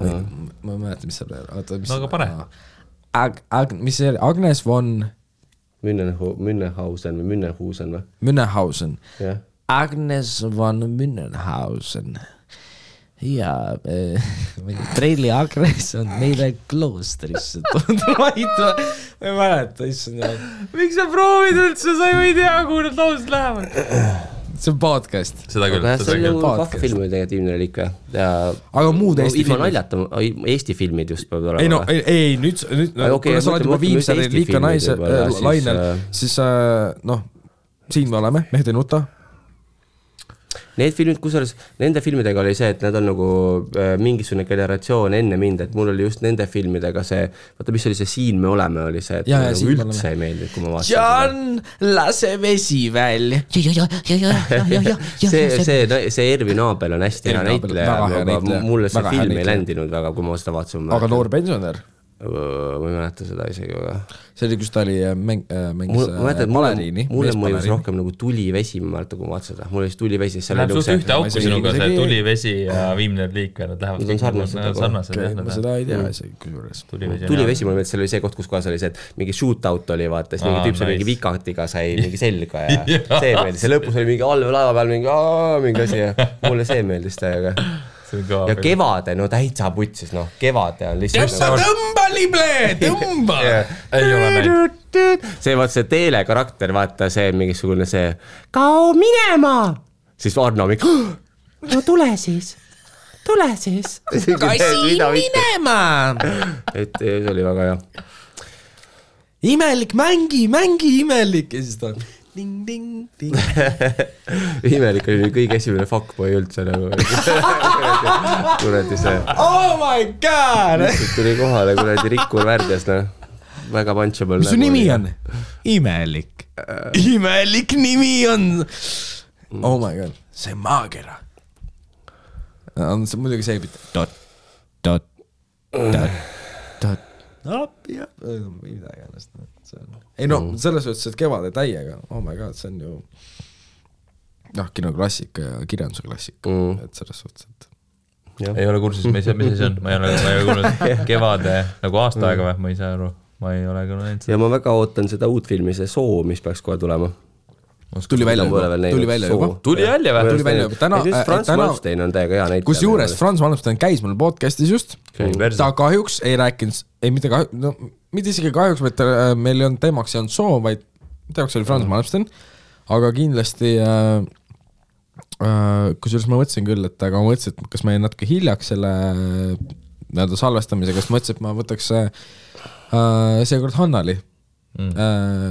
Ma mäletan, mis seal veel. No aga pane. Mis see oli? Agnes von Münnenhausen või? Münnenhausen. Agnes von Münnenhausen. Ja Preili Agnes on meile kloostrisse ma ei mäleta, issand. Miks sa proovid üldse, sa ei tea, kuhu need laused lähevad? see on podcast. Seda küll. See on ju vahvafilmi negatiivne reliik või? Aga muud Eesti filmid? Naljata, Eesti filmid just peab olema. Ei no, ei, nüüd kuna sa oled juba viimse reliika naise lainel, siis noh, siin me oleme, Mehed ei nuta. Need filmid, kusjuures nende filmidega oli see, et nad on nagu mingisugune generatsioon enne mind, et mul oli just nende filmidega see, vaata mis oli see Siin me oleme, oli see, et ja, nagu üldse ei meeldi, kui ma vaatasin. John, lase vesi välja. See Ervin Aabel on hästi hea näitleja, aga mulle see film ei ländinud väga, kui ma seda vaatasin. Aga noor pensionär? Ma ei mäleta seda isegi väga. See oli, kus ta oli mängis baleriini. Mulle mõjus rohkem nagu tulivesi, ma mäleta, kui ma vaatasin seda. Mulle oli tulivesi. Läheb suht ühte auku sinuga see tulivesi ja viimne liik. Nad lähevad sarnased. Ma seda ei tea isegi kusjuures. Tulivesi, mulle meeldi, seal oli see koht, kus kohas oli see, et mingi shootout oli, vaata, siis mingi tüüp sai mingi vikatiga sai mingi selga ja see meeldis. See lõpus oli mingi allveelaeva peal mingi asi ja mulle see meeldis täiega. Ja kevade, no täitsa putsis, noh, kevade on lihtsalt tõmba lible, tõmba ei ole näinud see vaata see teelekarakter, vaata see mingisugune see kao minema siis Arno mingi no tule siis kasi minema et see oli väga hea imelik, mängi imelik ja siis ta ding, ding, ding. Imelik oli kõige esimene fuckboy üldse nagu. Kuradi see. Oh my god! Tuli kohale kuradi Rikkur värdjas, no. Väga punchable. Mis su nimi on? Imelik. Imelik nimi on. Oh my god. See maagera. See muidugi see dot. Jah, midagi ennast. Ei no, selles võttes, et kevade täiega, oh my god, see on ju kinoklassika ja kirjanduse klassika, et selles võttes, et ei ole kursus, mis see on, ma ei ole kuulnud kevade nagu aasta aega või, ma ei saa aru, ma ei ole küll näinud. Ja ma väga ootan seda uut filmi, see Soo, mis peaks kohe tulema. Tuli välja juba. Tuli välja. Frans Malmstein on täiega hea näitleja. Kus juures Frans Malmstein käis mul podcastis just. Ta kahjuks ei rääkinud, mitte isegi kahjuks, vaid meil ei olnud teemaks ei olnud Soo, vaid teemaks oli Frans Malmstein. Aga kindlasti, kusjuures ma mõtlesin küll, et aga ma mõtlesin, et kas ma jäin natuke hiljaks selle salvestamisega, kas ma mõtlesin, et ma võtaks seekord Hannali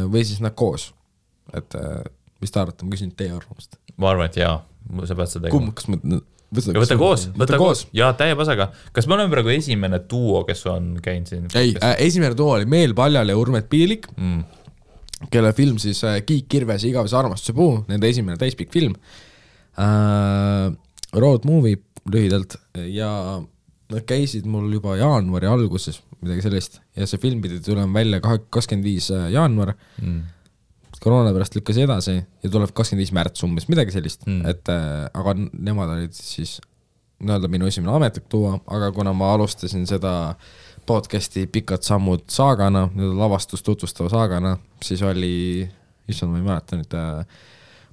või siis nad koos. Et mis ta arvata, ma küsin teie arvamust. Ma arvan, et jaa, sa pead seda tegema. Kas ma võta koos. Jaa, täie pasaga. Kas me oleme praegu esimene duo, kes on käinud siin? Ei, esimene duo oli Meel Paljal ja Urmet Piilik, kelle film siis Kiik Kirves ja Igavese armastuse puu, nende esimene täispikk film. Road movie lühidalt ja nad käisid mul juba jaanuari alguses, midagi sellist, ja see film pidi tulema välja 25. jaanuar. Koroona pärast lükkas edasi ja tuleb 25. märts umbes, midagi sellist, et aga nemad olid siis minu esimene ametlik tuua, aga kuna ma alustasin seda podcasti Pikad sammud saagana, lavastust tutvustava saagana, siis oli, issand, ma ei mäleta nüüd,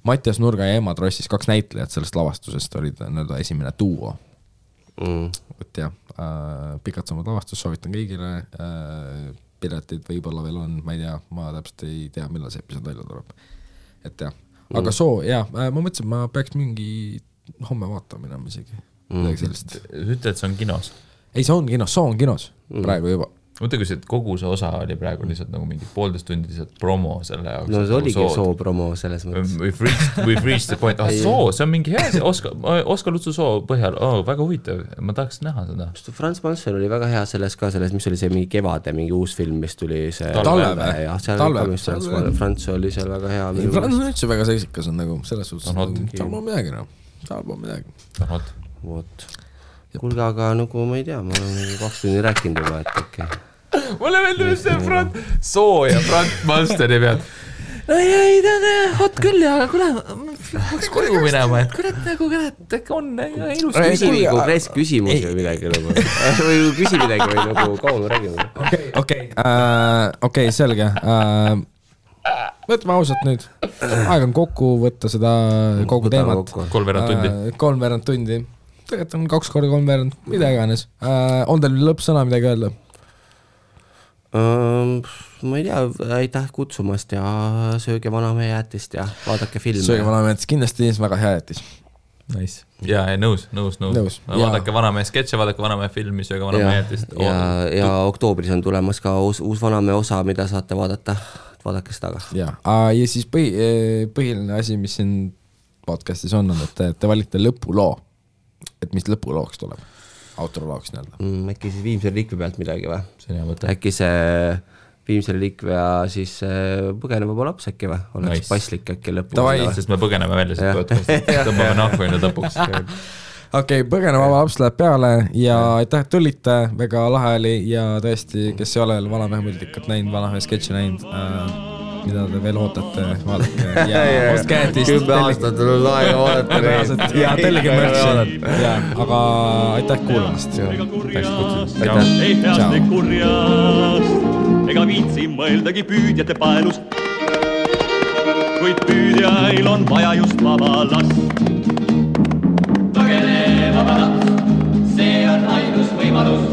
Mattias Nurga ja Emma Trossis 2 näitlejat sellest lavastusest olid esimene duo. Et jah, Pikad sammud lavastus, soovitan kõigile, piletid võib-olla veel on, ma ei tea, ma täpselt ei tea, millal see episood välja tuleb. Et jah, aga Soo, jah, ma mõtlesin, ma peaks mingi homme vaatama minema isegi. Ütle, et see on kinos? Ei, see on kinos, Soo on kinos praegu juba. Mõtle, kui see kogu see osa oli praegu lihtsalt nagu mingi 1,5 tundi lihtsalt promo selle jaoks. No see oligi Soo promo selles mõttes. We've reached the point. Soo, see on mingi hea, Oskar Lutsu Soo põhjal. Väga huvitav, ma tahaks näha seda. Frans Malmstein oli väga hea selles, mis oli see mingi kevade, mingi uus film, mis tuli see Talve. Frans oli seal väga hea. Frans on üldse väga seksikas on nagu selles suhtes. Tal pole midagi. Kuulge, aga nagu ma ei tea, ma olen 2 tundi rääkinud juba, et okei. Mulle meeldib see Soo ja Frans Malmsteini pealt. Ei, ta on hot küll, aga kuule, peaks koju minema, et kurat, on ilus küsimus või midagi nagu. Või küsi midagi või nagu kaua me räägime. Okei, selge. Võtame ausalt nüüd. Aeg on kokku võtta seda kogu teemat. 3 tundi. Tegelikult on 2 korda 3 veerand, mida iganes. On teil lõppsõna midagi öelda? Ma ei tea, aitäh kutsumast ja sööge vanamehe jätist ja vaadake filme. Sööge vanamehe jätist, kindlasti väga hea jätis. Nice. Ja nõus. Vaadake vanamehe sketše, vaadake vanamehe filmi, sööge vanamehe jätist. Ja oktoobris on tulemas ka uus vanamehe osa, mida saate vaadata. Vaadake seda ka. Ja siis põhiline asi, mis siin podcastis on, et te valite lõpuloo. Et mis lõpulooks tuleb? Autorolooks nii-öelda. Äkki siis Viimsel liikve pealt midagi või? See on hea mõte. Äkki see Viimsel liikve ja siis põgeneva laps äkki või? Oleks passlik äkki lõpus. Sest me põgeneme välja siit podcastist. Tõmbame nahku enne lõpuks. Okei, põgeneva laps läheb peale ja aitäh, et tulite, väga lahe oli ja tõesti, kes ei ole vanamehe multikat näinud, vanamehe sketši näinud, mida te veel ootate, vaadake ja ostke äntist. 10 aastat on aega vaadata. Ja tellige märtsi. Aga aitäh kuulamast. Ei heaste kurjast, ega viitsi mõeldagi püüdjate paelust, kuid püüdjail on vaja just vaba last. Põgene vaba laps, see on ainus võimalus.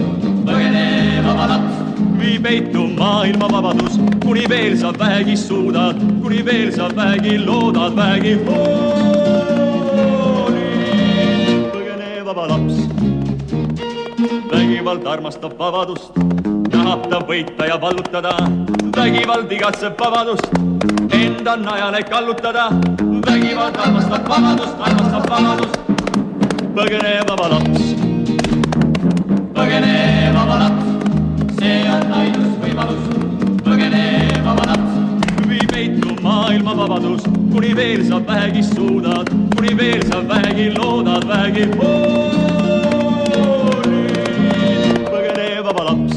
Põgene vaba laps, vii peitu maailma vabadus, kuni veel sa vähegi suudad, kuni veel sa vähegi loodad, vähegi hooli. Põgene vaba laps, vägivald armastab vabadust, tahab ta võita ja vallutada, vägivald igatseb vabadust, enda najale kallutada, vägivald armastab vabadust. Põgene vaba laps, põgene vaba laps, see on ainus võimalus. Põgene vaba laps, vii peitu maailma vabadus, kuni veel sa vähegi suudad, kuni veel sa vähegi loodad, vähegi hooli. Põgene vaba laps,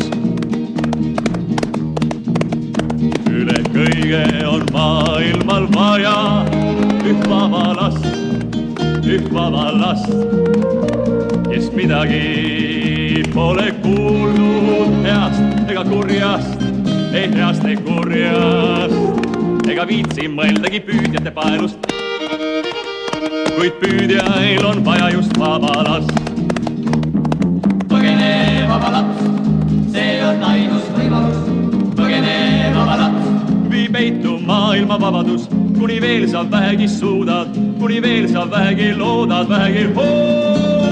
üle kõige on maailmal vaja üht vaba last, kes midagi pole kuulnud heast ega kurjast, ei heast ei kurjast, ega viitsi mõeldagi püüdjate paelust, kuid püüdjail on vaja just vaba last. Põgene vaba laps, see on ainus võimalus. Põgene vaba laps, vii peitu maailma vabadus, kuni veel sa vähegi suudad, kuni veel sa vähegi loodad, vähegi hooli.